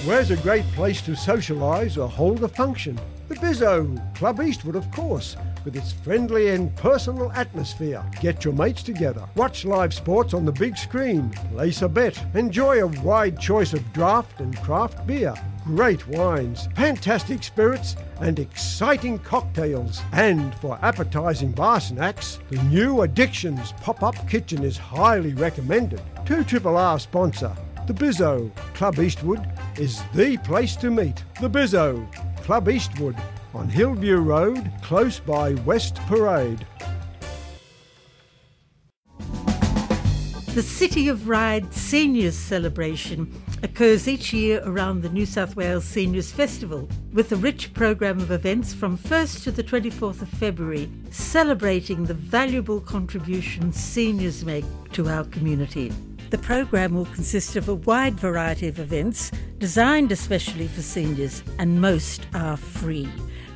Where's a great place to socialise or hold a function? The Bizzo, Club Eastwood, of course, with its friendly and personal atmosphere. Get your mates together, watch live sports on the big screen, place a bet, enjoy a wide choice of draft and craft beer, great wines, fantastic spirits, and exciting cocktails. And for appetising bar snacks, the new Addictions pop-up kitchen is highly recommended. Two Triple R sponsor, the Bizzo, Club Eastwood is the place to meet. The Bizzo, Club Eastwood, on Hillview Road, close by West Parade. The City of Ryde Seniors Celebration occurs each year around the New South Wales Seniors Festival, with a rich program of events from first to the twenty-fourth of February, celebrating the valuable contribution seniors make to our community. The program will consist of a wide variety of events designed especially for seniors, and most are free.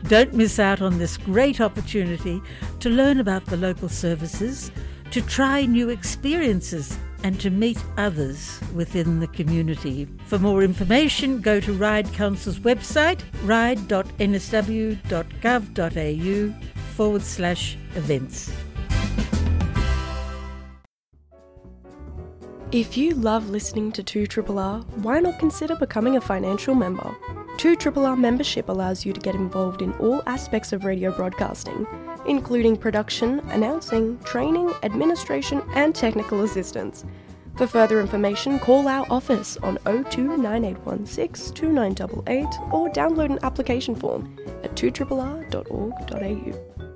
Don't miss out on this great opportunity to learn about the local services, to try new experiences, and to meet others within the community. For more information, go to Ryde Council's website, ryde dot n s w dot gov dot a u forward slash events. If you love listening to two triple R, why not consider becoming a financial member? two triple R membership allows you to get involved in all aspects of radio broadcasting, including production, announcing, training, administration, and technical assistance. For further information, call our office on oh two nine eight one six two nine eight eight or download an application form at two triple R dot org dot a u.